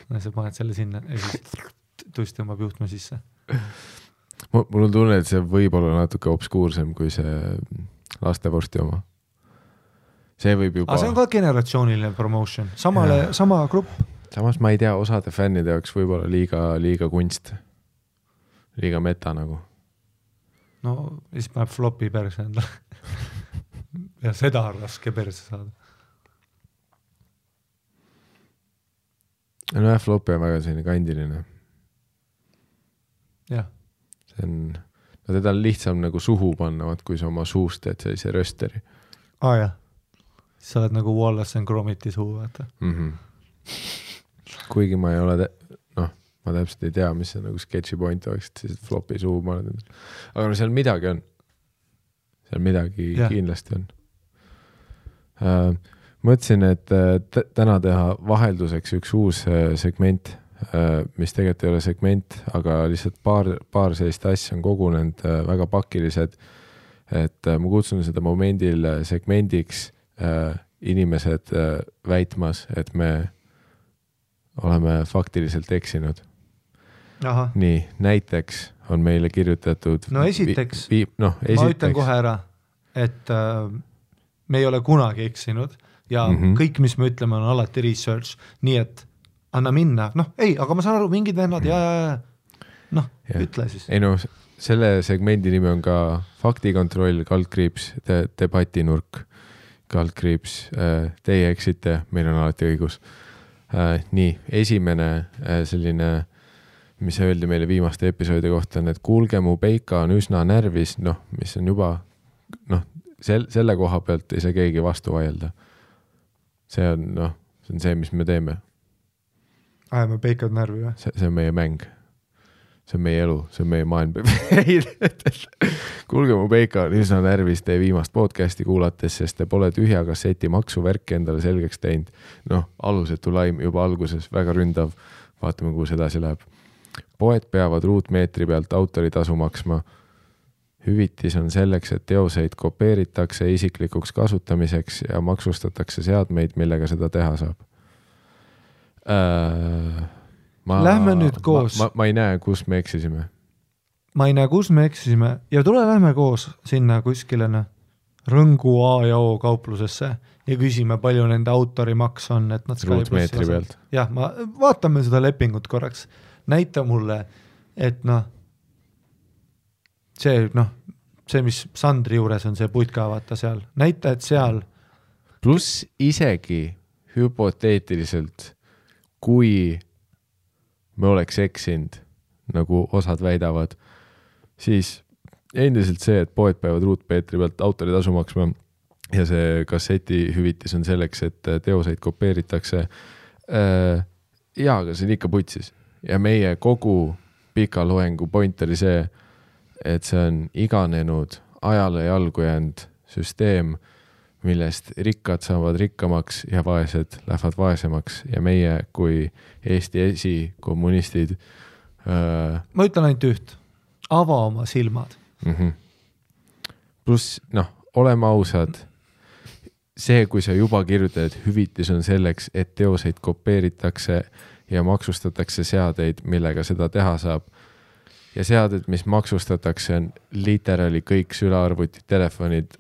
Ja sa paned selle sinna ja siis tuss tõmbab juhtme sisse. Mul on tunne, et see võib olla natuke obskuursem kui see lastevorsti oma. See võib juba... see on ka generatsiooniline promotion, sama grupp. Samas ma ei tea, osade fännide jaoks võib-olla liiga kunst. Liiga meta nagu. No, siis paneb flopi perse endale. Ja seda on raske perse saada. No flopi on väga selline kandiline. jah. See on, no teda on lihtsam nagu suhu panna, kui sa oma suust teed sellise rösteri. Jah. Sa oled nagu Wallace and Gromiti suu, vaata. Kuigi ma ei ole, ma täpselt ei tea, mis see nagu sketši point oleks, et siis flopi suu ma olen. Aga no seal midagi on. Seal midagi kindlasti on. Mõtlesin, et täna teha vahelduseks üks uus segment, mis tegelikult ei ole segment, aga lihtsalt paar sellist asja on kogunenud väga pakilised, et ma kutsun seda momendil segmendiks inimesed väitmas, et me oleme faktiliselt eksinud. Aha. Nii, näiteks on meile kirjutatud... No esiteks, ma ütlen kohe ära, et me ei ole kunagi eksinud ja kõik, mis me ütleme, on alati research, nii et anna minna. Aga ma saan aru, mingid vennad ütle siis. Ei selle segmendi nimi on ka faktikontroll, kaldkriips, debatinurk, kaldkriips, teie eksite, meil on alati õigus. Nii, esimene selline, mis öeldi meile viimaste episoodi kohta, on, et kuulge, mu peika on üsna närvis, mis on juba, selle koha pealt ei saa keegi vastu vaielda. See on see, mis me teeme. Me peikad närvi või? See on meie mäng. See on meie elu, see on meie maailm. Kuulge, mu peika on üsna närvis teie viimast podcasti kuulates, sest te pole tühja kasseti maksuvärki endale selgeks teinud. Alusetu laim juba alguses, väga ründav. Vaatame, kuhu see edasi läheb. Poed peavad ruutmeetri pealt autoritasu maksma. Hüvitis on selleks, et teoseid kopeeritakse isiklikuks kasutamiseks ja maksustatakse seadmeid, millega seda teha saab. Lähme nüüd koos. Ma ei näe, kus me eksisime. Ma ei näe, kus me eksisime. Ja lähme koos sinna kuskile Rõngu A ja O kauplusesse ja küsime, palju nende autorimaks on. Et nad ruutmeetri pealt. Jah, vaatame seda lepingut korraks. Näita mulle, et see, mis Sandri juures on, see putka vaata seal. Näita, et seal. Plus isegi hüpoteetiliselt, kui me oleks eksinud, nagu osad väidavad, siis endiselt see, et poed peavad ruutmeetri pealt autoritasu maksma ja see kasseti hüvitis on selleks, et teoseid kopeeritakse. Aga see on ikka putsis. Ja meie kogu pika loengu point oli see, et see on iganenud ajale jalgu jäänud süsteem, millest rikkad saavad rikkamaks ja vaesed lähevad vaesemaks ja meie kui Eesti esikommunistid ma ütlen ainult üht, ava oma silmad. Plus, oleme ausad, see, kui sa juba kirjutad, et hüvitis on selleks, et teoseid kopeeritakse ja maksustatakse seadeid, millega seda teha saab. Ja seaded, mis maksustatakse, on literaali kõik sülearvutid, telefonid,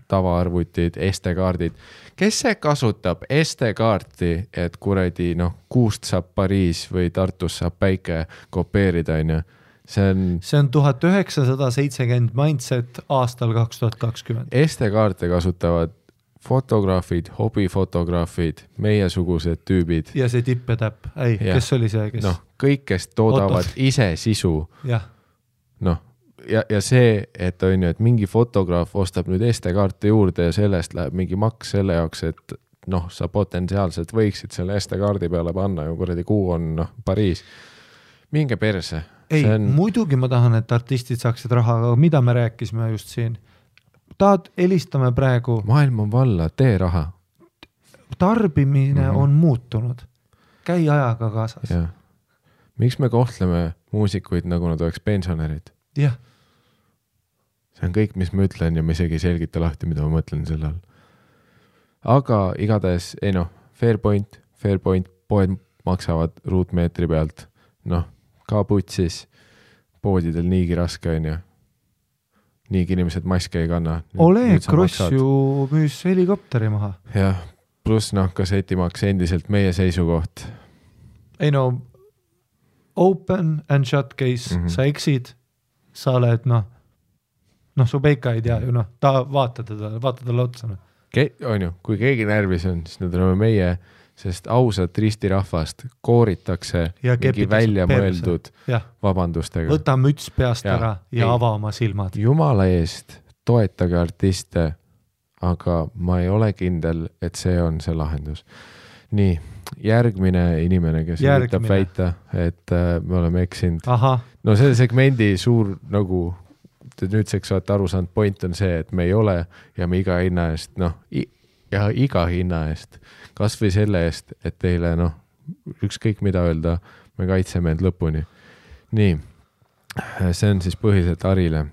tavaarvutid, SD-kaardid. Kes see kasutab SD-kaarti, et kuradi, kuust saab Pariis või Tartus saab päike kopeerida, on ju? See on 1970 mindset aastal 2020. SD-kaarte kasutavad fotograafid, hobifotograafid, meiesugused tüübid. Ja see tipp ja täpp. Kes oli see? Kes? Kõik, kes toodavad ise sisu. Jah. Ja see, et on ju, et mingi fotograaf ostab nüüd SD-kaarte juurde ja sellest läheb mingi maks selle jaoks, et sa potentsiaalselt võiksid selle SD-kaardi peale panna ja kuradi kuu on Pariis. Minge perse. Muidugi ma tahan, et artistid saaksid raha, aga mida me rääkisime just siin? Helistame praegu. Maailm on valla, tee raha. Tarbimine on muutunud. Käi ajaga kaasas. Ja. Miks me kohtleme muusikuid, nagu nad oleks pensionärid? Jah. See on kõik, mis ma ütlen ja ma isegi selgita lahti, mida ma mõtlen selle all. Aga igatahes, fair point, poed maksavad ruutmeetri pealt. Ka putsis, poodidel niigi raske on ju. Niigi inimesed maske ei kanna. Oleg Kross ju müüs helikopteri maha. Jah, plus kassetimaks endiselt meie seisukoht. Open and shut case, sa eksid, sa oled, su peika ei tea ju, ta vaata talle otsa. On ju, kui keegi närvis on, siis need oleme meie, sest ausat ristirahvast kooritakse mingi välja mõeldud vabandustega. Võta müts peast ära ja ava oma silmad. Jumala eest toetage artiste, aga ma ei ole kindel, et see on see lahendus. Nii, järgmine inimene, kes üritab väita, et me oleme eksinud. No selle segmendi suur nagu nüüdseks olete aru saanud, point on see, et me ei ole ja me iga hinna eest, iga hinna eest, kas või selle eest, et teile ükskõik mida öelda, me kaitseme end lõpuni. Nii, see on siis põhiliselt Arile.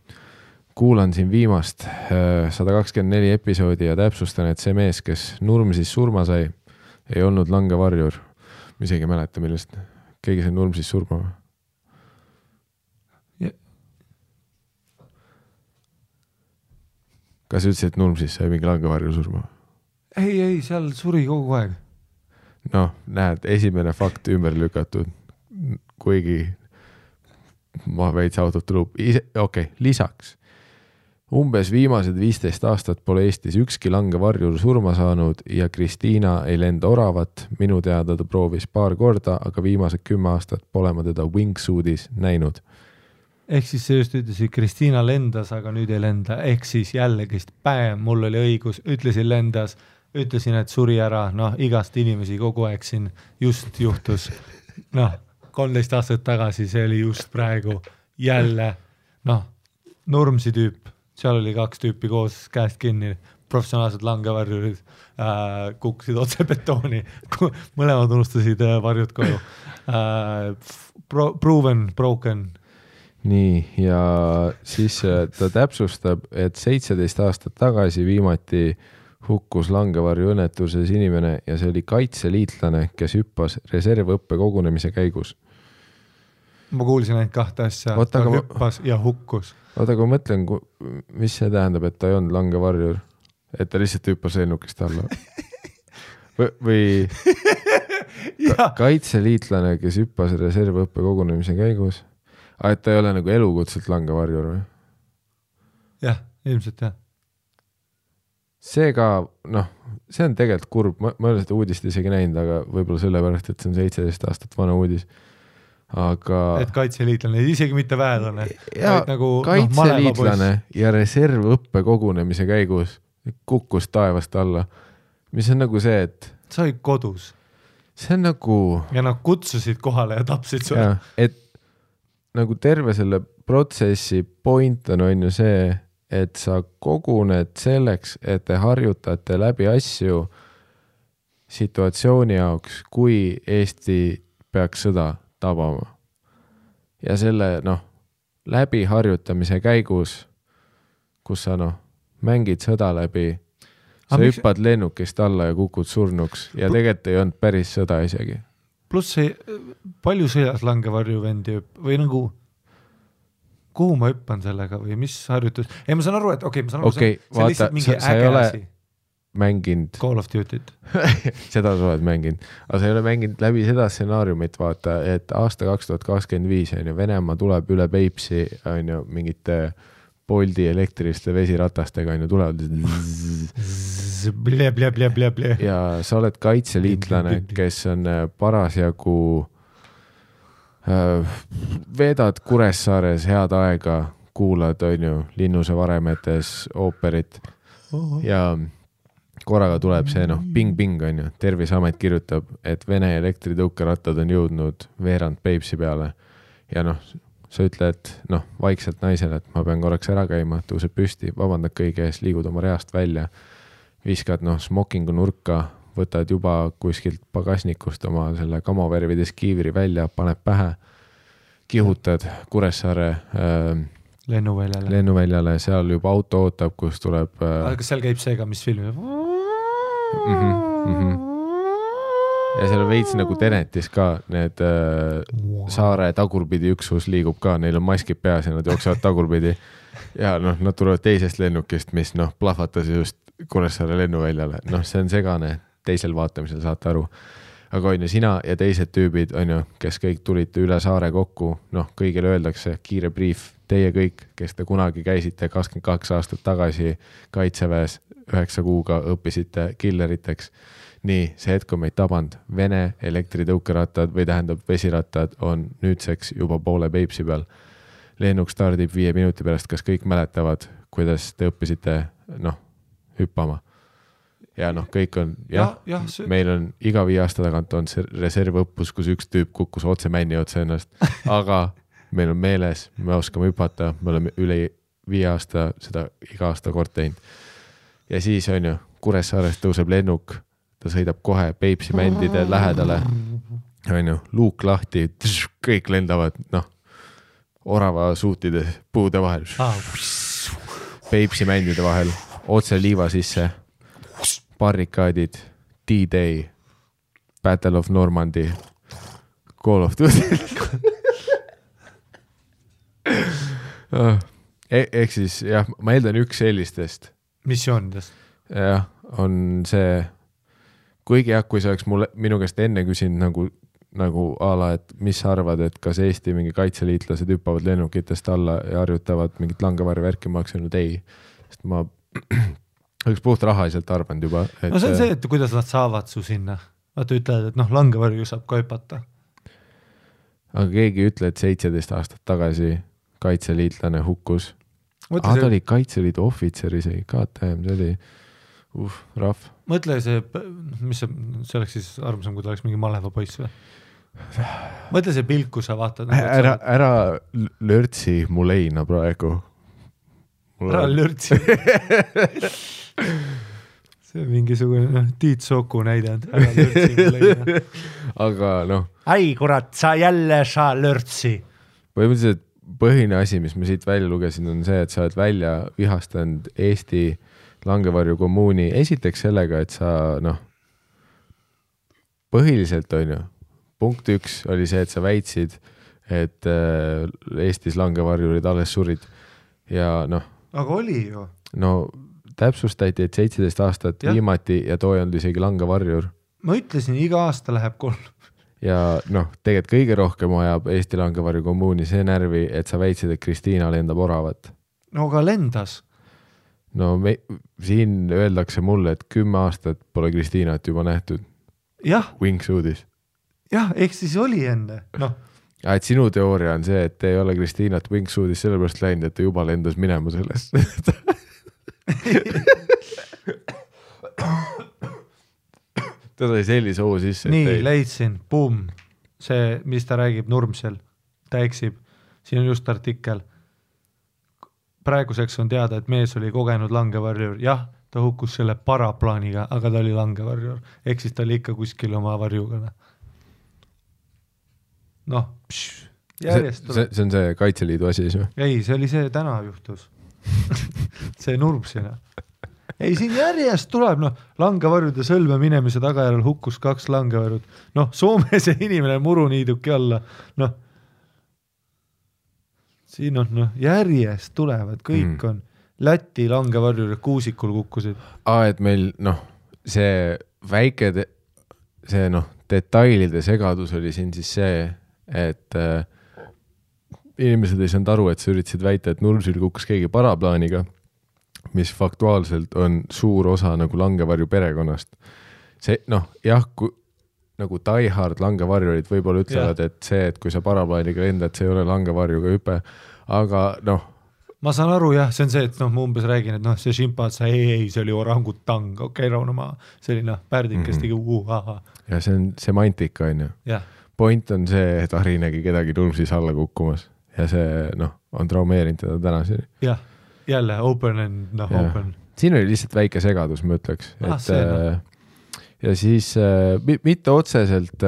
Kuulan siin viimast 124 episoodi ja täpsustan, et see mees, kes Nurmsis surma sai, ei olnud langevarjur. Ma isegi mäleta, millest keegi sai Nurmsis surma. Kas ütlesid, et Nurmsis sai mingi langevarjur surma? Ei, seal suri kogu aeg. Näed, esimene fakt ümber lükatud, kuigi ma veits autot tuleb. Lisaks. Umbes viimased 15 aastat pole Eestis ükski langevarjur surma saanud ja Kristiina ei lenda oravat. Minu teada ta proovis paar korda, aga viimased 10 aastat pole ma teda wingsuitis näinud. Ehk siis see just ütlesid, Kristiina lendas, aga nüüd ei lenda. Ehk siis jällegist mul oli õigus, ütlesin lendas, ütlesin, et suri ära, igast inimesi kogu aeg siin just juhtus. 13 aastat tagasi, see oli just praegu jälle, Nurmsi tüüp. Seal oli 2 tüüpi koos käest kinni, professionaalsed langevarjurid kukkusid otse betooni, mõlemad unustasid varjud koju. Proven, broken. Nii, ja siis ta täpsustab, et 17 aastat tagasi viimati hukkus langevarju õnnetuses inimene ja see oli kaitseliitlane, kes hüppas reservõppe kogunemise käigus. Ma kuulsin ainult 2 asja, ta hüppas ja hukkus. Oota, kui mõtlen, mis see tähendab, et ta ei olnud langevarjur, et ta lihtsalt hüppas lennukist alla. Või kaitseliitlane, kes hüppas reservõppe kogunemise käigus. Et ta ei ole nagu elukutselt langevarjur või? Jah, ilmselt jah. See ka, see on tegelikult kurb, ma ei ole seda uudist isegi näinud, aga võib-olla sellepärast, et see on 17 aastat vana uudis. Aga... Et kaitseliitlane, isegi mitte väelane. Ja nagu, kaitseliitlane ja reservõppe kogunemise käigus kukkus taevast alla. Mis on nagu see, et... Sa olid kodus. See on nagu... Ja nad kutsusid kohale ja tapsid sulle. Et nagu terve selle protsessi point on ju see, et sa koguned selleks, et te harjutate läbi asju situatsiooni jaoks, kui Eesti peaks sõda tabama. Ja selle, läbi harjutamise käigus, kus sa, mängid sõda läbi, sa hüppad lennukist alla ja kukud surnuks ja tegelikult ei olnud päris sõda isegi. Pluss see, palju sõjas langevarju vendi või nagu, kuhu ma hüppan sellega või mis harjutus? Ei, ma saan aru, et ma saan aru, see on lihtsalt mingi äge asi. Mänginud. Call of Duty't. Seda sa oled mänginud. Aga sa ei ole mänginud läbi seda stsenaariumit, vaata, et aasta 2025 Venemaa tuleb üle Peipsi mingite Boldi elektriliste vesiratastega tulevad. Ja sa oled kaitseliitlane, kes on parasjagu veedad Kuressaares head aega, kuulad Linnuse varemetes ooperit ja korraga tuleb see, ping-ping Terviseamet kirjutab, et Vene elektritõukerattad on jõudnud veerand Peipsi peale ja sa ütled, vaikselt naisele, et ma pean korraks ära käima, tõuseb püsti, vabandad kõige ees, liigud oma reast välja, viskad smokingu nurka, võtad juba kuskilt pagasnikust oma selle kamovärvides kiivri välja, paneb pähe, kihutad Kuressaare lennuväljale, seal juba auto ootab, kus tuleb... Kas seal käib see ka, mis filmi? Ja seal veits nagu Tenetis ka need saare tagurpidi üksus liigub ka, neil on maskid peas ja nad jooksevad tagurpidi ja nad tulevad teisest lennukist, mis plahvatas just Kuressaare lennuväljale. See on segane, teisel vaatamisel saate aru. Aga sina ja teised tüübid, kes kõik tulite üle saare kokku, kõigile öeldakse kiire brief, teie kõik, kes te kunagi käisite 22 aastat tagasi Kaitseväes 9 kuuga õppisite killeriteks. nii, see hetk on meid tabanud. Vene elektritõukerattad või tähendab vesirattad on nüüdseks juba poole Peipsi peal. Lennuk stardib 5 minuti pärast, kas kõik mäletavad, kuidas te õppisite hüppama? Ja kõik on, meil on iga 5 aasta tagant on see reservõppus, kus üks tüüp kukkus otse männi otse ennast, aga meil on meeles, me oskame hüpata, me oleme üle 5 aasta seda iga aasta kord teinud. Ja siis on ju, Kuressaarest tõuseb lennuk, ta sõidab kohe Peipsi mändide lähedale, on ju, luuk lahti, kõik lendavad, orava suutide puude vahel, Peipsi mändide vahel, otse liiva sisse, barrikaadid, D-Day, Battle of Normandy, Call of Duty. Ehk siis, jah, ma eeldan üks sellistest. Missioonidest. Jah, on see, kuigi jah, kui see oleks minu käest enne küsinud nagu ala, et mis sa arvad, et kas Eesti mingi kaitseliitlased hüppavad lennukitest alla ja harjutavad mingit langevarvärki, ma oleks öelnud ei, sest ma oleks puht rahaliselt arvanud juba. No see on see, et kuidas nad saavad su sinna. Vaata ütlevad, et langevarju saab ka hüpata. Aga keegi ütle, et 17 aastat tagasi kaitseliitlane hukkus. Ta oli Kaitseliidu ohvitser isegi, KTM, see oli rahv. Mõtle see, mis see oleks siis armsam, kui ta oleks mingi maleva poiss või? Mõtle see pilk, kui sa vaatad. Ära lörtsi mu leina praegu. Ära lörtsi. See on mingisugune Tiit Soku näide. Ära lörtsi mu leina. Aga Ai, kurat, sa jälle sa lörtsi. Põhimõtteliselt põhine asi, mis ma siit välja lugesin, on see, et sa oled välja vihastanud Eesti langevarju kommuuni. Esiteks sellega, et sa põhiliselt on ju, punkt 1 oli see, et sa väitsid, et Eestis langevarjurid alles surid ja aga oli ju. Täpsustati, et 17 aastat viimati ja too ei olnud isegi langevarjur. Ma ütlesin, iga aasta läheb 3. Ja tegelikult kõige rohkem ajab Eesti langevarju kommuuni see närvi, et sa väitsid, et Kristiina lendab oravat. No aga lendas. Siin öeldakse mulle, et 10 aastat pole Kristiinat juba nähtud. Jah. Wingsuudis. Jah, ehk siis oli enne. Et sinu teooria on see, et ei ole Kristiinat Wingsuudis sellepärast läinud, et ta juba lendas minema sellest. Ta sai sellise hoo sisse. Nii, leidsin, boom. See, mis ta räägib Nurmsel, ta eksib. Siin on just artikkel. Praeguseks on teada, et mees oli kogenud langevarjur. Jah, ta hukkus selle paraplaaniga, aga ta oli langevarjur. Ehk siis ta oli ikka kuskil oma varjuga. Järjest see on see Kaitseliidu asi siis või? Ei, see oli see täna juhtus. See Nurmsina. Ei, siin järjest tuleb, langevarjude sõlme minemise tagajärjel hukkus 2 langevarjud. Soome see inimene muruniiduki alla. Siin on, järjest tulevad, kõik on. Läti langevarjud Kuusikul kukkusid. Et meil, see väike, see detailide segadus oli siin siis see, et inimesed ei saanud aru, et sa üritasid väita, et Nurmsil kukkus keegi paraplaaniga, mis faktuaalselt on suur osa nagu langevarju perekonnast. See, jah, nagu diehard langevarjurid võib-olla ütlevad, et see, et kui sa paraplaaniga lendad, see ei ole langevarjuga hüpe, aga Ma saan aru, jah, see on see, et ma umbes räägin, et see šimpatsa, ei, see oli orangutang, rauna maa, see oli pärdik, kes tegi Ja see on semantika, on ju. Point on see, et Ari nägi kedagi Nurmsis alla kukkumas ja see, on traumeerinud teda tänaseni. Jah, jälle open and open. Siin oli lihtsalt väike segadus, ma ütleks. Ja siis mitte otseselt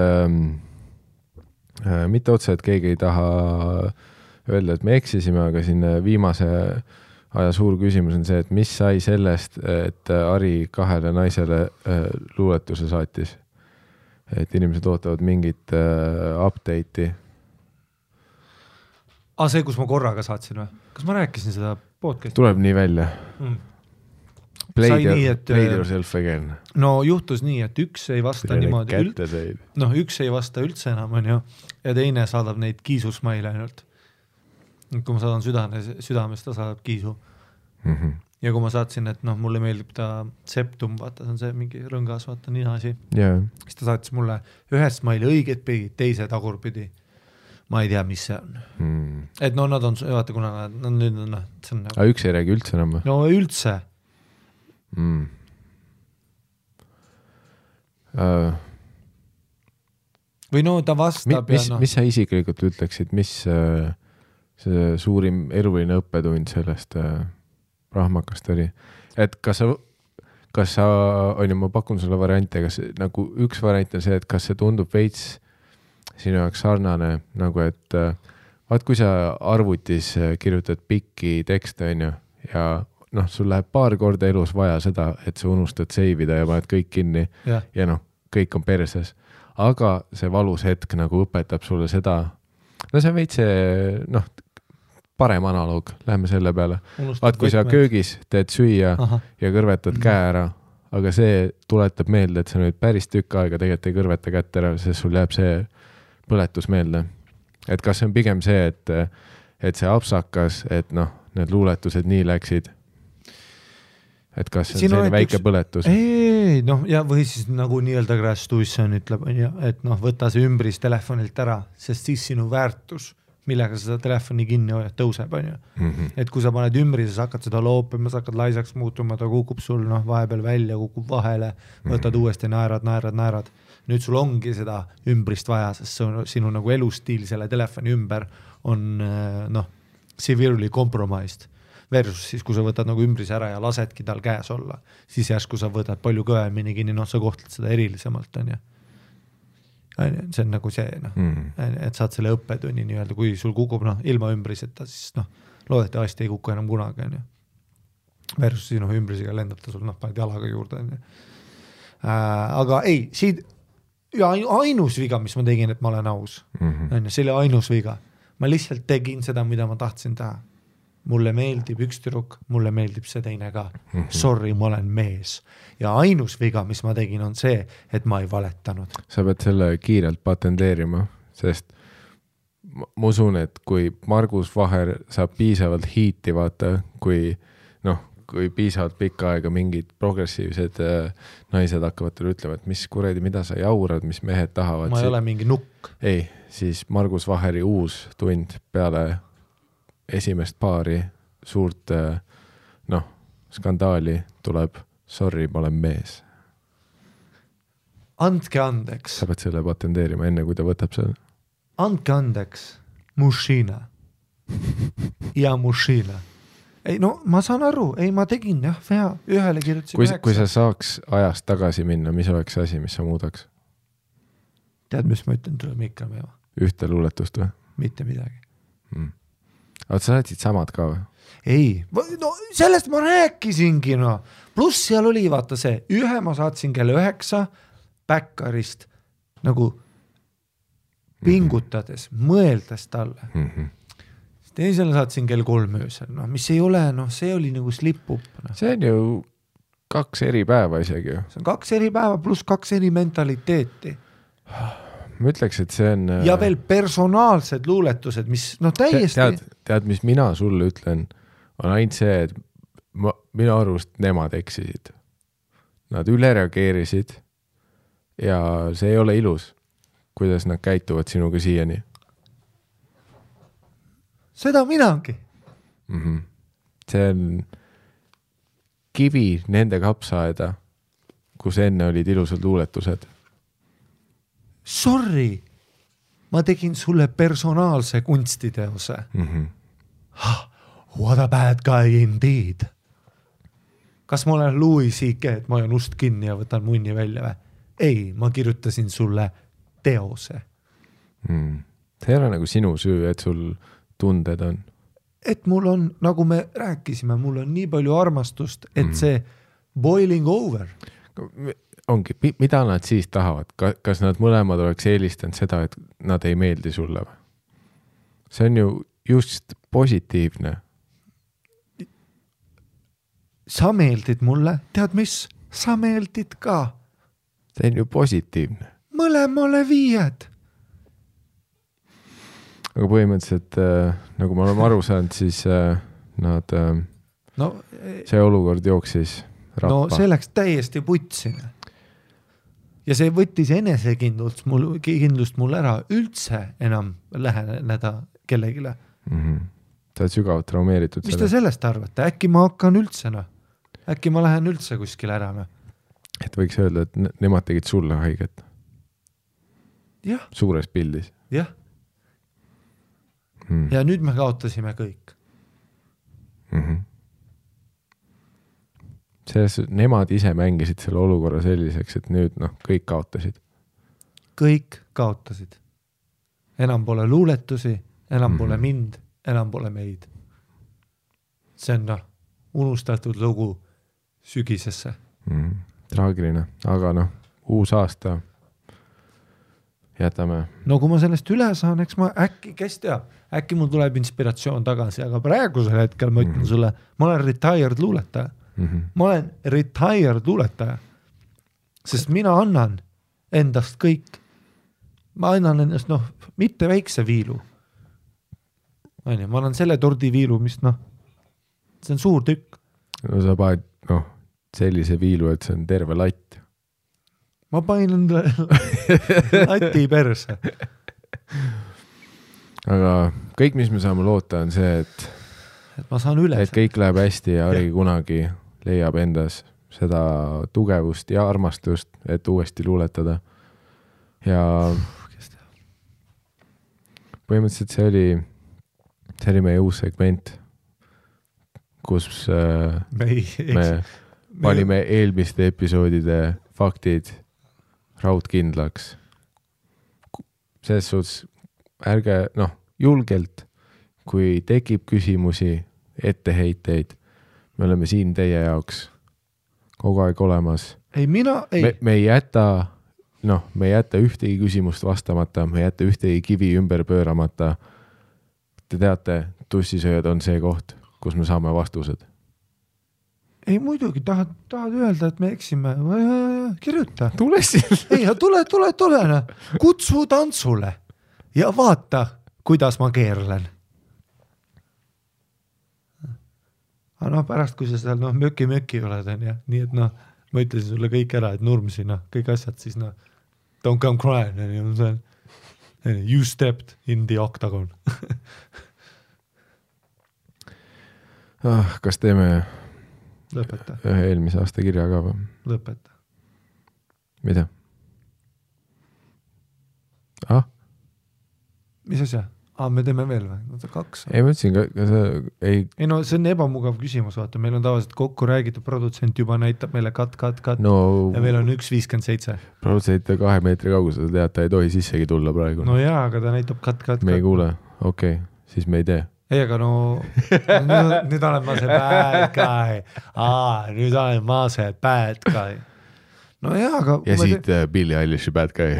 keegi ei taha öelda, et me eksisime, aga siin viimase aja suur küsimus on see, et mis sai sellest, et Ari 2 naisele luuletuse saatis. Et inimesed ootavad mingit update'i. See, kus ma korraga saatsin või? Kas ma rääkisin seda podcasti? Tuleb nii välja. Play yourself again. Juhtus nii, et üks ei vasta niimoodi üks ei vasta üldse enam, on ju, ja teine saadab neid kiisusmaile ainult. Kui ma saadan südames, ta saadab kiisu. ja kui ma saatsin, et noh, mulle meeldib ta septum, vaata, see on see mingi rõngas, vaata, nina asi. Siis ta saatis mulle ühest maili õiget pidi, teise tagurpidi. Ma ei tea, mis see on. Et no nad on, vaata, kuna nad nüüd on, see on nagu... Aga üks ei räägi üldse enam? No üldse. Või no ta vastab mis sa isiklikult ütleksid, mis see suurim eluline õppetund sellest rahmakast oli? Et kas sa, ma pakun sulle variante, kas nagu üks variant on see, et kas see tundub veits sinu jaoks sarnane, nagu et vaat kui sa arvutis kirjutad pikki tekste, ja noh, sul läheb paar korda elus vaja seda, et sa unustad seivida ja paned kõik kinni ja noh, kõik on perses. Aga see valus hetk nagu õpetab sulle seda, no see on veits noh, parem analoog, lähme selle peale. Vaat kui sa köögis teed süüa ja kõrvetad käe ära, aga see tuletab meelde, et sa nüüd päris tükk aega tegelikult ei kõrveta kätt ära, sest sul jääb see põletus meelde. Et kas see on pigem see, et see apsakas, et noh, need luuletused nii läksid, et kas see on selline väike põletus? Ei, noh, ja või siis nagu nii-öelda Crash Tuition ütleb, et noh, võta see ümbris telefonilt ära, sest siis sinu väärtus, millega sa seda telefoni kinni hoiad, tõuseb, Et kui sa paned ümbris, sa hakkad seda loopima, sa hakkad laisaks muutuma, ta kukub sul vahepeal välja, kukub vahele, võtad uuesti, naerad. Nüüd sul ongi seda ümbrist vaja, sest sinu nagu elustiil selle telefoni ümber on severely compromised. Versus siis, kui sa võtad nagu ümbris ära ja lasedki tal käes olla, siis järsku sa võtad palju kõvemini kinni, sa kohtled seda erilisemalt, See on nagu see, et saad selle õppetunni nii-öelda, kui sul kukub ilma ümbriseta, siis loodetavasti ei kuku enam kunagi. Versus sinu ümbrisega lendab ta sul, paned jalaga juurde. Aga ei, siit ja ainus viga, mis ma tegin, et ma olen aus. See oli ainus viga. Ma lihtsalt tegin seda, mida ma tahtsin teha. Mulle meeldib üks tüdruk, mulle meeldib see teine ka. Sorry, ma olen mees. Ja ainus viga, mis ma tegin, on see, et ma ei valetanud. Sa pead selle kiirelt patenteerima, sest ma usun, et kui Margus Vaher saab piisavalt hiiti vaata, kui piisavalt pikka aega mingid progressiivsed naised hakkavad teile ütlema, et mis kuredi, mida sa jaurad, mis mehed tahavad. Ma ei ole mingi nukk. Ei, siis Margus Vaheri uus tund peale esimest paari suurt skandaali tuleb sorry, ma olen mees. Andke andeks. Sa pead selle patenteerima enne, kui ta võtab selle. Andke andeks. Mušina. Ja mušina. Ei, no ma saan aru. Ei, ma tegin vea. Ühele kirjutasin 9. Kui sa saaks ajast tagasi minna, mis oleks asi, mis sa muudaks? Tead, mis ma ütlen, tuleb ikka meva. Ühte luuletust või? Mitte midagi. Aga sa saatsid samad ka või? Ei, no sellest ma rääkisingi, Pluss seal oli, vaata see, ühe ma saatsin kell 9 Backarist nagu pingutades, mõeldes talle. Teisele saatsin kell 3 öösel, mis ei ole, see oli nagu slip-up. See on ju 2 eri päeva isegi ju. See on 2 eri päeva pluss 2 eri mentaliteeti. Ma ütleks, et see on... Ja veel personaalsed luuletused, mis täiesti... Tead, mis mina sulle ütlen, on ainult see, et minu arvust nemad eksisid. Nad üle reageerisid ja see ei ole ilus, kuidas nad käituvad sinuga siiani. Seda minagi. See on kivi nende kapsaaeda, kus enne olid ilusad luuletused. Sorry, ma tegin sulle personaalse kunstiteose. What a bad guy indeed. Kas ma olen Louis C.K., et ma olen ust kinni ja võtan munni välja või? Ei, ma kirjutasin sulle teose. See ei ole nagu sinu süü, et sul tunded on. Et mul on, nagu me rääkisime, mul on nii palju armastust, et see boiling over. Ongi, mida nad siis tahavad? Kas nad mõlemad oleks eelistanud seda, et nad ei meeldi sulle või? See on ju just positiivne. Sa meeldid mulle, tead mis? Sa meeldid ka. See on ju positiivne. Mõlemale 5. Aga põhimõtteliselt, nagu me oleme aru saanud, siis nad no, see olukord jooksis rappa. No see läks täiesti putsine. Ja see võttis enesekindlust mul ära üldse enam läheneda kellegile. Sa oled sügavalt traumeeritud. Mis te sellest arvate? Äkki ma hakkan üldse, Äkki ma lähen üldse kuskil ära, Et võiks öelda, et nemad tegid sulle haiget. Jah. Suures pildis. Jah. Ja nüüd me kaotasime kõik. Nemad ise mängisid selle olukorra selliseks, et nüüd kõik kaotasid. Kõik kaotasid. Enam pole luuletusi, enam pole mind, enam pole meid. See on unustatud lugu sügisesse. Traagiline, aga uus aasta jätame. No kui ma sellest üle saan, eks ma äkki, kes teab, äkki mul tuleb inspiratsioon tagasi, aga praegusel hetkel ma ütlen sulle, ma olen retired luuletaja. Ma olen retired luuletaja, sest mina annan endast kõik. Ma annan endast, mitte väikse viilu. Ma annan selle tordiviilu, mis see on suur tükk. No sa paned, sellise viilu, et see on terve latt. Ma panin enda lati perse. Aga kõik, mis me saame loota, on see, et ma saan üle. Et kõik läheb hästi ja Ari kunagi leiab endas seda tugevust ja armastust, et uuesti luuletada. Ja põhimõtteliselt see oli meie uus segment, kus me panime eelmiste episoodide faktid raudkindlaks. Selles suhtes ärge, julgelt, kui tekib küsimusi, etteheiteid, me oleme siin teie jaoks kogu aeg olemas. Ei, me ei jäta, me ei jäta ühtegi küsimust vastamata, me ei jäta ühtegi kivi ümber pööramata. Te teate, tussisööjad on see koht, kus me saame vastused. Ei, muidugi, tahad öelda, et me eksime. Kirjuta. Tule siin. Ei, tule. Kutsu tantsule ja vaata, kuidas ma keerlen. Aga pärast, kui sa seal möki oled, nii et ma ütlesin sulle kõik ära, et nurmsi, kõik asjad, siis don't come crying, you stepped in the octagon. Kas teeme Lõpeta. Ühe eelmise aasta kirja ka või? Lõpeta. Mida? Mis asja? Me teeme veel või? 2. Ei, ma ütlesin, ei, see on ebamugav küsimus, vaata, meil on tavaliselt kokku räägitud, produtsent juba näitab meile cut ja meil on 1.57. Produtsent 2 meetri kaugusel, sa tead, ta ei tohi sissegi tulla praegu. No jaa, aga ta näitab cut. Me ei kuule, okei, siis me ei tee. Ei, aga nüüd olen ma see bad guy. Nüüd olen ma see bad guy. No jaa, aga... Ja siit Billie Eilishi bad guy.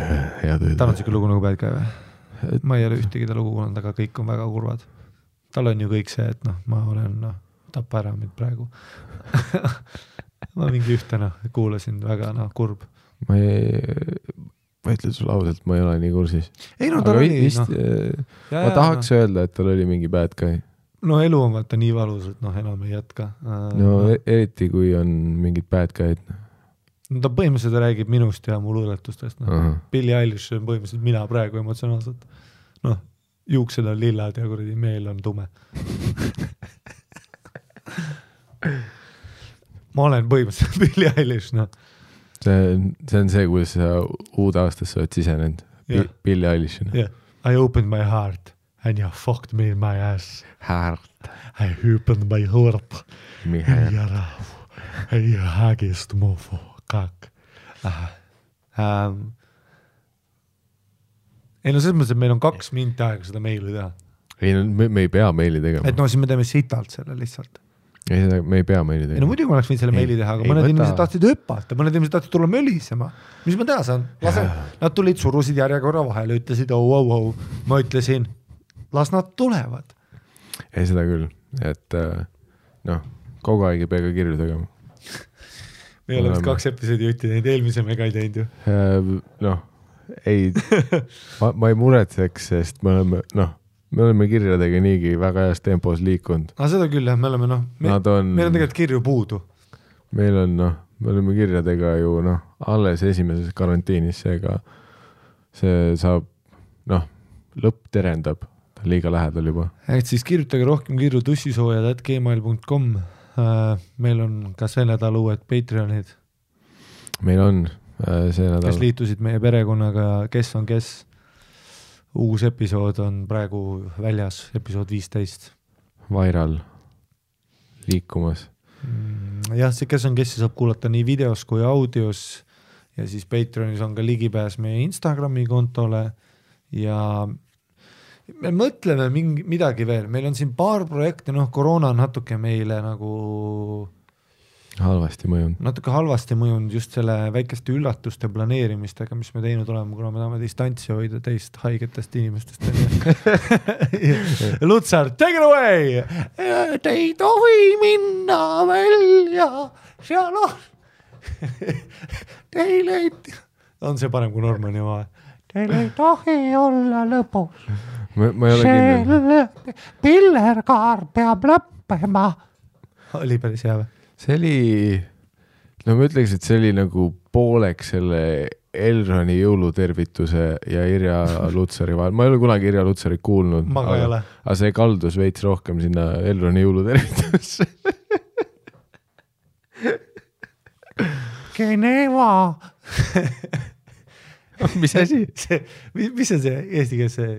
Tal on siuke lugu nagu bad guy või? Ma ei ole ühtegi ta lugu kuulanud, aga kõik on väga kurvad. Tal on ju kõik see, et ma olen tappa ära mind praegu. Ma mingi ühte kuulasin väga kurb. Ma ütlen sulle ausalt, ma ei ole nii kursis. Ei, tal oli... Vist, ma tahaks öelda, et tal oli mingi bad guy. No elu on vaata nii valus, et enam ei jätka. Eriti kui on mingid bad guy'd. Ta põhimõtteliselt räägib minust ja mu luuletustest. Billie Eilish on põhimõtteliselt mina praegu emotsionaalselt. Juuksed on lillad ja kuradi meel on tume. Ma olen põhimõtteliselt Billie Eilish, See on see, kuidas sa uud aastasse oled sisenenud. Billie Eilish. I opened my heart and you fucked me in my ass. Heart. I opened my heart. Mi heart. Ei hägist mofo. Kak. Ei selles mõttes, et meil on 2 minti aega seda meili teha. Ei, me ei pea meili tegema. Et siis me teeme sitalt selle lihtsalt. Ei, me ei pea meili tegema. Ei, muidugi ma oleks võinud selle meili teha, aga mõned inimesed tahtsid hüppata, mõned inimesed tahtsid tulla mölisema. Mis ma teha saan? Nad tulid, surusid järjekorra vahele, ütlesid Ma ütlesin, las nad tulevad. Ei, seda küll. Et kogu aeg ei pea ka kirju tegema. Me oleme 2 episoodi jutti teinud, eelmise me ka ei teinud ju. Ei, ma ei muretseks, sest me me oleme kirjadega niigi väga heas tempos liikunud. Seda küll jah, me oleme meil on tegelikult kirju puudu. Meil on me oleme kirjadega ju alles esimeses karantiinis, seega see saab lõpp terendab, ta liiga lähedal juba. Et siis kirjutage rohkem kirju tussisoojad@gmail.com. Meil on ka see nädal uued Patreonid. Meil on see nädal. Kes liitusid meie perekonnaga, kes on kes. Uus episood on praegu väljas, episood 15. Viral liikumas. Jah, see kes on kes saab kuulata nii videos kui audios ja siis Patreonis on ka ligipääs meie Instagrami kontole ja me mõtleme midagi veel, meil on siin paar projekte, koroona on natuke meile nagu halvasti mõjunud. Natuke halvasti mõjunud just selle väikeste üllatuste planeerimistega, mis me teinud oleme, kuna me tahame distantsi hoida teist haigetest inimestest. Lutsar, take it away! Te ei tohi minna välja, seal on. Teile ei... On see parem kui Normani oma? Teile ei tohi olla lõpus. Ma ei ole kindel. Pillerkaar peab lõppema. Oli päris hea või? See oli, ma ütleks, et see oli nagu pooleks selle Elroni jõulutervituse ja Irja Lutsari vahel. Ma ei ole kunagi Irja Lutsarit kuulnud, aga see kaldus veits rohkem sinna Elroni jõulutervitusse. Geneva! Mis asi? Mis on see eesti keeles see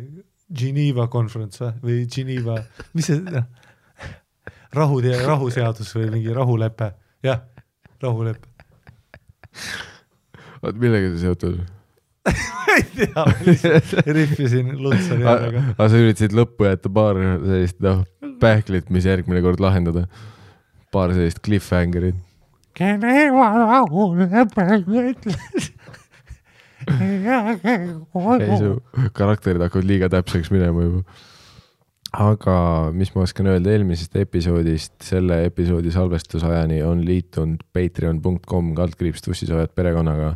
Geneva konferents või Geneva, mis see... rahuseadus või mingi rahulepe. Jah, rahulepe. Oot, millega see seotud? Ei tea, rihvisin Lutsari järjega. Aga sa üritasid lõppu jätta paar sellist pähklit, mis järgmine kord lahendada. Paar sellist cliffhangerit. Geneva rahulepe ütles. Ei, su karakterid hakkavad liiga täpseks minema juba. Aga mis ma oskan öelda eelmisest episoodist, selle episoodi salvestusajani on liitunud patreon.com/tussisoojad perekonnaga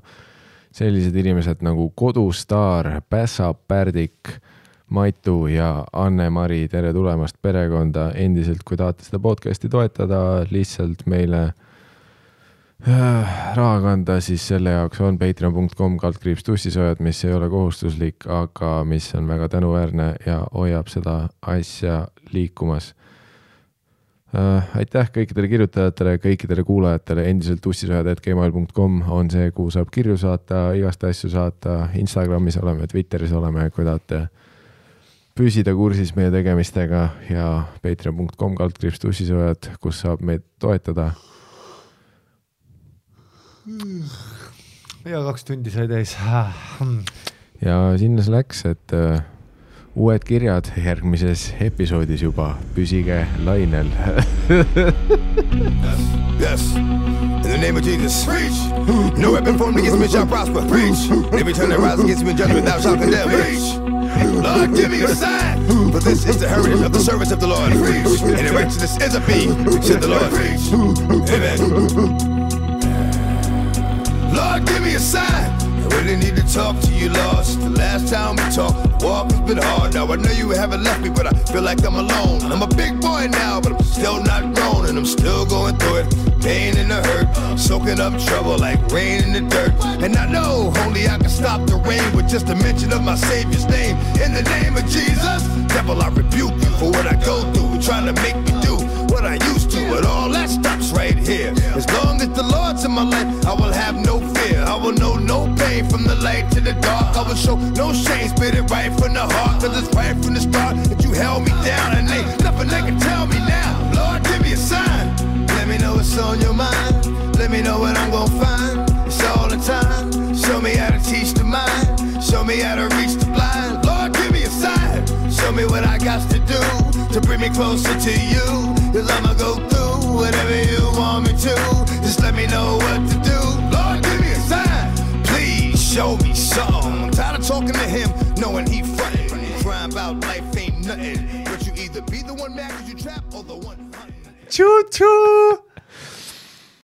sellised inimesed nagu Kodustaar, Pässa Pärdik, Maitu ja Anne-Mari. Tere tulemast perekonda endiselt, kui tahate seda podcasti toetada, lihtsalt meile raha kanda, siis selle jaoks on patreon.com/tussisoojad, mis ei ole kohustuslik, aga mis on väga tänuväärne ja hoiab seda asja liikumas. Aitäh kõikidele kirjutajatele, kõikidele kuulajatele, endiselt tussisoojad@gmail.com on see, kuhu saab kirju saata, igast asju saata, Instagramis oleme, Twitteris oleme, kui tahate püsida kursis meie tegemistega ja patreon.com/tussisoojad, kus saab meid toetada. Ja 2 tundi sai täis. Ja sinna see läks, et uued kirjad järgmises episoodis juba. Püsige lainel. Yes. In the name of Jesus. Preach. No weapon formed against me shall prosper. Preach. Every time that rise against me in judgment thou shalt condemn. Preach. Lord, give me a sign. For this is the heritage of the service of the Lord. Preach. And the righteousness is of me, said the Lord. Preach. Amen. Lord, give me a sign. I really need to talk to you, Lord. Since the last time we talked, the walk has been hard. Now I know you haven't left me, but I feel like I'm alone. I'm a big boy now, but I'm still not grown. And I'm still going through it, pain and the hurt, soaking up trouble like rain in the dirt. And I know only I can stop the rain with just a mention of my Savior's name. In the name of Jesus, devil, I rebuke you for what I go through, trying to make me do what I used to, but all that stops right here. As long as the Lord's in my life, I will have no fear. I will know no pain from the light to the dark. I will show no shame, spit it right from the heart. Cause it's right from the start that you held me down. And ain't nothing they can tell me now. Lord, give me a sign. Let me know what's on your mind. Let me know what I'm gonna find. It's all the time. Show me how to teach the mind. Show me how to reach the blind. Lord, give me a sign. Show me what I got to do to bring me closer to you. Cause I'ma go through whatever you want me to. Just let me know what to do. Lord, give me a sign. Please show me something. I'm tired of talking to him, knowing he frontin'. Crying about life ain't nothing. But you either be the one mad cause you trap or the one hunting. Choo-choo!